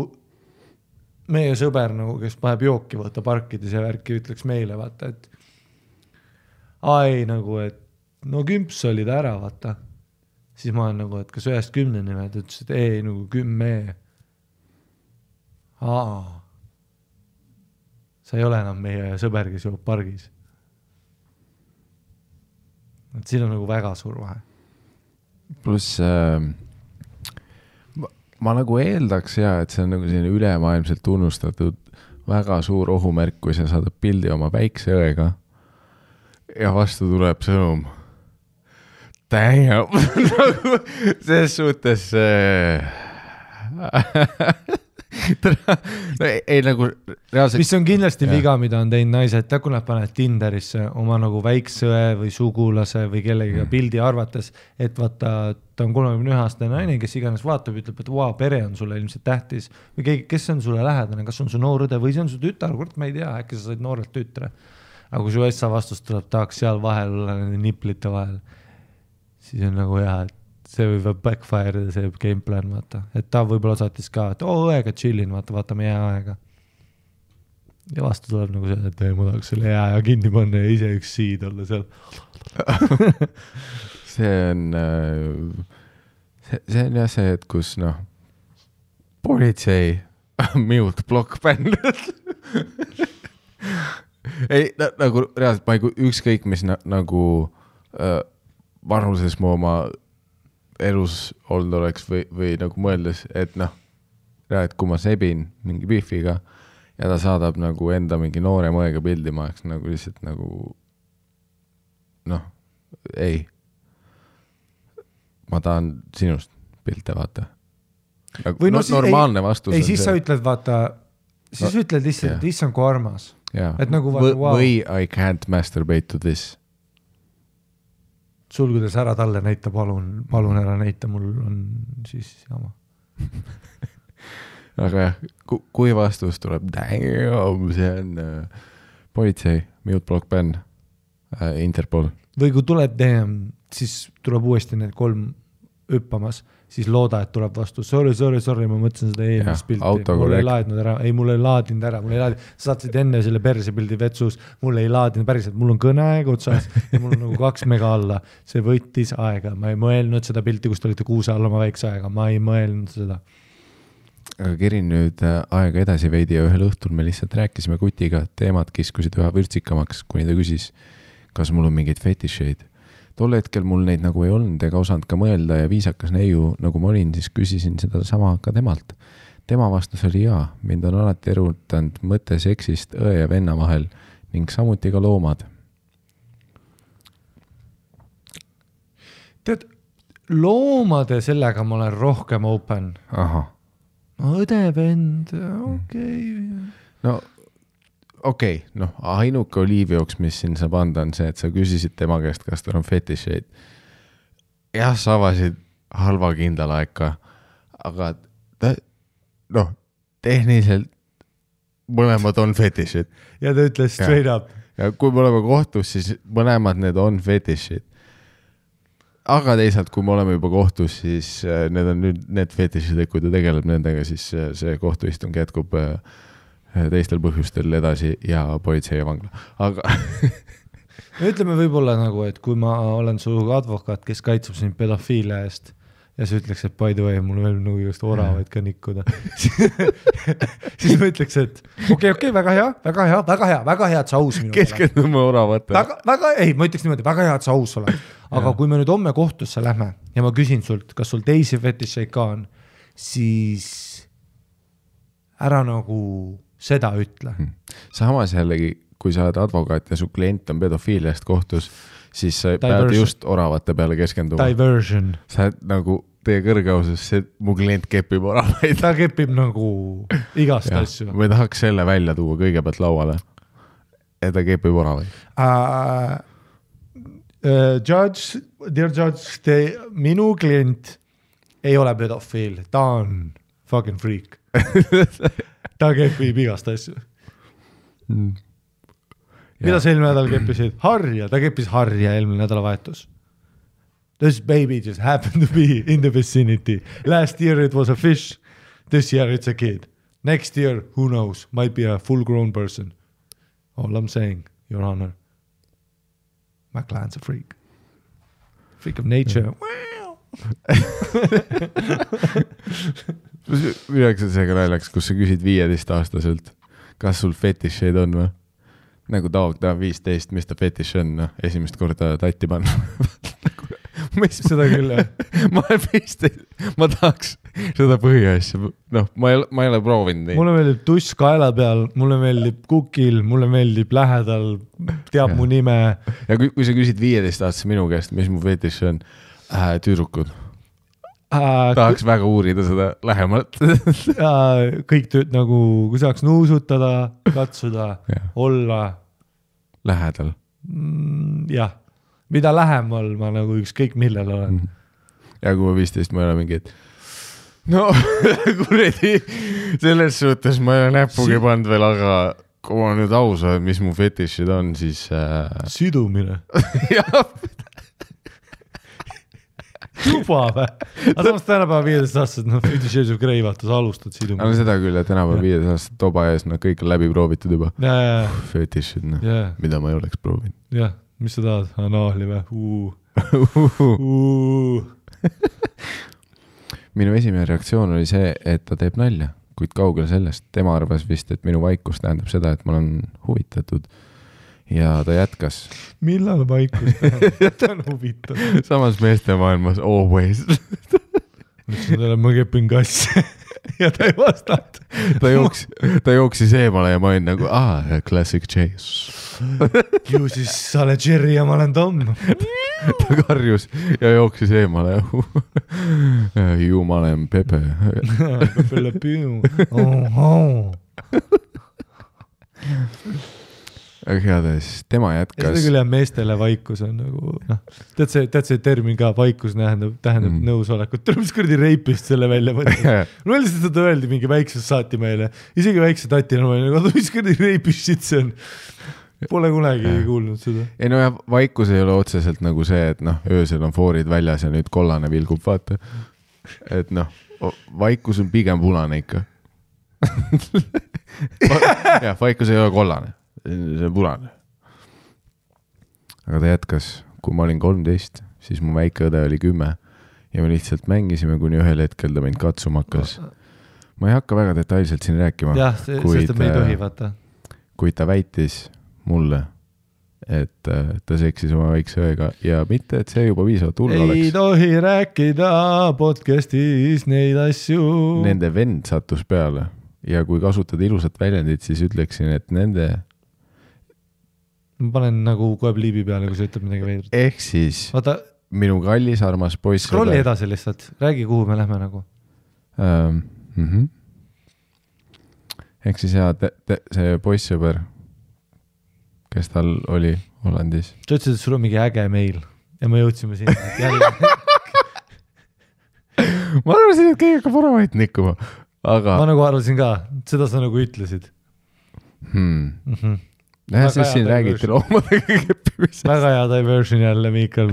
meie sõber, nagu, kes paneb jooki vaata parkides ja värki, ütleks meile, vaata, et nagu, et no kümps oli ta ära, vaata. Siis ma olen nagu, et kas 1-10 nimed, ütles, et ei, nagu 10. Sa ei ole enam meie sõber, kes joob pargis. Et siin on nagu väga suur vahe.
Plus ma nagu eeldaks et see on nagu selline ülemaailmselt tunnustatud väga suur ohumärk, kui sa saadad pildi oma väikse õega ja vastu tuleb sõnum. Damn! Nagu selles suhtes ei nagu reaalselt...
Mis on kindlasti viga, mida on teinud naised, kui nad panevad Tinderisse oma nagu väiksõe või sugulase või kellegiga pildi arvates, et vaata, ta on 31-aastane naine, kes iganes vaatab, ütleb, et pere on sulle ilmselt tähtis või keegi, kes on sulle lähedane, kas on su noorõde või see on su tütar, kord ma ei tea, äkki sa said noorelt tütre. Aga kui su essa vastus tuleb, tahaks seal vahel olla nende niplite vahel, siis on nagu hea, et see võib backfire see game plan, vaata. Et ta võib-olla saatis ka, et õega chillin, vaatame jääaega. Ja vastu tuleb nagu see, et ma tahaks selle jääaja kinni panna ja ise üks seed olla seal.
see on jah see, et kus politsei mute block band. ei, nagu reaalselt ma ei ükskõik, mis nagu vanuses mu oma elus olnud oleks või nagu mõeldes, et reaalselt kui ma sebin mingi bifiga ja ta saadab nagu enda mingi noore mõega pildi, ma oleks nagu lihtsalt nagu ei. Ma tahan sinust pilte, vaata. Nagu normaalne vastus
ei, siis see. Sa ütled, vaata, siis ütled lihtsalt, yeah. Issand kui armas.
Yeah.
Et nagu vaata, wow.
Või I can't masturbate to this.
Sulgudes ära talle näita, palun ära näita, mul on siis jama.
Aga jah, kui vastus tuleb, damn, see on politsei, mute block ban, Interpol.
Või kui tuleb damn, siis tuleb uuesti need 3 hüppamas, siis looda, et tuleb vastu. Sorry, ma mõtlesin seda eelmist pilti. Mul ei laadinud ära, mul ei laadinud ära. Sa saatsid enne selle perse pildi vetsus, mul ei laadinud päriselt, mul on kõneaeg otsas ja mul on nagu 2 mega alla. See võttis aega, ma ei mõelnud seda pilti, kus te olite kuuse alla oma väikse aega, ma ei mõelnud seda.
Aga kerin nüüd aega edasi veidi ja ühel õhtul me lihtsalt rääkisime kutiga, teemad kiskusid üha vürtsikamaks, kuni ta küsis, kas mul on mingeid fetišeid. Tol hetkel mul neid nagu ei olnud ega osanud ka mõelda ja viisakas neiu, nagu ma olin, siis küsisin seda sama ka temalt. Tema vastus oli jaa, mind on alati erutanud mõte seksist õe ja venna vahel ning samuti ka loomad.
Tead, loomade sellega ma olen rohkem open.
Aha.
Õde, vend, okei.
No okei, ainuke oliivjooks, mis siin saab anda, on see, et sa küsisid tema käest, kas tal on fetišeid. Jah, sa avasid halva kindlalaeka, aga tehniliselt mõlemad on fetišid.
Ja ta ütles straight up.
Ja kui me oleme kohtus, siis mõlemad need on fetišid. Aga teisalt, kui me oleme juba kohtus, siis need on nüüd need fetišid, kui ta tegeleb nendega, siis see kohtuistung jätkub teistel põhjustel edasi ja politsei ja vangla. Aga
ütleme võib-olla nagu, et kui ma olen su advokaat, kes kaitseb sind pedofiilia eest ja sa ütleks, et by the way, mul veel nagu just oravaid ka nikkuda. siis ma ütleks, et okei, väga hea, et sa aus minu.
Keskendume oravate.
Ma ütleks niimoodi, väga hea, et sa aus oled. Aga kui me nüüd homme kohtusse lähme ja ma küsin sult, kas sul teisi fetišeid ka on, siis ära nagu seda ütle.
Samas jällegi, kui sa oled advokaat ja su klient on pedofiiliast kohtus, siis sa pead just oravate peale keskenduma.
Diversion.
Sa oled nagu teie kõrgeausus, mu klient kepib oravaid.
Ta kepib nagu igast asju.
Me tahaks selle välja tuua kõigepealt lauale. Ja ta kepib oravaid.
Dear judge, minu klient ei ole pedofiil. Ta on fucking freak. Ta kepib igast asju. Mida sa eelmine nädal keppisid? Harja, ta keppis harja eelmine nädalavahetus. This baby just happened to be in the vicinity. Last year it was a fish. This year it's a kid. Next year, who knows? Might be a full-grown person. All I'm saying, Your Honor, my client's a freak. Freak of nature.
Midagi seega naljaks, kus sa küsid 15-aastaselt, kas sul fetišeid on või? Nagu ta 15, mis ta fetiš on, esimest korda tatti panna.
Seda küll, jah.
Ma olen 15, ma tahaks seda põhiasja, ma ei ole proovinud nii.
Mulle meeldib tuss kaela peal, mulle meeldib kukil, mulle meeldib lähedal, teab mu nime.
Ja kui sa küsid 15-aastase minu käest, mis mu fetiš on, tüdrukud. Tahaks väga uurida seda lähemalt.
Kõik tööd nagu, kui saaks nuusutada, katsuda, olla.
Lähedal.
Jah, mida lähemal ma nagu ükskõik millel olen.
Ja kui ma 15, ma ei ole mingi, et kuredi, selles suhtes ma ei ole näpugi pannud veel, aga kui ma nüüd aus olen, mis mu fetišid on, siis...
Sidumine.
Jah.
juba või? Aga samas tänapäeva 15 aastased, noh, 50 Shades of Grey, vaata, sa alustad siduma.
Aga seda küll, et tänapäeva 15 aastased toba ees, no kõik on läbi proovitud juba. Fetišid, noh, mida ma ei oleks proovinud.
Jah, mis sa tahad? Anaali või?
Minu esimene reaktsioon oli see, et ta teeb nalja, kuid kaugel sellest. Tema arvas vist, et minu vaikus tähendab seda, et ma olen huvitatud. Ja ta jätkas.
Millal vaikus tähendab? Ta on huvitav.
Samas meeste maailmas always.
Mõtlesin talle, ma kepin kassi. Ja ta ei vastanud.
Ta jooksis eemale ja ma olin nagu, classic chase.
Ju siis sa oled Jerry ja ma olen Tom.
Ta karjus ja jooksis eemale. Ju ma olen Pepe.
Pepe le Pew.
Aga heades, tema jätkas.
Seda küll jah, meestele vaikus on nagu, noh, tead see termin ka, vaikus tähendab nõusolekut. Tuleb mis kurdi reipist selle välja mõtlema. Mul lihtsalt seda öeldi mingi väikses saati meile. Isegi väikse tatina ma olin, mis kurdi reipist shit see on. Pole kunagi kuulnud seda.
Ei no ja vaikus ei ole otseselt nagu see, et noh, öösel on foorid väljas ja nüüd kollane vilgub, vaata. Et noh, vaikus on pigem punane ikka. Ja, vaikus ei ole kollane. See on punane. Aga ta jätkas, kui ma olin 13, siis mu väike õde oli 10 ja me lihtsalt mängisime, kuni ühel hetkel ta mind katsuma hakkas. Ma ei hakka väga detailselt siin rääkima.
Jah, sest me ei tohi, vaata.
Kuid ta väitis mulle, et ta seksis oma väikse õega ja mitte, et see juba viisavalt hull oleks.
Ei tohi rääkida podcastis neid asju.
Nende vend sattus peale ja kui kasutada ilusat väljendit, siis ütleksin, et nende
ma panen nagu kohe pliibi peale, kui sa ütleb midagi veidrat.
Ehk siis vaata, minu kallis armas poiss.
Scrolli edasi lihtsalt, räägi, kuhu me lähme nagu.
Ehk siis jah, see poissõber, kes tal oli Hollandis.
Sa ütlesid, et sul on mingi äge meil ja me jõudsime sinna.
Ma arvasin, et keegi hakkab varavait nikkuma. Aga...
Ma nagu arvasin ka, seda sa nagu ütlesid.
Nähe, siis siin räägiti loomadega keppimisest.
Väga hea diversion jälle, Miikal.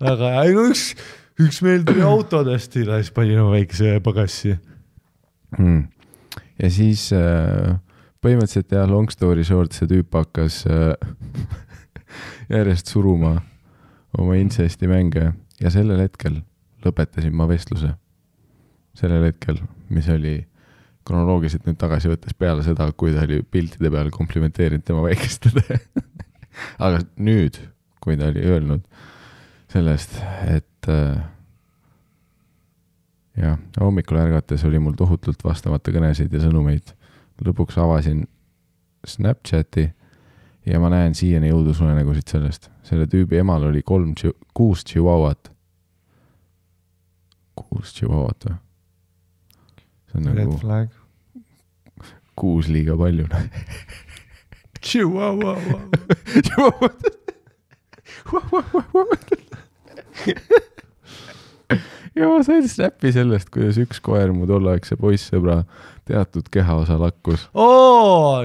Väga hea. No üks meil tuli autodest ja siis pani oma väikese pagassi.
Ja siis põhimõtteliselt jah, long story short, see tüüp hakkas järjest suruma oma incesti mänge ja sellel hetkel lõpetasin ma vestluse. Sellel hetkel, mis oli kronoloogiliselt nüüd tagasi võttes peale seda, kui ta oli piltide peal komplimenteerinud tema väikestele. Aga nüüd, kui ta oli öelnud sellest, et jah, hommikul ärgates oli mul tohutult vastamata kõnesid ja sõnumeid. Lõpuks avasin Snapchati ja ma näen siiani jõudusunenägusid sellest. Selle tüübi emal oli 6 chihuahuat. 6 chihuahuat või? See on
Red
nagu
flag.
6 liiga palju.
Chihuahua.
Ja ma sain snappi sellest, kuidas üks koer mu tolleaegse poissõbra teatud kehaosa lakkus.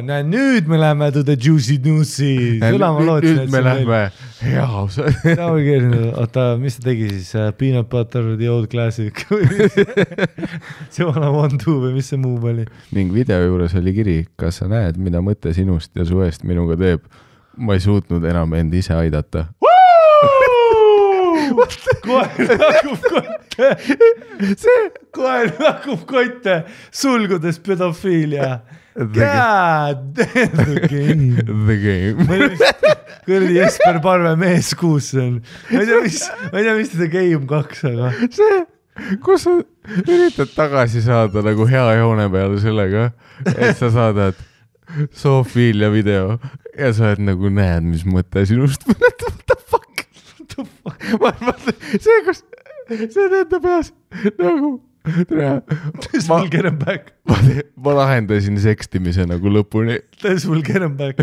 Nüüd me läheme to the juicy newsy.
Nüüd me läheme hea osa.
Oota, mis ta tegi siis? Peanut butter, the old classic. See vana 1-2 või mis see muu oli?
Ning video juures oli kiri, kas sa näed, mida mõte sinust ja su eest minuga teeb? Ma ei suutnud enam end ise aidata.
Koer lakub kotte. Koer lakub kotte, sulgudes pedofiilia. God damn the game.
The game.
Kõrdi Jesper Parve mees kuus on. Ma ei tea, mis seda Game 2, aga...
See, kus sa üritad tagasi saada nagu hea joone peale sellega, et sa saadad Sofiilia video ja sa oled nagu näed, mis mõte sinust. What the fuck? See teete peas nagu
This will get him back.
Ma lahendasin sekstimise nagu lõpuni.
This will get him back.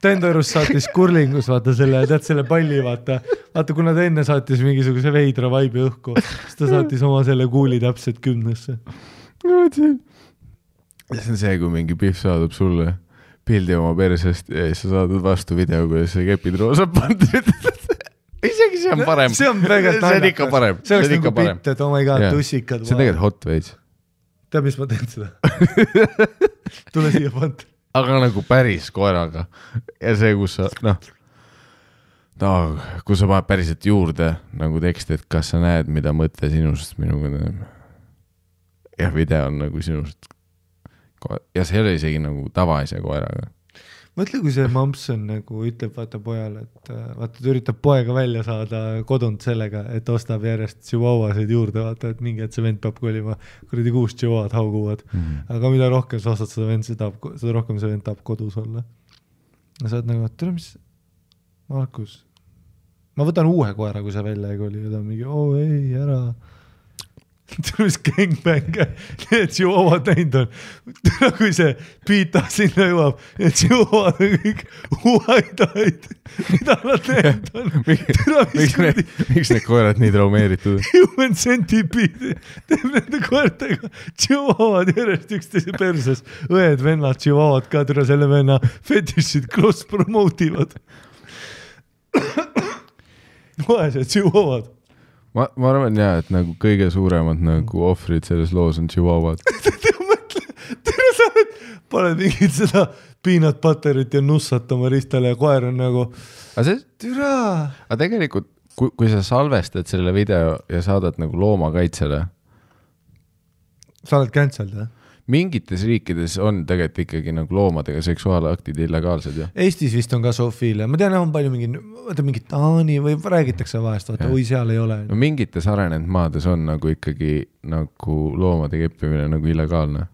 Tendorus saatis kurlingus, vaata selle palli, vaata, kuna ta enne saatis mingisuguse veidra vaibi õhku, siis ta saatis oma selle kuuli täpselt 10-sse.
See on see, kui mingi pihv saadab sulle pildi oma persest ja siis sa saadad vastu video, kuidas sa kepid roosa pandud. isegi see on parem.
See on väga
see on ikka parem.
See oleks nagu pitt, et oh my god, tussikad.
See on tegelikult hot veits.
Tead, mis ma teen seda? Tule siia pant.
Aga nagu päris koeraga. Ja see, kus sa, kui sa paned päriselt juurde nagu teksti, et kas sa näed, mida mõtle sinust minuga. Ja video on nagu sinust. Ja see ei ole isegi nagu tavaise koeraga.
Mõtle, kui see Mampson nagu ütleb vaata pojale, et vaata, ta üritab poega välja saada kodunt sellega, et ostab järjest chihuahuasid juurde, vaata, et mingi, et see vend peab kolima, kuradi 6 chihuahuad hauguvad. Aga mida rohkem sa ostad seda vend, seda rohkem see vend tahab kodus olla. Ja sa oled nagu, et tule, mis Markus, ma võtan uue koera, kui see välja ei koli, ja ta on mingi, ei, ära. Tule, mis gangbang, need chihuahuad näinud on. Tule, kui see piita sinna jõuab, need chihuahuad on kõik huaidaid, mida nad näinud on.
Miks need koerad nii traumeeritud?
Human centipede teeb nende koertega chihuahuad järjest üksteise perses. Õed, vennad, chihuahuad ka tule selle venna fetišid cross-promotivad. Vaesed chihuahuad.
Ma arvan jah, et nagu kõige suuremad nagu ohvrid selles loos on chihuahuad.
Tere sa paned mingid seda peanut butterit ja nussat oma ristale ja koer on nagu türa.
Aga tegelikult, kui sa salvestad selle video ja saadad nagu loomakaitsele.
Sa oled cancelled, jah?
Mingites riikides on tegelikult ikkagi nagu loomadega seksuaalaktid illegaalsed. Ja?
Eestis vist on ka zoofiilia. Ma tean, on palju mingi Taani või räägitakse vahest, vaata, oi seal ei ole.
No mingites arenenud maades on nagu ikkagi nagu loomade keppimine nagu illegaalne.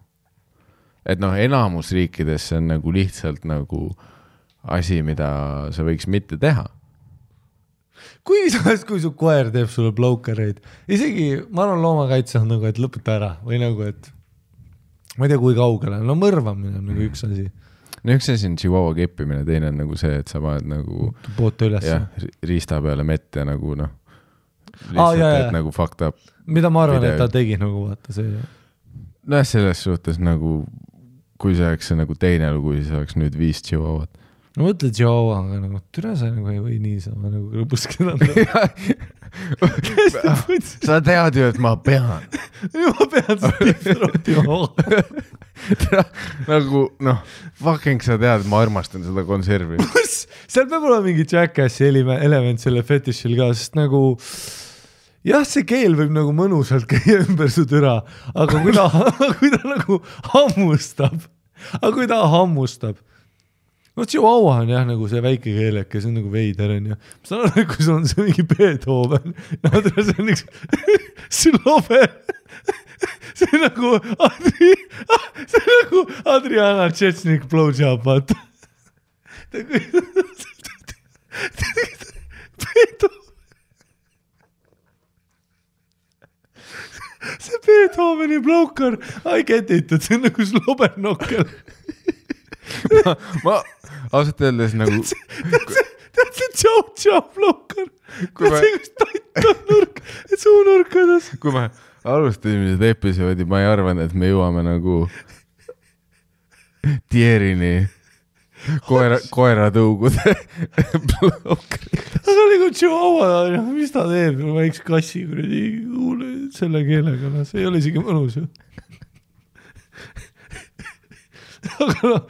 Et enamus riikides see on nagu lihtsalt nagu asi, mida sa võiks mitte teha.
Kui su koer teeb sulle blowcareid, isegi ma arvan loomakaitse on nagu, et lõpeta ära või nagu, et ma ei tea, kui kaugele. No mõrvamine on nagu üks asi.
No üks asi on chihuahua keppimine, teine on nagu see, et sa paned nagu
poote üles.
Riista peale mett ja nagu lihtsalt, et nagu fucked up.
Mida ma arvan, et ta tegi nagu vaata see.
No selles suhtes nagu, kui see oleks nagu teine lugu, siis oleks nüüd 5 chihuahuat.
No mõtle chihuahua, aga nagu türa sa nagu ei või niisama nagu lõpuskeda anda.
Sa tead ju, et ma pean.
Ma pean seda rohtima.
Nagu, fucking sa tead, ma armastan seda konservi.
Seal peab olema mingi Jackassi element selle fetishil ka, sest nagu jah, see keel võib nagu mõnusalt käia ümber su türa, aga kui ta nagu hammustab, no chihuahua on jah nagu see väike keeleke, see on nagu veider on ja ma saan aru, kui sul on see mingi Beethoven, see on üks slover, see on nagu Adriana Tšetšnik blowjob, vaata. See Beethoveni blowkar, I get it, et see on nagu slobernokkel.
Ma ausalt öeldes nagu
tead see tšau blokar see kus taita nurk suunurkades.
Kui me alustasime seda episoodi, ma ei arvan, et me jõuame nagu tierini koeratõugude blokari.
Aga nagu chihuahua, mis ta teeb, väiks kassi selle keelega, see ei ole isegi mõnus ju. Aga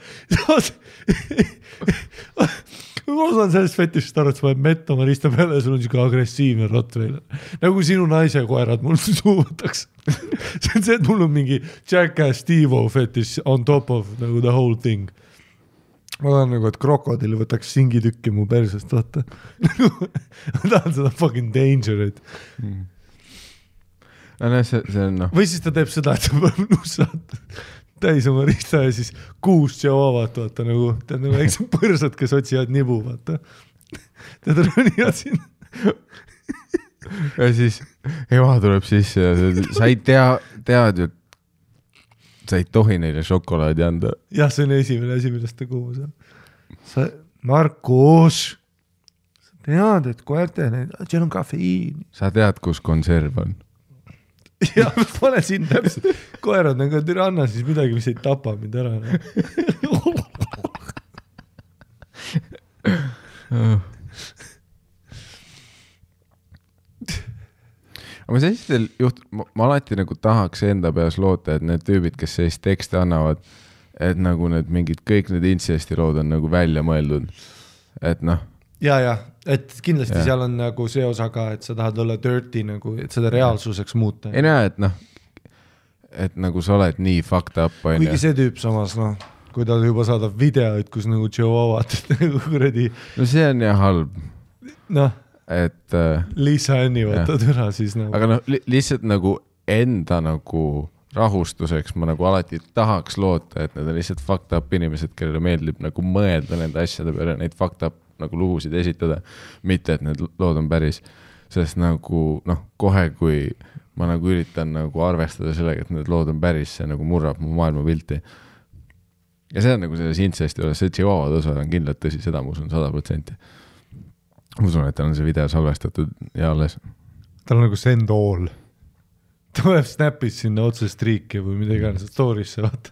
ma osaan sellest fetishist aru, et sa paned mett oma rista peale ja sul on siuke agressiivne rottweiler. Nagu sinu naise koerad mul suuvõtaks. See on see, et mul on mingi Jackass Steve-O fetish on top of nagu the whole thing. Ma tahan nagu, et krokodil võtaks singitükki mu persest, vaata. Ma tahan seda fucking dangerit.
See on
Või siis ta teeb seda, et sa peab nussad täis oma rista ja siis 6 chihuahuat, vaata nagu, tead nagu väiksed põrsad, kes otsivad nibu, vaata. Tead rõnivad siin.
Ja siis ema tuleb sisse ja sa ei tead ju, sa ei tohi neile šokolaadi anda.
Jah, see on esimene asi, millest ta kuhu sa. Markus, sa tead, et koerte, seal on kafeiini.
Sa tead, kus konserv on.
Ja pane siin täpselt koerad nagu türa anna siis midagi, mis ei tapa mind ära.
aga sellistel ma alati nagu tahaks enda peas loota, et need tüübid, kes sellist tekste annavad, et nagu need mingid, kõik need incesti lood on nagu välja mõeldud, et noh.
Ja, et kindlasti seal on nagu see osa ka, et sa tahad olla dirty nagu, et seda reaalsuseks muuta.
Ei näe, et nagu sa oled nii fucked up.
Kuigi see tüüp samas, kui ta juba saadab videoid, kus nagu Chihuahuat nagu kuradi.
No see on ja halb. Et
Liisa Anni võtad üra siis nagu.
Aga lihtsalt nagu enda nagu rahustuseks ma nagu alati tahaks loota, et need on lihtsalt fucked up inimesed, kellele meeldib nagu mõelda nende asjade peale, neid fucked up nagu lugusid esitada, mitte et need lood on päris, sest nagu kohe, kui ma nagu üritan nagu arvestada sellega, et need lood on päris, see nagu murrab mu maailmapilti. Ja see on nagu selles incesti juures, see Chihuahua tõsa on kindlalt tõsi, seda ma usun 100%. Ma usun, et tal on see video salvestatud ja alles.
Tal on nagu send all. Ta tuleb snapis sinna otse striiki või mida iganes story'sse, vaata.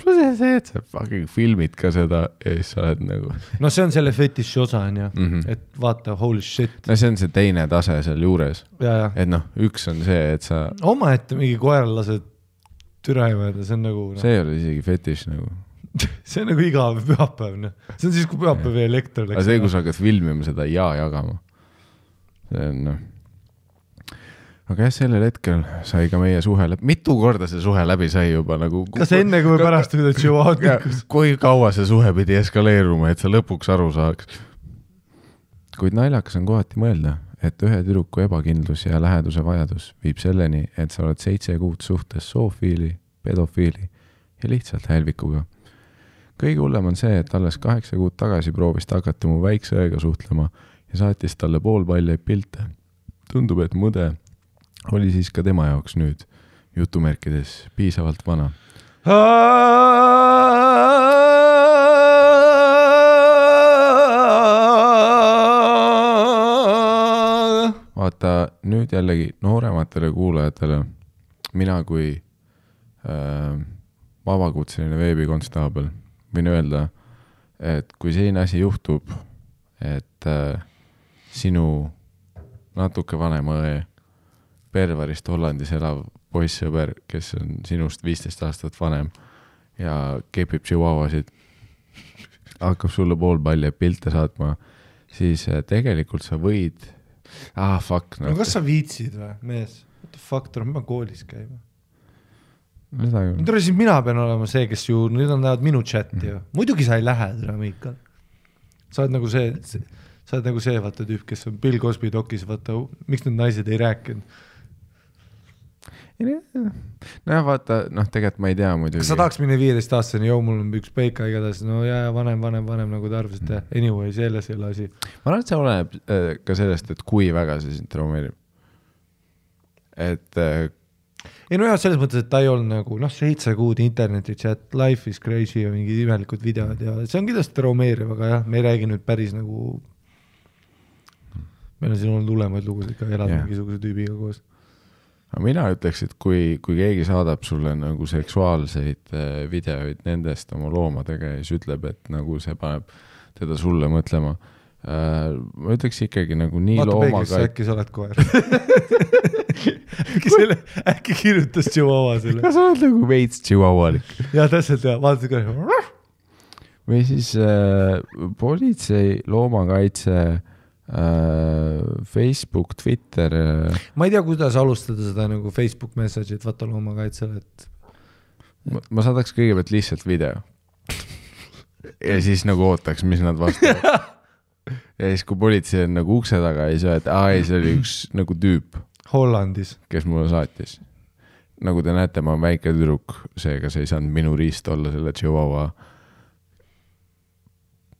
Plus see, et sa fucking filmid ka seda ja siis sa oled nagu...
No see on selle fetiši osa, on ja. Et vaata, holy shit.
No see on see teine tase seal juures.
Ja.
Et üks on see, et sa...
Oma ette mingi koeral lased türa imeda, see on nagu...
See ei ole isegi fetiš nagu.
See on nagu iga pühapäev. See on siis, kui pühapäev ja elekter läks.
Aga see, kui sa hakkad filmima seda ja jagama. See on... Aga sellel hetkel sai ka meie suhe läbi. Mitu korda see suhe läbi sai juba nagu...
Kas enne kui pärast üle Chihuahua tikkus?
Kui kaua see suhe pidi eskaleeruma, et sa lõpuks aru saaks. Kuid naljakas on kohati mõelda, et ühe tüdruku ebakindlus ja läheduse vajadus viib selleni, et sa oled 7 kuud suhtes soofiili, pedofiili ja lihtsalt hälvikuga. Kõige hullem on see, et alles 8 kuud tagasi proovis ta hakata mu väikse õega suhtlema ja saatis talle poolpaljaid pilte. Tundub, et mõde oli siis ka tema jaoks nüüd, jutumärkides, piisavalt vana. Vaata, nüüd jällegi noorematele kuulajatele, mina kui vabakutseline veebikonstaabel võin öelda, et kui selline asi juhtub, et sinu natuke vanema õe Pervarist Hollandis elav poissõber, kes on sinust 15 aastat vanem ja kepib chihuahuasid, hakkab sulle poolpalli pilte saatma, siis tegelikult sa võid... fuck.
No kas sa viitsid või, mees? What the fuck, tuleb ma koolis käima? Siis mina pean olema see, kes ju, nüüd on näevad minu chati ju. Muidugi sa ei lähe, Miikal. Sa oled nagu see, vaata tüüp, kes on Bill Cosby dokis, vaata, miks need naised ei rääkinud?
No vaata, tegelikult ma ei tea muidugi.
Kas sa tahaks minna 15 aastaseni, mul on üks peika igatahes, vanem nagu ta arvas, et anyway, selles ei ole asi.
Ma arvan, et see oleneb ka sellest, et kui väga see sind traumeerib. Et...
selles mõttes, et ta ei olnud nagu 7 kuud interneti chat, life is crazy ja mingid imelikud videod ja see on kindlasti traumeeriv, aga jah, me ei räägi nüüd päris nagu... Meil on siin olnud hulemaid lugusid ka elada mingisuguse tüübiga koos.
Mina ütleks, et kui keegi saadab sulle nagu seksuaalseid videoid nendest oma loomadega ja siis ütleb, et nagu see paneb teda sulle mõtlema. Ma ütleks ikkagi nagu nii loomaga...
Vaata äkki sa oled koer. äkki kirjutas Chihuahua selle.
Kas sa oled nagu veits chihuahualik?
Ja täpselt ja, vaata ka.
Või siis politsei, loomakaitse... Facebook, Twitter
ma ei tea, kuidas alustada seda nagu Facebook message'it vaata loomakaitsele, et
ma saadaks kõigepealt lihtsalt video ja siis nagu ootaks, mis nad vastavad ja siis kui politsei on nagu ukse taga ja siis et see oli üks nagu tüüp
Hollandis,
kes mulle saatis. Nagu te näete, ma olen väike tüdruk, seega see ei saanud minu riist olla selle Chihuahua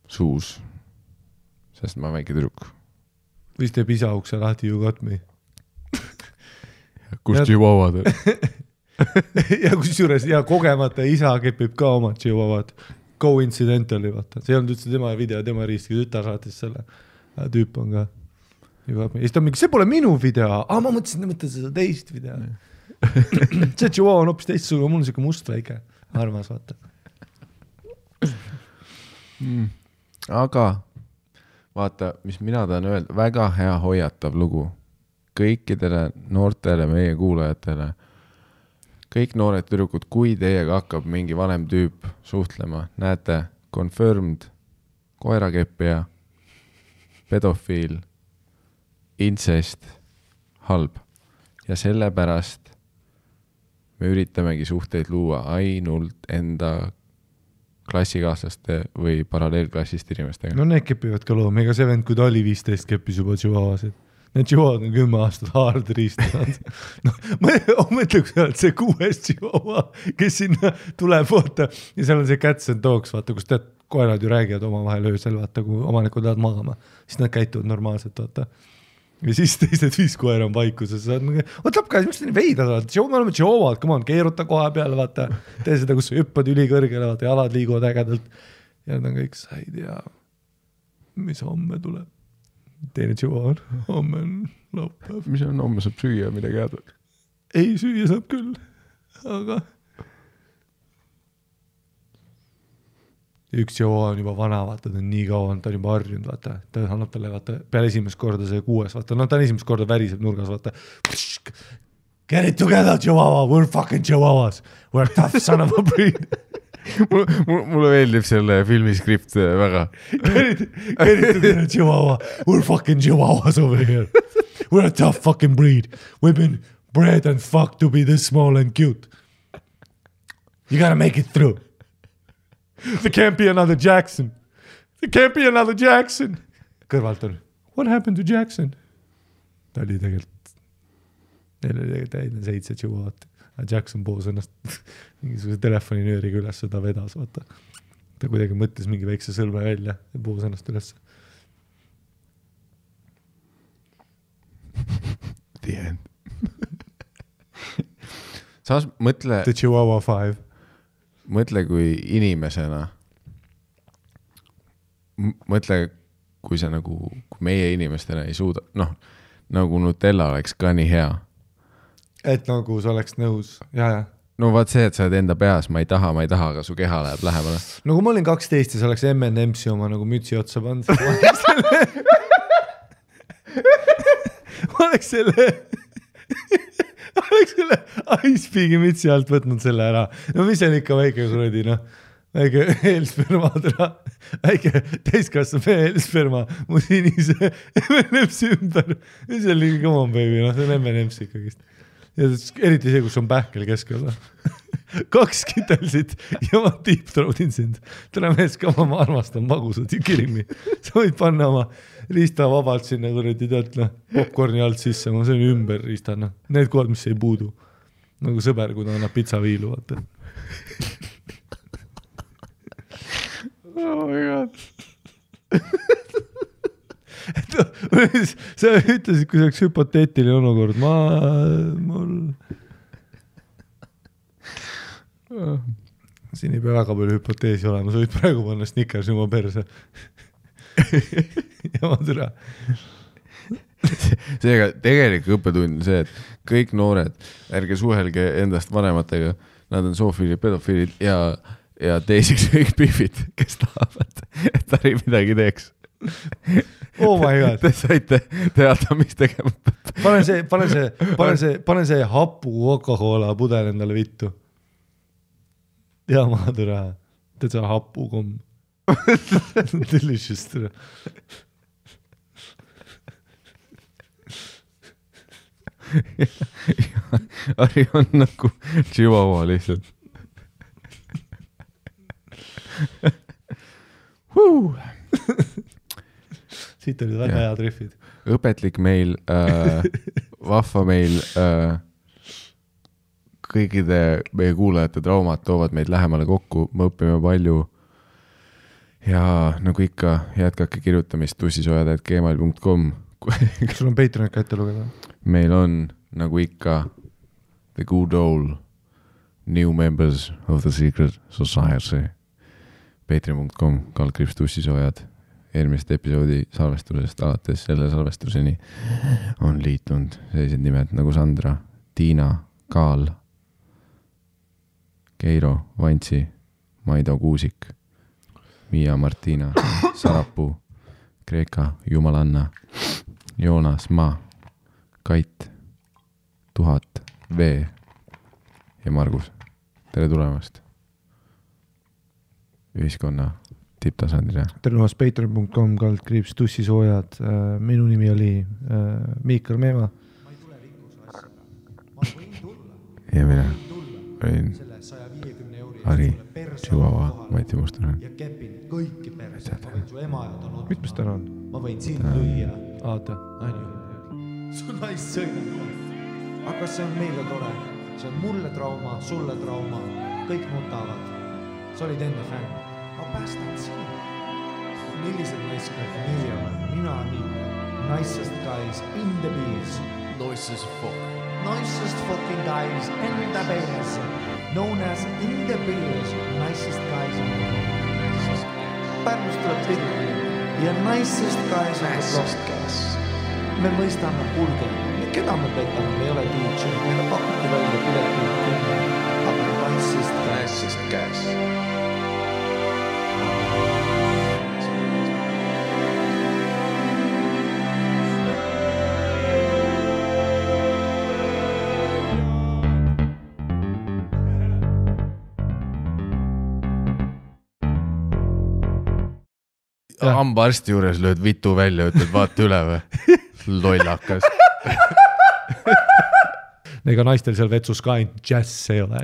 suus, sest ma olen väike tüdruk.
Või teeb isa ukse lahti, you got me.
Kus Chihuahuad on?
ja kusjuures kogemata isa kepib ka oma Chihuahuad. Coincidentally, vaata. See on üldse tema video, tema riiski tütar saatis selle. Tüüp on ka. Ja siis ta on mingi, see pole minu video. Ma mõtlesin seda teist video. see Chihuahua on hoopis teistsugune, mul on siuke must väike. Armas, vaata.
Aga... Vaata, mis mina tahan öelda, väga hea hoiatav lugu kõikidele noortele meie kuulajatele, kõik noored tüdrukud, kui teiega hakkab mingi vanem tüüp suhtlema, näete, confirmed, koerakeppija, pedofiil, incest, halb. Ja sellepärast me üritamegi suhteid luua ainult enda klassikaaslaste või paralleelklassist inimestega.
No need kepivad ka looma, ega see vend, kui ta oli 15, keppis juba Chihuahuasid. Need Chihuahuad on 10 aastat hard riistanud. No, ma mõtleks, et see 6 Chihuahua, kes sinna tuleb, vaata, ja seal on see cats and dogs, vaata, kus tead, koerad ju räägivad omavahel öösel, vaata, kui omanikud tahavad magama, siis nad käituvad normaalselt, vaata. Ja siis teised 5 koera on vaikuses, what up guys, miks te nii veidad, vaata, me oleme Chihuahuad, come on, keeruta koha peale, vaata, tee seda, kus hüppad ülikõrgele, vaata, jalad liiguvad ägedalt ja nad on kõik, sa ei tea, mis homme tuleb. Teine Chihuahua, homme on laupäev.
Mis on, homme saab süüa midagi head?
Ei, süüa saab küll, aga üks Chihuahua on juba vana, vaata, ta on nii kaua, ta on juba harjunud, vaata, ta annab talle, vaata, peale esimest korda see 6, vaata, no ta on esimest korda väriseb nurgas, vaata. Get it together, Chihuahua, we're fucking Chihuahuas, we're tough son of a breed.
Mulle meeldib selle filmiskript väga.
Get it together, Chihuahua, we're fucking Chihuahuas over here. We're a tough fucking breed. We've been bred and fucked to be this small and cute. You gotta make it through. There can't be another Jackson. There can't be another Jackson. Kõrvalt on, what happened to Jackson? Ta oli tegelikult, neil oli tegelikult 7 Chihuahuat. Jackson poos ennast mingisuguse telefoninööriga üles, ta vedas, vaata. Ta kuidagi mõtles mingi väikse sõlme välja ja poos ennast üles.
The end. Saas mõtle...
The Chihuahua 5.
Mõtle kui inimesena. Mõtle, kui sa nagu, kui meie inimestena ei suuda, noh, nagu Nutella oleks ka nii hea.
Et nagu sa oleks nõus, ja.
No vaat see, et sa oled enda peas, ma ei taha, aga su keha läheb lähemale.
No kui ma olin 12 ja sa oleks M&M's oma nagu mütsi otsa pannud, ma oleks selle Icepeagi mütsi alt võtnud selle ära. No mis on ikka väike kuradi, noh. Väike eelsperma, väike täiskasvu eelsperma mu sinise M&M's ümber. See on liiga come on baby, noh, see on M&M's ikkagist. Ja eriti see, kus on pähkel keskel. 2 kitelsid ja ma deep-throatin sind. Täna mees ka, ma armastan magusad ja kirimi. Sa võid panna oma riista vabalt sinna, kuradi tead, popcorni alt sisse, ma söön ümber riista, noh. Need kohad, mis ei puudu. Nagu sõber, kui ta annab pitsaviilu, vaata.
Oh my god.
Sa ütlesid, kui see oleks hüpoteetiline olukord, siin ei pea väga palju hüpoteesi olema, sa võid praegu panna Snickers oma perse. Ja ma türa.
Seega tegelikult õppetund on see, et kõik noored, ärge suhelge endast vanematega, nad on zoofiilid, pedofiilid ja teiseks kõik pihvid, kes tahavad, et ta ei midagi teeks.
Oh my god.
Te saite teada, mis tegema.
Pane see hapu Coca-Cola pudel endale vittu. Ja ma türa. Teed see hapu komm. Delicious türa.
Ari on nagu Chihuahua lihtsalt.
Siit olid väga head riffid.
Õpetlik meil, vahva meil, kõikide meie kuulajate traumad toovad meid lähemale kokku, me õpime palju ja nagu ikka jätkake kirjutamist tussisojad@gmail.com.
Kas sul on Patreon ka ette lugeda?
Meil on nagu ikka the good old new members of the secret society. Patreon.com, /tussisojad. Eelmist episoodi salvestusest alates selle salvestuseni on liitunud sellised nimed nagu Sandra, Tiina, Kaal, Keiro, Vantsi, Maido Kuusik, Miia Martina, Sarapuu, Kreeka, Jumalanna, Joonas Ma, Kait, 1000, V ja Margus. Tere tulemast ühiskonna tipptasandile.
Tere tulemast patreon.com /tussisoojad. Minu nimi oli Miikal Meema. Ma ei tule rikkuse asja. Ma võin tulla.
Ja mina võin
selle 150 euri
Ari, Chihuahua, Mati Mustonen.
Ja kepin kõiki perse. Ma võin su ema ja ta on
mitmes täna on?
Ma võin sind lüüa.
Aata.
Su naist sõidab. Aga see on meile tore. See on mulle trauma, sulle trauma. Kõik nutavad. Sa olid enne fänn. Ma päästan sind. Millised naiskad nii on? Mina nii. Nicest guys in the bees.
Nicest fuck.
Nicest fucking guys in the bees. Known as in the bees. Nicest guys in the bees. Pärnust tuleb pilli. Ja nicest guys in the bees. Me mõistame kulge. Keda me petame? Me ei ole DJ. Meile pakuti välja pileti. Aga nicest guys.
Hambaarsti juures lööd vitu välja, ütled vaata üle või? Lollakas.
Ega naistel seal vetsus ka ainult jazz ei ole.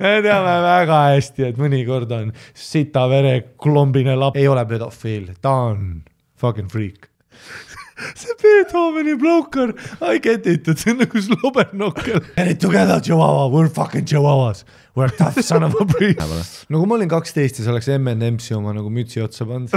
Me teame väga hästi, et mõnikord on sita vere klombine lap. Ei ole pedofiil, ta on fucking freak. See Beethoveni bloker, I get it, et see on nagu slobernokkel. Get it together, Chihuahua, we're fucking Chihuahuas. We're tough son of a breed. No kui ma olin 12 ja see oleks M&M's oma nagu mütsi otsa pannud.